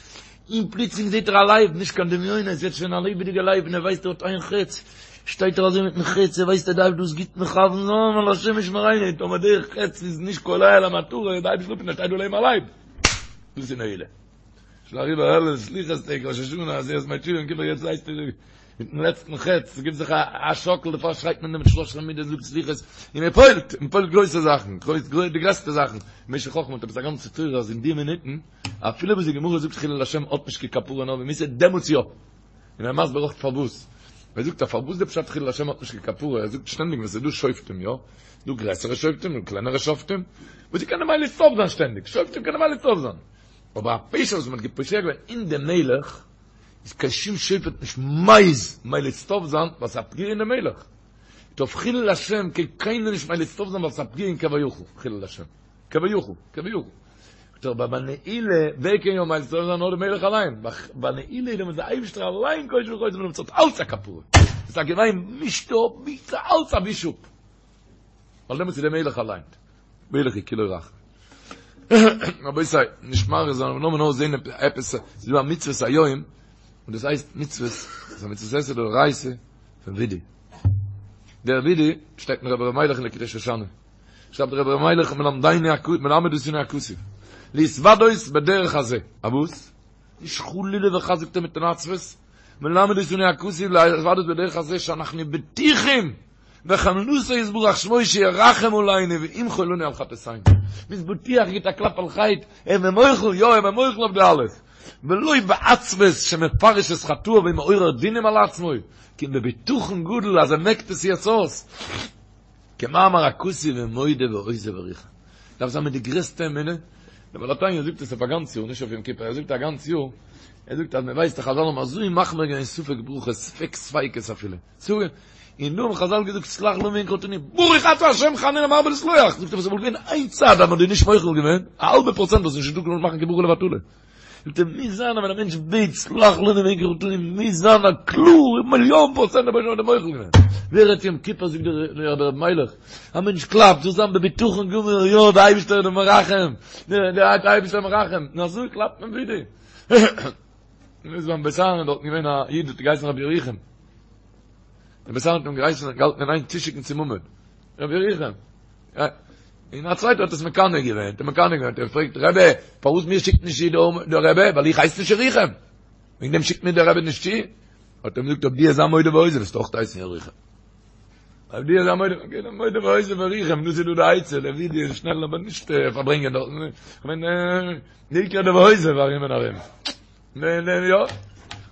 און פלוצלינג זעט ער א לייב, נישט קיין דמיונות, ער זעט שוין א לעבעדיגע לייב און ער ווייסט ער האט איין חץ, שטייט ער אזוי מיטן חץ, ער ווייסט ער דארף דאס גוט מכוון זיין, ווייל השם ישמרינו, טאמער דער חץ איז נישט קולע אל המטרה, איז די אייבערשטער אפ און ער שטייט דא לעבן א לייב. דאס איז נעילה. שוין אריבער אלול סליחות טעג, ראש השנה, עשרת ימי תשובה, יום כיפור, יעצט ווייסטו מיטן לעצטן חץ, גיב זיך א שאקל, דערפאר שרייט מען דעם שלש עשרה מידות זאגט סליחות, און מען פועל'ט, מען פועל'ט גרויסע זאכן, די גרעסטע זאכן, משך חכמה האט עפעס א גאנצע תורה אז אין די מינוטן, אפילו וואס די גמרא זאגט חילול השם האט נישט קיין כפרה נאר במיתה, דעמאלטס יא. און ער מסביר אויך פארוואס. ער זאגט אז פארוואס די פשט חילול השם האט נישט קיין כפרה, ער זאגט שטענדיג ווען ס'איז דא שופטים יא, דא גרעסערע שופטים און קלענערע שופטים, וואס זיי קענען מליץ טוב זיין שטענדיג, שופטים קענען מליץ טוב זיין, אבער א פשע וואס מען האט געפושע געווען אין די מלך, איז קיין שום שופט נישט מעיז מליץ טוב זיין ווייל ס'איז א פגיעה אין די מלך. אויף חילול השם קען קיינער נישט מליץ טוב זיין ווייל ס'איז א פגיעה אין כביכול חילול השם. כביכול, כביכול. אבער ביי נעילה, ווער קען יא מליץ טוב זיין נאר די מלך אליין. ביי נעילה איז דעמאלטס די אייבערשטער אליין קושר וחותם און ס'האט אלץ א כפרה. ס'איז א געוויין מישט אפ מישט אלץ א וויש אפ. ווייל דעמאלטס איז די מלך אליין. מלך איז כולו רחמים. רבותי, נישט מאריך זיין, אבער לאמיר נאר זען עפעס, ס'איז דא א מצוות היום, און דאס הייסט מצוות, ס'איז א מצוות עשה דאורייתא פון וידוי. דער וידוי שטייט אין רבי ר' מיילעך אין לקוטי שושנה. שרייבט דער רבי ר' מיילעך מלמדנו הכתוב, מלמד אותנו הכתוב, להתוודות בדרך הזה. א וואס? נישט חלילה וחס זאגט ער מיט אן עצבות, מלמד אותנו הכתוב להתוודות בדרך הזה שאנחנו בטוחים בחמלתו יתברך שמו שירחם עלינו וימחול לנו על חטאתינו. מ'איז בטוח גיט א קלאפ על חטא, ער איז מיר מוחל, יא ער איז מיר מוחל אויף די אלעס. ולא בעצבות שמפרש את חטאיו ומעורר דינים על עצמו, כי אם בבטחון גדול אז ער מעקט עס יעצט אויס. כמאמר הכתוב ומודה ועוזב ירוחם. דארף זיין מיט די גרעסטע אמונה. דער בעל התניא זאגט עס אויף א גאנץ יאר, נישט אויף יום כיפור, ער זאגט א גאנץ יאר, ער זאגט אז מ'ווייסט אז חזל האבן אזוי מחמיר געווען ספק ברכות, ספק ספיקות אפילו. ספק, און דא האבן חזל געזאגט סלח לנו מעומק חטאנו, ברוך אתה השם חנון המרבה לסלוח, זאגט ער וואס וואלט געווען איין צד אז מען האט דיר נישט מוחל געווען, א האלבע פראצענט וואלסט נישט געדארפט מאכן קיין ברכה לבטלה. זאגט ער מוז זיין אז ווען א מענטש בעט סלח לנו מעומק חטאנו מוז זיין א קלאר מיליאן פראצענט דער אייבערשטער האט דיר מוחל געווען. ווער רעדט יום כיפור זאגט דער רבי ר' מיילעך, א מענטש קלאפט זאל זיין בבטחון גמור יא דער אייבערשטער איז דער מרחם, דער אייבערשטער מרחם, און אזוי קלאפט מען וידוי. און איז ביים בית אהרן דארטן געווען א איד האט געהייסן רבי ירוחם. דער בית אהרן האט אים געהייסן געהאלטן אין איין צושיקן צום עמוד. רבי ירוחם. און א צווייטער האט עס מקנא געווען, האט אים מקנא געווען, האט ער געפרעגט, רבי, פארוואס מיר שיקט נישט צו דער רבי? ווייל איך הייס נישט ירוחם. וועגן דעם שיקט מיר דער רבי נישט צו. האט ער אים געזאגט, אויב דו וועסט זיין מודה ועוזב, וועסטו אויך הייסן ירוחם. אויב דו וועסט זיין מודה, אקעי, דער מודה ועוזב ירוחם, דאס איז דא די עצה, דער וידוי איז שנעל, אבער נישט פארברענגען דארטן. כ'מיין, די עיקר דער ועוזב ארום און ארום. ניין ניין יא,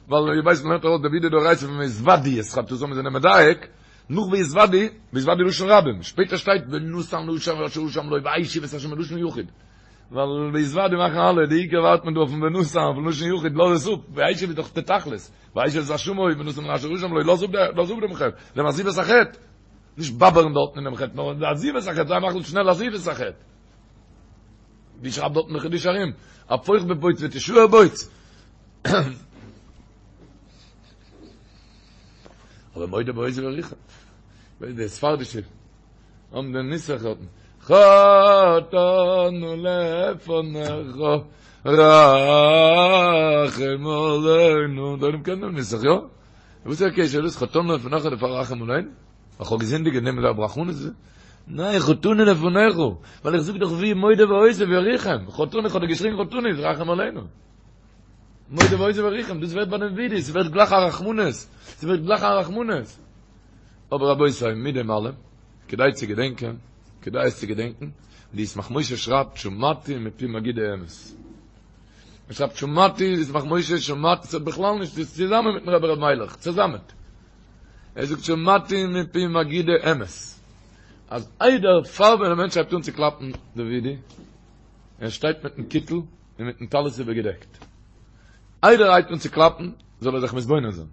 ווייל איר ווייסט מ'לערנט ארויס די וידוי דאורייתא פון והתודו את חטאתם מיר זענען מדייק, נאך והתודו, והתודו לשון רבים, שפעטער שטייט ונתן לאשר אשם לו והשיב את אשר מלשון יחיד, ווייל והתודו מאכן אלע, די עיקר ווארט מען דא אויפן ונתן אויפן לשון יחיד לאז עס אפ, והשיב איז דאך די תכלית, והשיב את אשמו ונתן לאשר אשם לו לאז אפ לאז אפ דעם חטא, דעם עזיבת החטא, נישט באבערן דארטן אינעם חטא, נאר די עזיבת החטא, זיי מחליט שנעל עזיבת החטא. ווי שרייבט דארטן די חידושי הרי"ם, הפוך בבוץ ותשאר בוץ. אבער מודה ועוזב ירוחם. די ספרדישע האבן דעם נוסח דארטן. חטאנו לפניך רחם עלינו. דער עולם קען דעם נוסח, יא? וואס איז דער קשר דאס חטאנו לפניך דערפאר רחם עלינו? איך האב געזינדיגט און נעמען זיי רחמנות ניין חטאנו לפניך ווייל איך זאג דאך ווי מודה ועוזב ירוחם חטאנו איך האב דיר געשריגן חטאנו איז רחם עלינו מודה ועוזב ירוחם דאס ווערט ביי דעם וידוי עס ווערט גלייך א רחמנות עס ווערט גלייך א רחמנות אבער רבותי מיט דעם אלעם כדאי צו געדענקען כדאי עס צו געדענקען די ישמח משה שרייבט שמעתי מפי מגידי אמת. ער שרייבט שמעתי, ישמח משה שמעתי, ס'האט בכלל נישט, ס'איז צוזאמען מיטן רבי ר' מיילעך, צוזאמען. ער זאגט שמעתי מפי מגידי אמת, אז איידער פאר ווען א מענטש הייבט אן צו קלאפן די וידוי, ער שטייט מיטן קיטל און מיטן טלית איבערגעדעקט, איידער ער הייבט אן צו קלאפן זאל ער זיך מתבונן זיין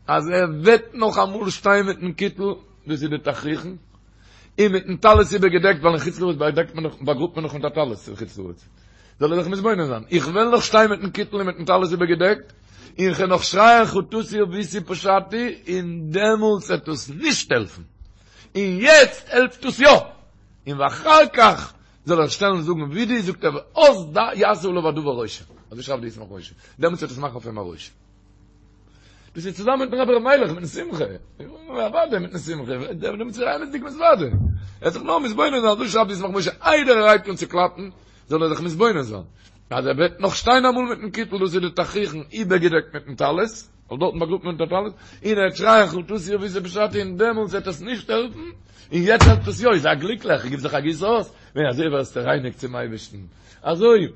אז ער וועט נאך אמאל שטיין מיטן קיטל, דאס איז די תכריכן, און מיטן טלית איבערגעדעקט, ווייל אין חוץ לארץ באדעקט מען דאך, באגראבט מען דאך מיט א טלית אין חוץ לארץ. זאל ער זיך מתבונן זיין, איך וועל נאך שטיין מיטן קיטל און מיטן טלית איבערגעדעקט, און כ'וועל נאך שרייען חטאתי עויתי פשעתי, און דעמאלטס וועט עס נישט העלפן, און יעצט העלפט עס יא, און ואחר כך זאל ער שטעלן זאגן וידוי, זאגט ער ואז יעשה עליו הדבר רושם, אזוי שרייבט די ישמח משה, דעמאלטס וועט עס מאכן אויף אים א רושם. דאס איז צוזאמען מיטן רבי ר' מיילעך מיטן שמחה, אוודאי מיטן שמחה, דעמאלטס איז ער אמת'דיג מתוודה, ער האט זיך נאר מתבונן זיין, אזוי שרייבט די ישמח משה, איידער ער הייבט אן צו קלאפן, זאל ער זיך מתבונן זיין, אז ער וועט נאך שטיין אמאל מיטן קיטל, דאס איז די תכריכן איבערגעדעקט מיטן טלית, ווייל דארטן באגראבט מען מיט א טלית, און ער וועט שרייען חטאתי עויתי פשעתי און דעמאלטס וועט עס נישט העלפן, און יעצט העלפט עס יא, זיי גליקליך, גיב זיך א גיס אויס, ווען אזוי ווערסטו רייניג צום אייבערשטן, אזוי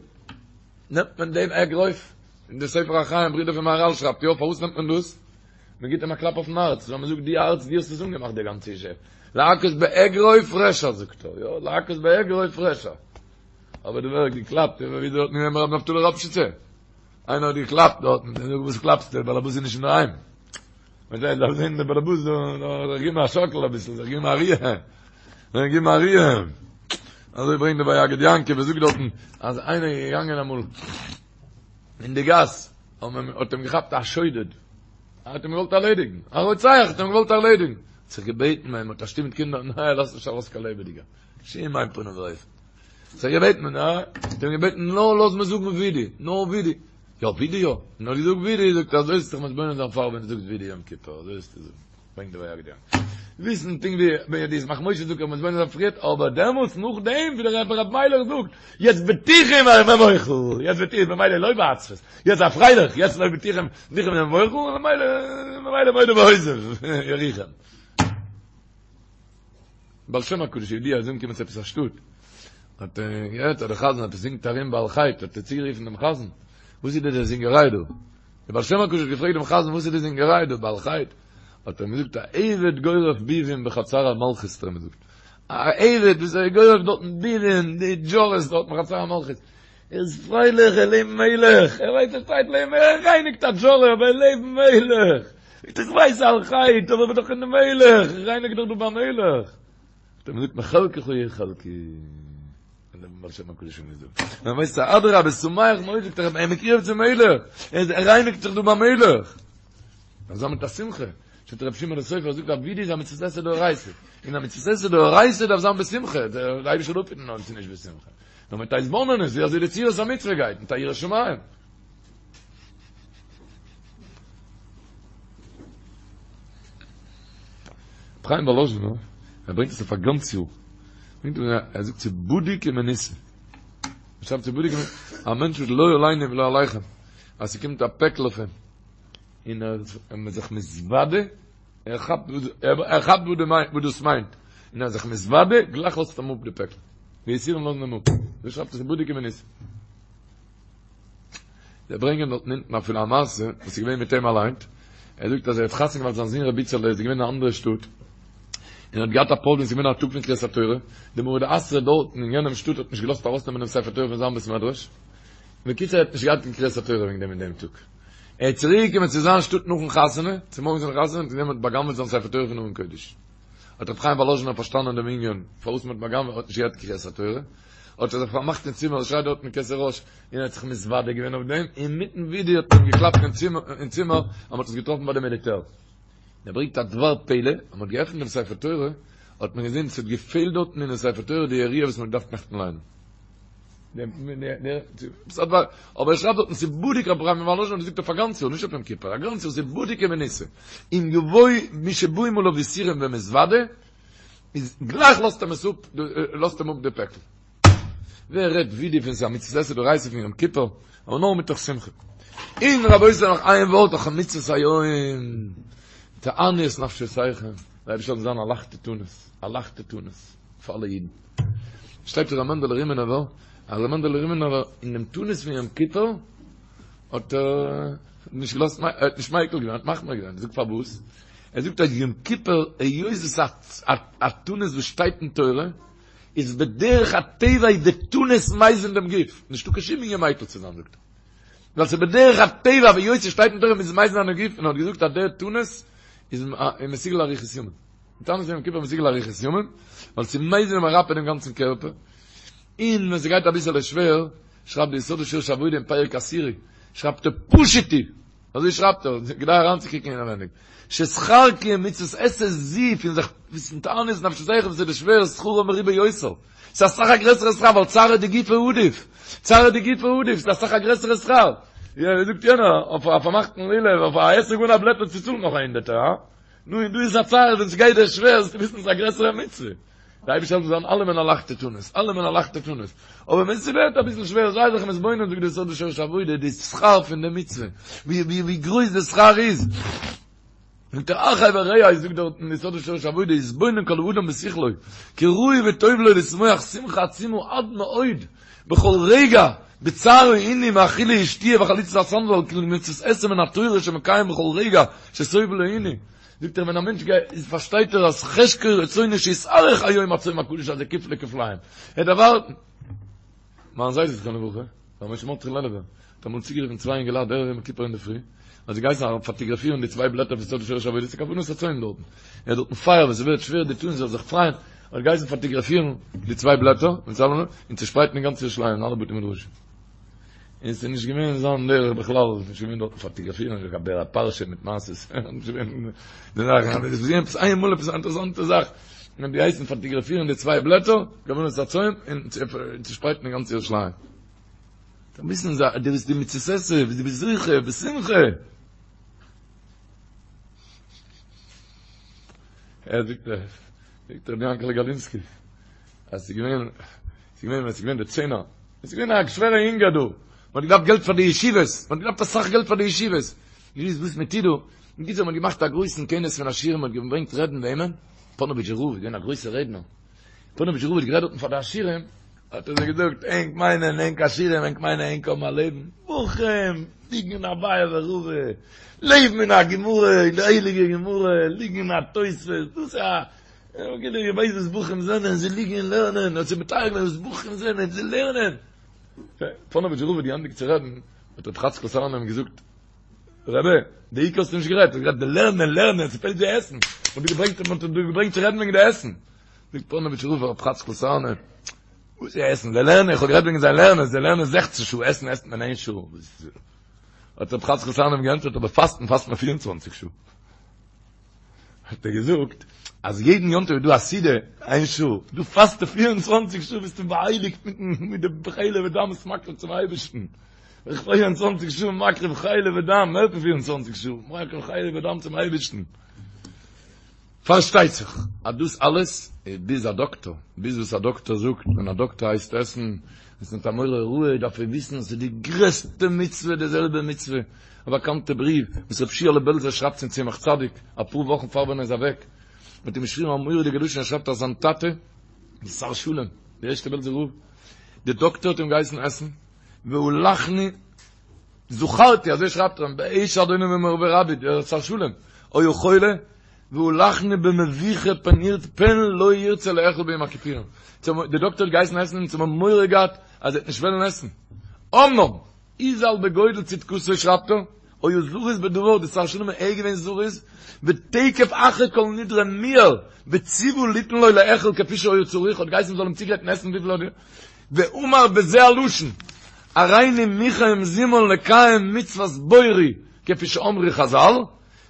נעמט מען דעם אגרוף, און דער ספר החיים ברודער פון מהרל שרייבט יא, פארוואס נעמט מען דאס? מען גיבט אים א קלאפ אויפן הארץ, ווייל מען זאגט די הארץ דו האסט עס אנגעמאכט די גאנצע אישי, להכות באגרוף רשע זאגט ער, יא, להכות באגרוף רשע, אבער דא ווערט געקלאפט, ווי דארט אין רבי נפתלי ראפשיצער, איינער האט געקלאפט דארטן, און זאגט וואס קלאפסטו, דער באלעבאס איז נישט אינדערהיים. מען זעט דארף זען דער באלעבאס דא, זיך געבן א שאקל אביסל, זיך געבן א ריר, זיך געבן א ריר. אזוי ברענגט דער ויגד יעקב, ער זאגט דארטן, אז איינער איז געגאנגען אמאל אין די גאס, האט אים געכאפט א שודד, האט אים געוואלט ארלעדיגן, א רוצח האט אים געוואלט ארלעדיגן, האט זיך געבעטן ביי אים, האט א שטוב מיט קינדער, ניין, ער לאזט נישט ארויס קיין לעבעדיגער, בשום אין פנים ואופן. זיך געבעטן, יא, האט אים געבעטן, נאר לאז מיר זאגן וידוי, נאר וידוי. יא, וידוי יא. נאר געזאגט וידוי, זאגט ער, אזוי זאלסטו זיך מתבונן זיין פאר ווען דו זאגסט וידוי יום כיפור, אזוי זאלסטו זאגן. ברענגט די ויגד יעקב. וויסן פונקט ווי ווען די ישמח משה זאגט מתבונן זיין פריערט, אבער דעמאלטס נאכדעם ווי דער רבי ר' מיילעך זאגט, יעצט בטוחים ומוחל, יעצט בטוחים, ממילא לא בעצבות, יעצט זיי פרייליך, יעצט לא בטוחים, בטוחים ומוחל, ממילא, ממילא מודה ועוזב, ירוחם. בעל שם הקדוש ידוע איז אנגעקומען צו עפעס א שטאט, האט ער געהערט אז דער חזן עפעס זינגט ארום בעל חטא, האט ער צוגערופן דעם חזן, וואס איז די זינגעריי דא? דער בעל שם הקדוש האט געפרעגט דעם חזן וואס איז די זינגעריי דא בעל חטא? האט ער אים געזאגט א עבד גורף ביבים בחצר המלכות האט ער אים געזאגט, א עבד וואס ער גורף דארטן ביבים, די דזשארעס דארט בחצר המלכות, ער איז פרייליך ער לעבן מלך, ער ווייסט ער שטייט לעבן ער רייניגט א דזשארע אבער ער לעבן מלך, איך ווייס על חטא אבער איך בין דאך אין די מלך, איך רייניג דאך דא ביים מלך. האט ער געזאגט מחלקך יהיה חלקי. און דער בעל שם הקדוש האט געזאגט, מען ווייסט א אדרבה שמח מאוד זאגט ער, ער מקורב צום מלך, ער רייניגט זיך דא ביים מלך. אזא מיט א שמחה, שטייט רב שמעון סופר זאגט אז וידוי איז א מצות עשה דאורייתא, און א מצות עשה דאורייתא דארף זיין בשמחה, דער אייבערשטער זאל אפהיטן אויב ס'איז נישט בשמחה. נאר מיט א התבוננות ווי אזוי די צורת המצוה גייט, מיט א יראת שמים. ר' חיים וואלאזשינער, ער ברענגט עס אויף א גאנץ יאר, ברענגט ער, ער זאגט ס'איז בדוק ומנוסה. ער שרייבט ס'איז בדוק ומנוסה, א מענטש וואס לא עלינו ולא עליכם, אז ס'קומט א פעקל אויף אים, און ער איז זיך מתוודה, ער כאפט ער כאפט וואס דאס מיינט, און ער איז זיך מתוודה, גלייך לאזט אים אפ די פעקל. די יסורים לאזן אים אפ. אזוי שרייבט ער ס'איז בדוק ומנוסה. זיי ברענגען דארטן אונטן אפילו א מעשה וואס איז געווען מיט אים אליין, ער זאגט אז ער האט חתונה געמאכט זיין זון רבי איצעלע איז געווען אין א אנדערע שטאט, און האט געהאט א פראבלעם ס'איז געווען א טאג פון קריאת התורה, די מרא דאתרא דארטן אין יענעם שטאט האט נישט געלאזט ארויסנעמען דעם ספר תורה פון זיין בית מדרש, בקיצור ער האט נישט געהאט קיין קריאת התורה וועגן דעם אין דעם טאג. ער איז צוריק געקומען צו זיין שטאט נאכן חתונה, צומארגנס פון די חתונה, און געזען מ'האט בא'גנב'עט זיין ספר תורה פון ארון קודש. האט רבי חיים וואלאזשינער פארשטאנען דעם ענין פארוואס מ'האט בא'גנב'עט, ער האט נישט געהאט קריאת התורה, האט ער זיך פארמאכט אין צימער, ער שרייט דארט אין כתר ראש, און ער האט זיך מתוודה געווען אויף דעם, אינמיטן ווידוי האט מען אים געקלאפט אין צימער אז מ'האט עס געטראפן ביי די מיליטער. און ער ברענגט א דבר פלא, אז מ'האט געעפנט דעם ספר תורה, האט מען געזען ס'האט געפעלט דארטן אינעם ספר תורה די יריעה וואס מ'האט געדארפט נעכטן ליינען. אבער ער שרייבט דארטן ס'איז בדוק רבי חיים וואלאזשין האט געזאגט אויף א גאנץ יאר, נישט אויף יום כיפור, א גאנץ יאר ס'איז בדוק ומנוסה. אם יבוא מי שבאים עליו יסורים ומתוודה, איז גלייך לאזט אים עס אפ, לאזט אים אפ די פעקל. ווער רעדט וידוי פון ס'איז א מצות עשה דאורייתא פון יום כיפור, אבער נאר מתוך שמחה. און רבותי נאך איין ווארט נאך מצות היום, תענו את נפשותיכם, דער אייבערשטער זאל זיין א לייכטע תענית, א לייכטע תענית פאר אלע אידן. שטייט ר' מענדעלע רימינובער, אז ר' מענדעלע רימינובער אין דעם תענית פון יום כיפור. האט ער נישט געלאזט, ער האט נישט מיקל געווען, ער האט מחמיר געווען, זאגט פארוואס? ער זאגט אז יום כיפור היות עס איז א תענית וואס שטייט אין תורה, איז בדרך הטבע איז די תענית מזין דעם גוף, נישטא קיין שום ענין מיקל צו זיין זאגט ער, ווייל ס'איז בדרך הטבע והיות ס'שטייט אין תורה מוז עס מזין זיין דעם גוף, און ער האט געזאגט אז דער תענית איז מסוגל לאריכות ימים, די תענית יום כיפור איז מסוגל לאריכות ימים, ווייל ס'איז מזין און מרפא דעם גאנצן קערפער, און ווען ס'גייט אביסעלע שווער, שרייבט די יסוד ושורש העבודה אין פרק עשירי, שרייבט ער פשוט הוא, אזוי שרייבט ער, כדאי אריינצוקוקן אינעווייניג, ששכר קיום מצוות עשה זו פון זיך וויסן תענית נפשותיכם וואס איז די שווער שכרו מרובה יותר, ס'איז אסאך א גרעסערע שכר ווייל צערא דגופא עדיף, צערא דגופא עדיף, ס'איז אסאך א גרעסערע שכר, ווי זאגט יענער, אויף א פארמאכטן לולב, אויף א אתרוג אן א בלעטל צו צאלן נאך א הונדערטער, הא? נו און דא איז א צער ווען ס'גייט דיר שווער זאלסטו וויסן ס'איז א גרעסערע מצוה. די אייבערשטער זאל זיין אלעמען א לייכטע תענית, אלעמען א לייכטע תענית, אבער ווען ס'ווערט אביסל שווער זיי זיך מתבונן זאגט די יסוד ושורש העבודה די שכר פון די מצוה, ווי ווי ווי גרויס די שכר איז, זאגט ער אחי ורעי זאגט דארט אין יסוד ושורש העבודה יתבונן כל אדם בשכלו כי ראוי וטוב לו לשמוח שמחה עצומה עד מאוד בכל רגע בצער העינוי מאכילה ושתיה וחליצת הסנדל כאילו מצוות עשה מן התורה שמקיים בכל רגע שסובל העינוי זאגט ער ווען א מענטש גייט איז פארשטייט ער אז חשקו רצונו שיתארך היום הצום הקדוש הזה כפלי כפליים ער דארף ווארטן מיין זיידע זכרונו לברכה ר' משה מרדכי לעלובער האט אמאל צוגערופן צוויי אינגעלייט ערב יום כיפור אינדערפרי האט זיי געהייסן פאטאגראפירן די צוויי בלעטער פון יסוד ושורש העבודה ס'איז כוונת הצום דארטן ער האט דארטן פייער ווען ס'ווערט שווער די תענית זאל זיך פרייען האט געהייסן פאטאגראפירן די צוויי בלעטער און צושפרייטן אין גאנץ ירושלים אין אלע בתי מדרשים און ס'איז נישט געווען זיין דרך בכלל, ס'איז נישט געווען דארטן פאטאגראפירן, נישט קיין בעל פרשה מיט מעשות, נישט געווען די זאכן, אבער עס איז געווען עפעס איינמאל עפעס א אינטערעסאנטע זאך, מען האט געהייסן פאטאגראפירן די צוויי בלעטער, כוונת הצום, און צושפרייטן אין גאנץ ירושלים. דארף וויסן דו ביסט די מצות עשה, דו ביסט זוכה, בשמחה. ער זאגט, זאגט רבי יענקעלע גאלינסקי, אז ס'איז געווען, ס'איז געווען ווען ס'איז געווען די צענער, עס איז געווען א שווערע הונגער דא, מען האט געדארפט געלט פאר די ישיבות, מען האט געדארפט אסאך געלט פאר די ישיבות, נישט געוואוסט וואס מען טוט דא, בקיצור מען האט געמאכט א גרויסן כינוס פון עשירים, מען האט געברענגט רעדן וועמען? פאנאוויטשער רב איז געווען א גרויסער רעדנער, פאנאוויטשער רב האט גערעדט דארטן פאר די עשירים, האט ער זיי געזאגט, ענק מיינען ענק עשירים, ענק מיינען ענק האבן א לעבן, בחורים ליגן אין אביי ורבא, לעבן אין א גמרא, אין די הייליגע גמרא, ליגן אין א תוספות, דאס איז א איר ווייסט וואס בחורים זענען, זיי ליגן און לערנען, האט זיי מתאר געווען וואס בחורים זענען, זיי לערנען. פאנאוויטשער רב האט געענדיגט צו רעדן, האט רבי חאצקל סארנא אים געזאגט, רבי, די עיקר האסטו נישט גערעדט, האסט גערעדט די לערנען, לערנען, ס'פעלט די עסן, מ'האט דיר געברענגט, מ'האט דיר געברענגט צו רעדן וועגן די עסן. זאגט פאנאוויטשער רב פאר רבי חאצקל סארנא, וואס איז עסן? זיי לערנען, איך האב גערעדט וועגן זיי לערנען, זיי לערנען זעכצן שעה, עסן עסט מען איין שעה. האט רבי חאצקל סארנא אים געענטפערט, אבער פאסטן פאסט מען פיר און צוואנציג שעה. האט ער געזאגט אז יעדן יום טוב איז דא א סעודה איין שעה, דו פאסט 24 שעה ביסטו באהייליגט מיט די חלב ודם וואס מקריב צום אייבערשטן, 24 שעה מקריב חלב ודם, מער פון 24 שעה מקריב חלב ודם צום אייבערשטן. פארשטייט זיך אז דאס אלעס איז ביז א דאקטאר, ביז וואס א דאקטאר זאגט, ווען א דאקטאר הייסט עסן, עס מיט א מורה הוראה דארף ער וויסן אז ס'איז די גרעסטע מצוה די זעלבע מצוה, א באקאנטע בריוו וואס רבי שיעלע בעלזער שרייבט צום צמח צדיק אפאר וואכן פאר ווען ער איז אוועק, האט אים געשריבן א מורא'דיגע לשון, ער שרייבט אז זיין טאטע, די שר שלום, די ערשטע בעלזער רב, די דאקטער האט אים געהייסן עסן, והלכנו, זכרתי, אזוי שרייבט ער אים, בעת שאדוני ומורי ורבי, דער שר שלום, היה חולה, והלכנו במבוכה פן ירצה פן לא ירצה לאכול ביום הכיפורים. די דאקטער האט געהייסן עסן אונז האבן מורא געהאט אז ער וועט נישט וועלן עסן. אמנם, הוזהר בגודל צדקתו שרייבט ער, היה זריז בדבר, די שר שלום איז געווען זריז, ותיכף אחר כל נדרי מיהר, וציוה ליתן לו לאכול כפי שהיה צריך, האט געהייסן מ'זאל אים צוגרייטן עסן וויפיל ער האט ואמר בזה הלשון, הריני מוכן ומזומן לקיים מצוות בוראי כפי שאמרו חזל,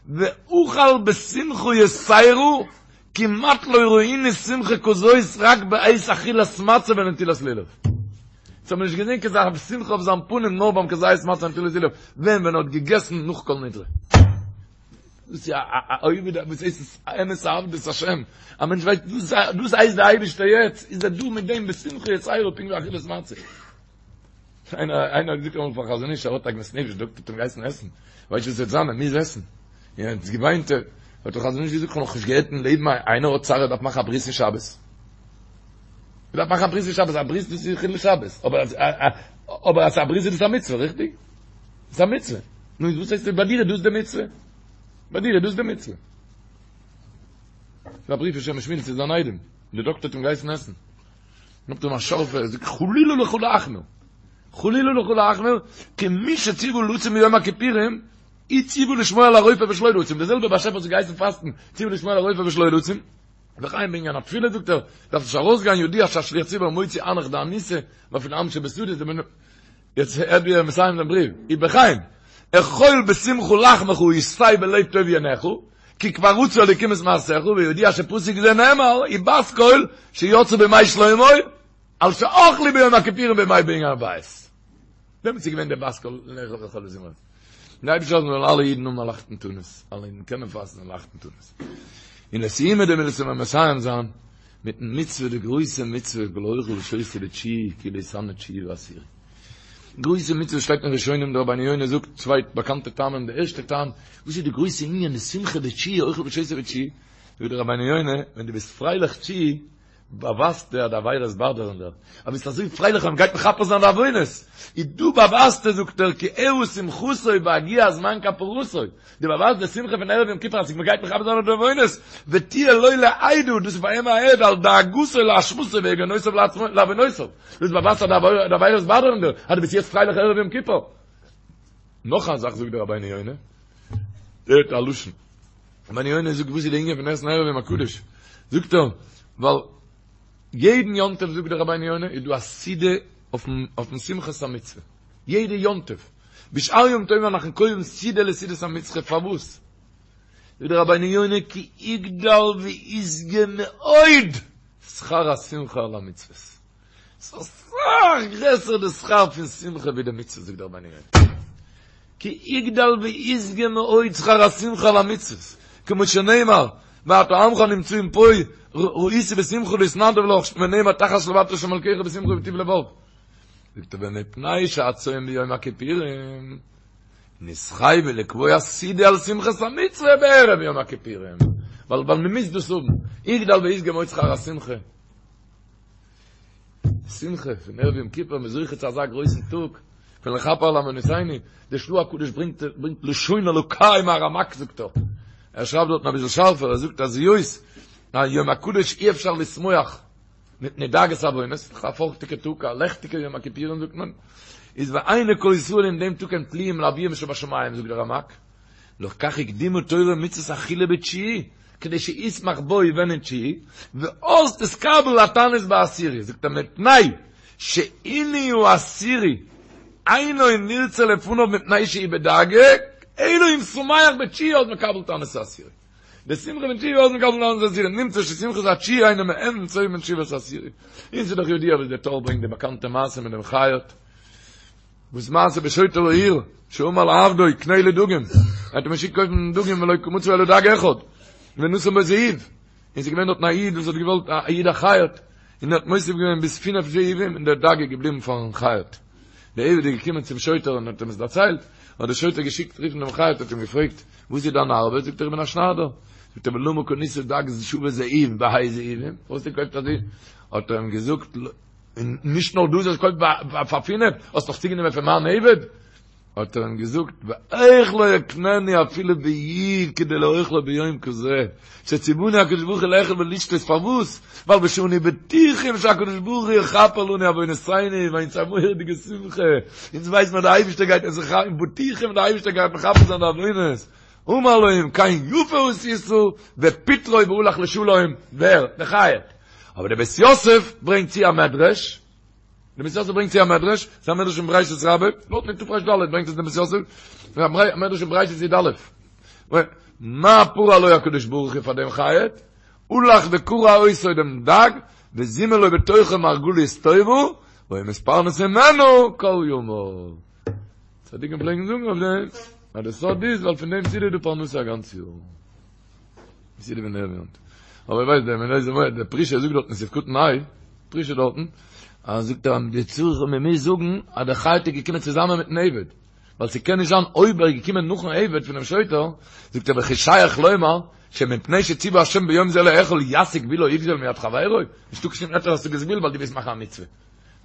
ואכל בשמחה יתירה, כמעט לא ראינו שמחה כזאת רק בעת אכילת מצה ונטילת לולב. אונז האבן נישט געזען כזה שמחה אויף זיין פנים נאר ביים כזית מצה ונטילת לולב, ווען ווען ער האט געגעסן נאך כל נדרי. דאס איז א עובד וואס הייסט עס אמת עבדות השם, א מענטש ווייסט דאס הייסט די אייבערשטער יעצט איז ער דא מיט דעם בשמחה יתירה פונקט ווי אכילת מצה. איינער איינער האט געזאגט אמאל פארן חזון איש ער האט עגמת נפש, דאקטער האט אים געהייסן עסן, ווייסט וואס וועט זיין ער מוז עסן, און ער האט געוויינט, האט דער חזון איש געזאגט כ'האב נאכנישט געהערט אין לעבן איינער האט צער ער דארף מאכן א ברית אין שבת, ער דארף מאכן א ברית אין שבת, א ברית דאס איז חילול שבת, אבער אז אבער אז א ברית איז דאס א מצוה, ריכטיג? ס'איז א מצוה. נו איז וואס הייסט ביי דיר איז דאס די מצוה? ביי דיר איז דאס די מצוה. ס'איז א בריוו פון שם משמואל צו זיין איידעם. דער דאקטער האט אים געהייסן עסן. נאכט אים א שארפע, ער זאגט חלילה לך להחמיר. חלילה לך להחמיר, כי מי שציוה לצום ביום הכיפורים, הוא ציוה לשמור על הרופא ושלא לצום. דער זעלבער באשעפער וואס האט געהייסן פאסטן, ציוה לשמור על הרופא ושלא לצום. וכן בענין התפילה זאגט ער, דארף נישט ארויסגיין ידוע שהשליח ציבור מוציא אנך דאניסא, ואפילו עם שבשדות, יעצט הערט ווי ער מסיים דעם בריוו, ובכן, אכול בשמחה לחמך ושתה בלב טוב יינך, כי כבר רצה אלוקים את מעשיך, וידוע שפסוק זה נאמר, ובת קול שיצאה בימי שלמה, על שאכלו ביום הכיפורים בימי בין הבית. דעמאלטס איז געווען דער בת קול לאכול לאכול בשמחה. דער אייבערשטער זאל זאלן אלע אידן האבן א לייכטן תענית, אלע אידן קענען פאסטן א לייכטן תענית. און לסיומא דמילתא וועלן מיר מסיים זיין מיטן מצוה, די גרויסע מצוה, כל האוכל ושותה בתשיעי כאילו התענה תשיעי ועשירי. גרויסע מצוה שטייט אין ראשונים, דער רבינו יונה זאגט צוויי באקאנטע טעמים, די ערשטע טעם, וואס איז די גרויסע ענין די שמחה בתשיעי, אוכל ושותה בתשיעי, זאגט דער רבינו יונה, ווען דו ביסט פרייליך תשיעי, באווייזטו אז די עבירות באדערן דיר, אז ביסט אזוי פרייליך אז מ'גייט מכפר זיין די עוונות, איז דא באווייזטו זאגט ער כי הראה שמחתו בהגיע זמן כפרתו, דו באווייזט די שמחה פון ערב יום כיפור אז מ'גייט מכפר זיין די עוונות, ותהיה לו לעדה, דאס איז פאר אים א עד על דאגתו לאשמתו ויגונותיו לעוונותיו, דאס באווייזט אז די עבירות באדערן דיר, אז דו ביסט יעצט פרייליך ערב יום כיפור. נאך א זאך זאגט דער רבינו יונה, הערט א לשון. רבינו יונה זאגט וואס איז די ענין פון עסן ערב יום הקדוש? זאגט ער, ווייל יעדן יום טוב זאגט דער רבינו יונה איז דא א סעודה אויפן שמחת המצוה, יעדע יום טוב, בשאר ימים טובים אנחנו קובעים סעודה לסעודת המצוה, פארוואס? זאגט דער רבינו יונה כי יגדל וישגה מאוד שכר השמחה על המצוות. ס'איז אסאך גרעסער די שכר פון שמחה ווי די מצוה זאגט דער רבינו יונה. כי יגדל וישגה מאוד שכר השמחה על המצוות, כמו שנאמר, ועתה עמך הנמצאים פה ראיתי בשמחה להתנדב לך, ונאמר תחת שלוות השם אלקיך בשמחה ובטוב לבב. זאגט ער ומפני שהצום ביום הכיפורים נתחייבו לקבוע סעודה על שמחת המצוה בערב יום הכיפורים, ווייל ווייל מ'מוז דאס האבן, יגדל וישגה מאוד שכר השמחה. שמחה פון ערב יום כיפור, מ'איז זוכה צו אזא גרויסן טאג, פון לכפר על עוונותינו, דער של"ה הקדוש ברענגט ברענגט לשון אלוקי מהרמ"ק זאגט ער, ער שרייבט דארטן אביסל שארפער, ער זאגט אז היות אז יום הקדוש אי אפשר לשמוח מפני דאגת עוונות, א פארכטיגע טאג, א לעכטיגע יום הכיפורים זאגט מען, איז ועיני כל ישראל אין דעם טאג הם תלויים לאביהם שבשמים זאגט דער רמ"ק, לכך הקדימה תורה מצות אכילה בתשיעי, כדי שישמח בו ווען אין תשיעי, ואז תתקבל התענית בעשירי, זאגט ער מפני שעינוי העשירי אינו נרצה לפניו מפני שהוא בדאגה, אלא אם שמח בתשיעי אז מקבל תענית העשירי. די שמחה פון תשיעי אז מקבל תענית העשירי, נמצא ששמחת התשיעי אינו מעין צום תשובת העשירי. און ס'איז דאך ידוע וואס דער טור ברענגט די באקאנטע מעשה מיט דעם חייט. וואס מעשה בשוטר העיר שאמר לעבדו קנה לי דגים, ער האט אים געשיקט קויפן דגים ולא מצא אלא דג אחד, ונתן בו זהוב, און ס'איז געווען דארטן א איד וואס האט געוואלט א איד א חייט, און ער האט מוסיף געווען ביז פינף זהובים און דער דג איז געבליבן פארן חייט. דער עבד איז געקומען צום שוטר און האט אים עס דערציילט, האט דער שוטר געשיקט רופן דעם חייט האט אים געפרעגט, וואס איז דיין ארבעט? זאגט ער איך בין א שניידער. זאגט ער ולמה קנית דג שווה זהוב בה' זהובים, פארוואס האסטו געקויפט אזוי? האט ער אים געזאגט, און נישט נאר דאס, האסט געקויפט פאר פינף, האסט נאך צוגענומען פון מיין עבד? האט ער אים געזאגט, ואיך לא אקננו אפילו בי' כדי לאוכלו ביום כזה, שציוונו הקדוש ברוך הוא לאכול ולשתות, פארוואס? ווייל ושאנו בטוחים שהקדוש ברוך הוא יכפר לנו עוונותינו, ווייל אונז א מורא'דיגע שמחה, אונז ווייסן אז דער אייבערשטער גייט אונז בטוחים דער אייבערשטער גייט מכפר זיין די עוונות, אמר לו אם כן יפה עשית, ופיטרו והלך לשלום, ווער? דער חייט. אבער דער בית יוסף ברענגט צו א מדרש, דער בית יוסף ברענגט צו א מדרש, ס'איז א מדרש אין בראשית רבה, דארט אין תר"ד ברענגט עס דער בית יוסף, א מדרש אין בראשית י"א, מה פרע לו הקדוש ברוך הוא פאר דעם חייט, הלך וקרע אותו דעם דג, וזימן לו בתוכו מרגלית טובה, והיה מתפרנס ממנו כל ימיו. צדיקים פלעגן זאגן אויף דעם, אז דער סוד איז ווייל פון דעם סעודה איז דא פרנסה א גאנץ יאר. סעודה פון ערב יום טוב. אבער ווייסט דער מנהל זמר דער פרישה זאגט דארט אין סעיף קטן ה', פרישה דארטן, אז זאגט ער די צורך מען מוז זאגן אז דער חייט איז געקומען צוזאמען מיטן עבד, ווייל ס'קען נישט זיין אויב ער איז געקומען נאכן עבד פונעם שוטר, זאגט ער וכי שייך לומר שמפני שציווה השם ביום זה לאכול יסיג גבולו יגזול מיד חברו, נישטא קיין שום היתר השגת גבול ווייל דו ווילסט מאכן א מצוה.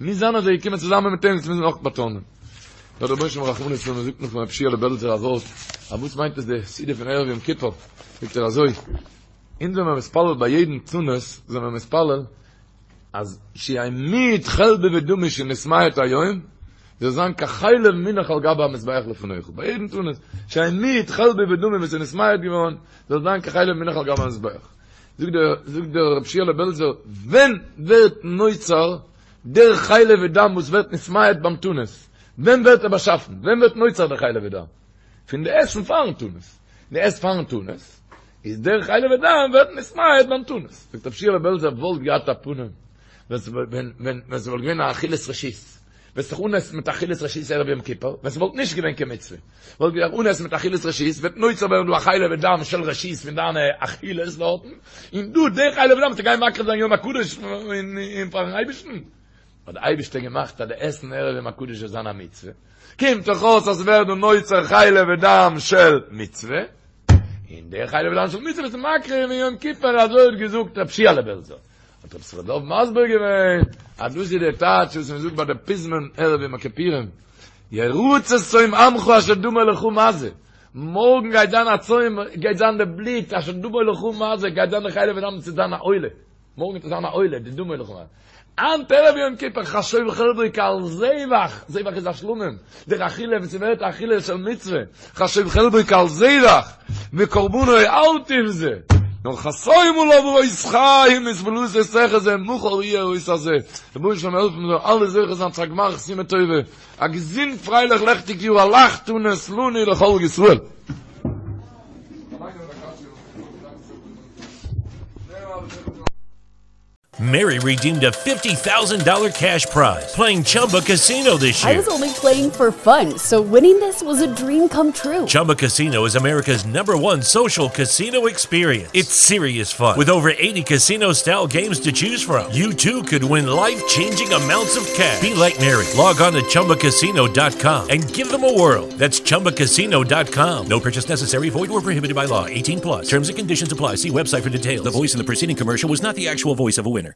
מוז זיין אז ער איז געקומען צוזאמען מיט אים, דאס מוז מען אויך באטאנען. דער רבונו של עולם רחמנות און מען זאגט נאך פון רב שיעלע בעלזער א ווארט, אז וואס מיינט עס די סעודה פון ערב יום כיפור, זאגט ער אזוי, אונז זעמער מתפלל ביי יעדן תענית זעמער מתפלל אז שיהא מיעוט חלבי ודמי שנתמעט היום, זאל זיין כחלב מונח על גבי המזבח לפניך, ביי יעדן תענית, שיהא מיעוט חלבי ודמי וואס איז נתמעט געווארן, זאל זיין כחלב מונח על גבי המזבח. זאגט דער, זאגט דער רב שיעלע בעלזער, ווען ווערט נוצר דער חלב ודם וואס ווערט נתמעט ביים תענית, ווען ווערט ער באשאפן? ווען ווערט נוצר דער חלב ודם? פון די עסן פארן תענית. די עסט פארן תענית, איז דער חלב ודם ווערט נתמעט ביים תענית. זאגט רב שיעלע בעלזער וואלט געהאט א פנים ווען ווען ס'וואלט געווען א אכילת רשות, וועסט זיך אנעסן מיט אכילת רשות ערב יום כיפור, ווען ס'וואלט נישט געווען קיין מצוה, וואלט געדארפט אנעסן מיט אכילת רשות, וועט נוצר ווערן דא א חלב ודם של רשות פון דיינע אכילות דארטן, און דא די חלב ודם וועסטו גיין מקריב זיין יום הקדוש און פארן אייבערשטן. האט די אייבערשטער געמאכט אז די עסן ערב יום הקדוש זאל זיין א מצוה, קומט דאך אויס אז ס'ווערט דא נוצר חלב ודם של מצוה, און די חלב ודם של מצוה ביסטו מקריב אין יום כיפור, אזוי האט געזאגט רב שיעלע בעלזער. האט רב ישכר דוב מסביר געווען אז דאס איז די טייטש וואס מען זאגט ביי די פזמון ערב יום הכיפורים, ירצה צום עמך אשר דמו לך מזה, מארגן גייט זיין א צום, גייט זיין די בלוט אשר דמו לך מזה, גייט זיין די חלב ודם צו זיין א עולה. מארגן וועט עס זיין א עולה, די דמו לך מזה. היינט ערב יום כיפור חשוב חלבו כעל זבח, זבח איז א שלמים, דער אכילה ווען ס'ווערט א אכילה של מצוה, חשוב חלבו כעל זבח, וקרבנו אל תבזה, נאר חתום עליו אות חיים ותפלתו תחזה מחר יהיה האות הזה, רבונו של עולם העלף מיר זאלן אלע זוכה זיין צו א גמר חתימה טובה, א געזונט פרייליך לעכטיג יאר א לייכט תענית לנו ולכל ישראל. Mary redeemed a $50,000 cash prize playing Chumba Casino this year. I was only playing for fun, so winning this was a dream come true. Chumba Casino is America's number one social casino experience. It's serious fun. With over 80 casino style games to choose from, you too could win life changing amounts of cash. Be like Mary. Log on to chumbacasino.com and give them a whirl. That's chumbacasino.com. No purchase necessary, void or prohibited by law. 18 plus. Terms and conditions apply. See website for details. The voice in the preceding commercial was not the actual voice of a winner.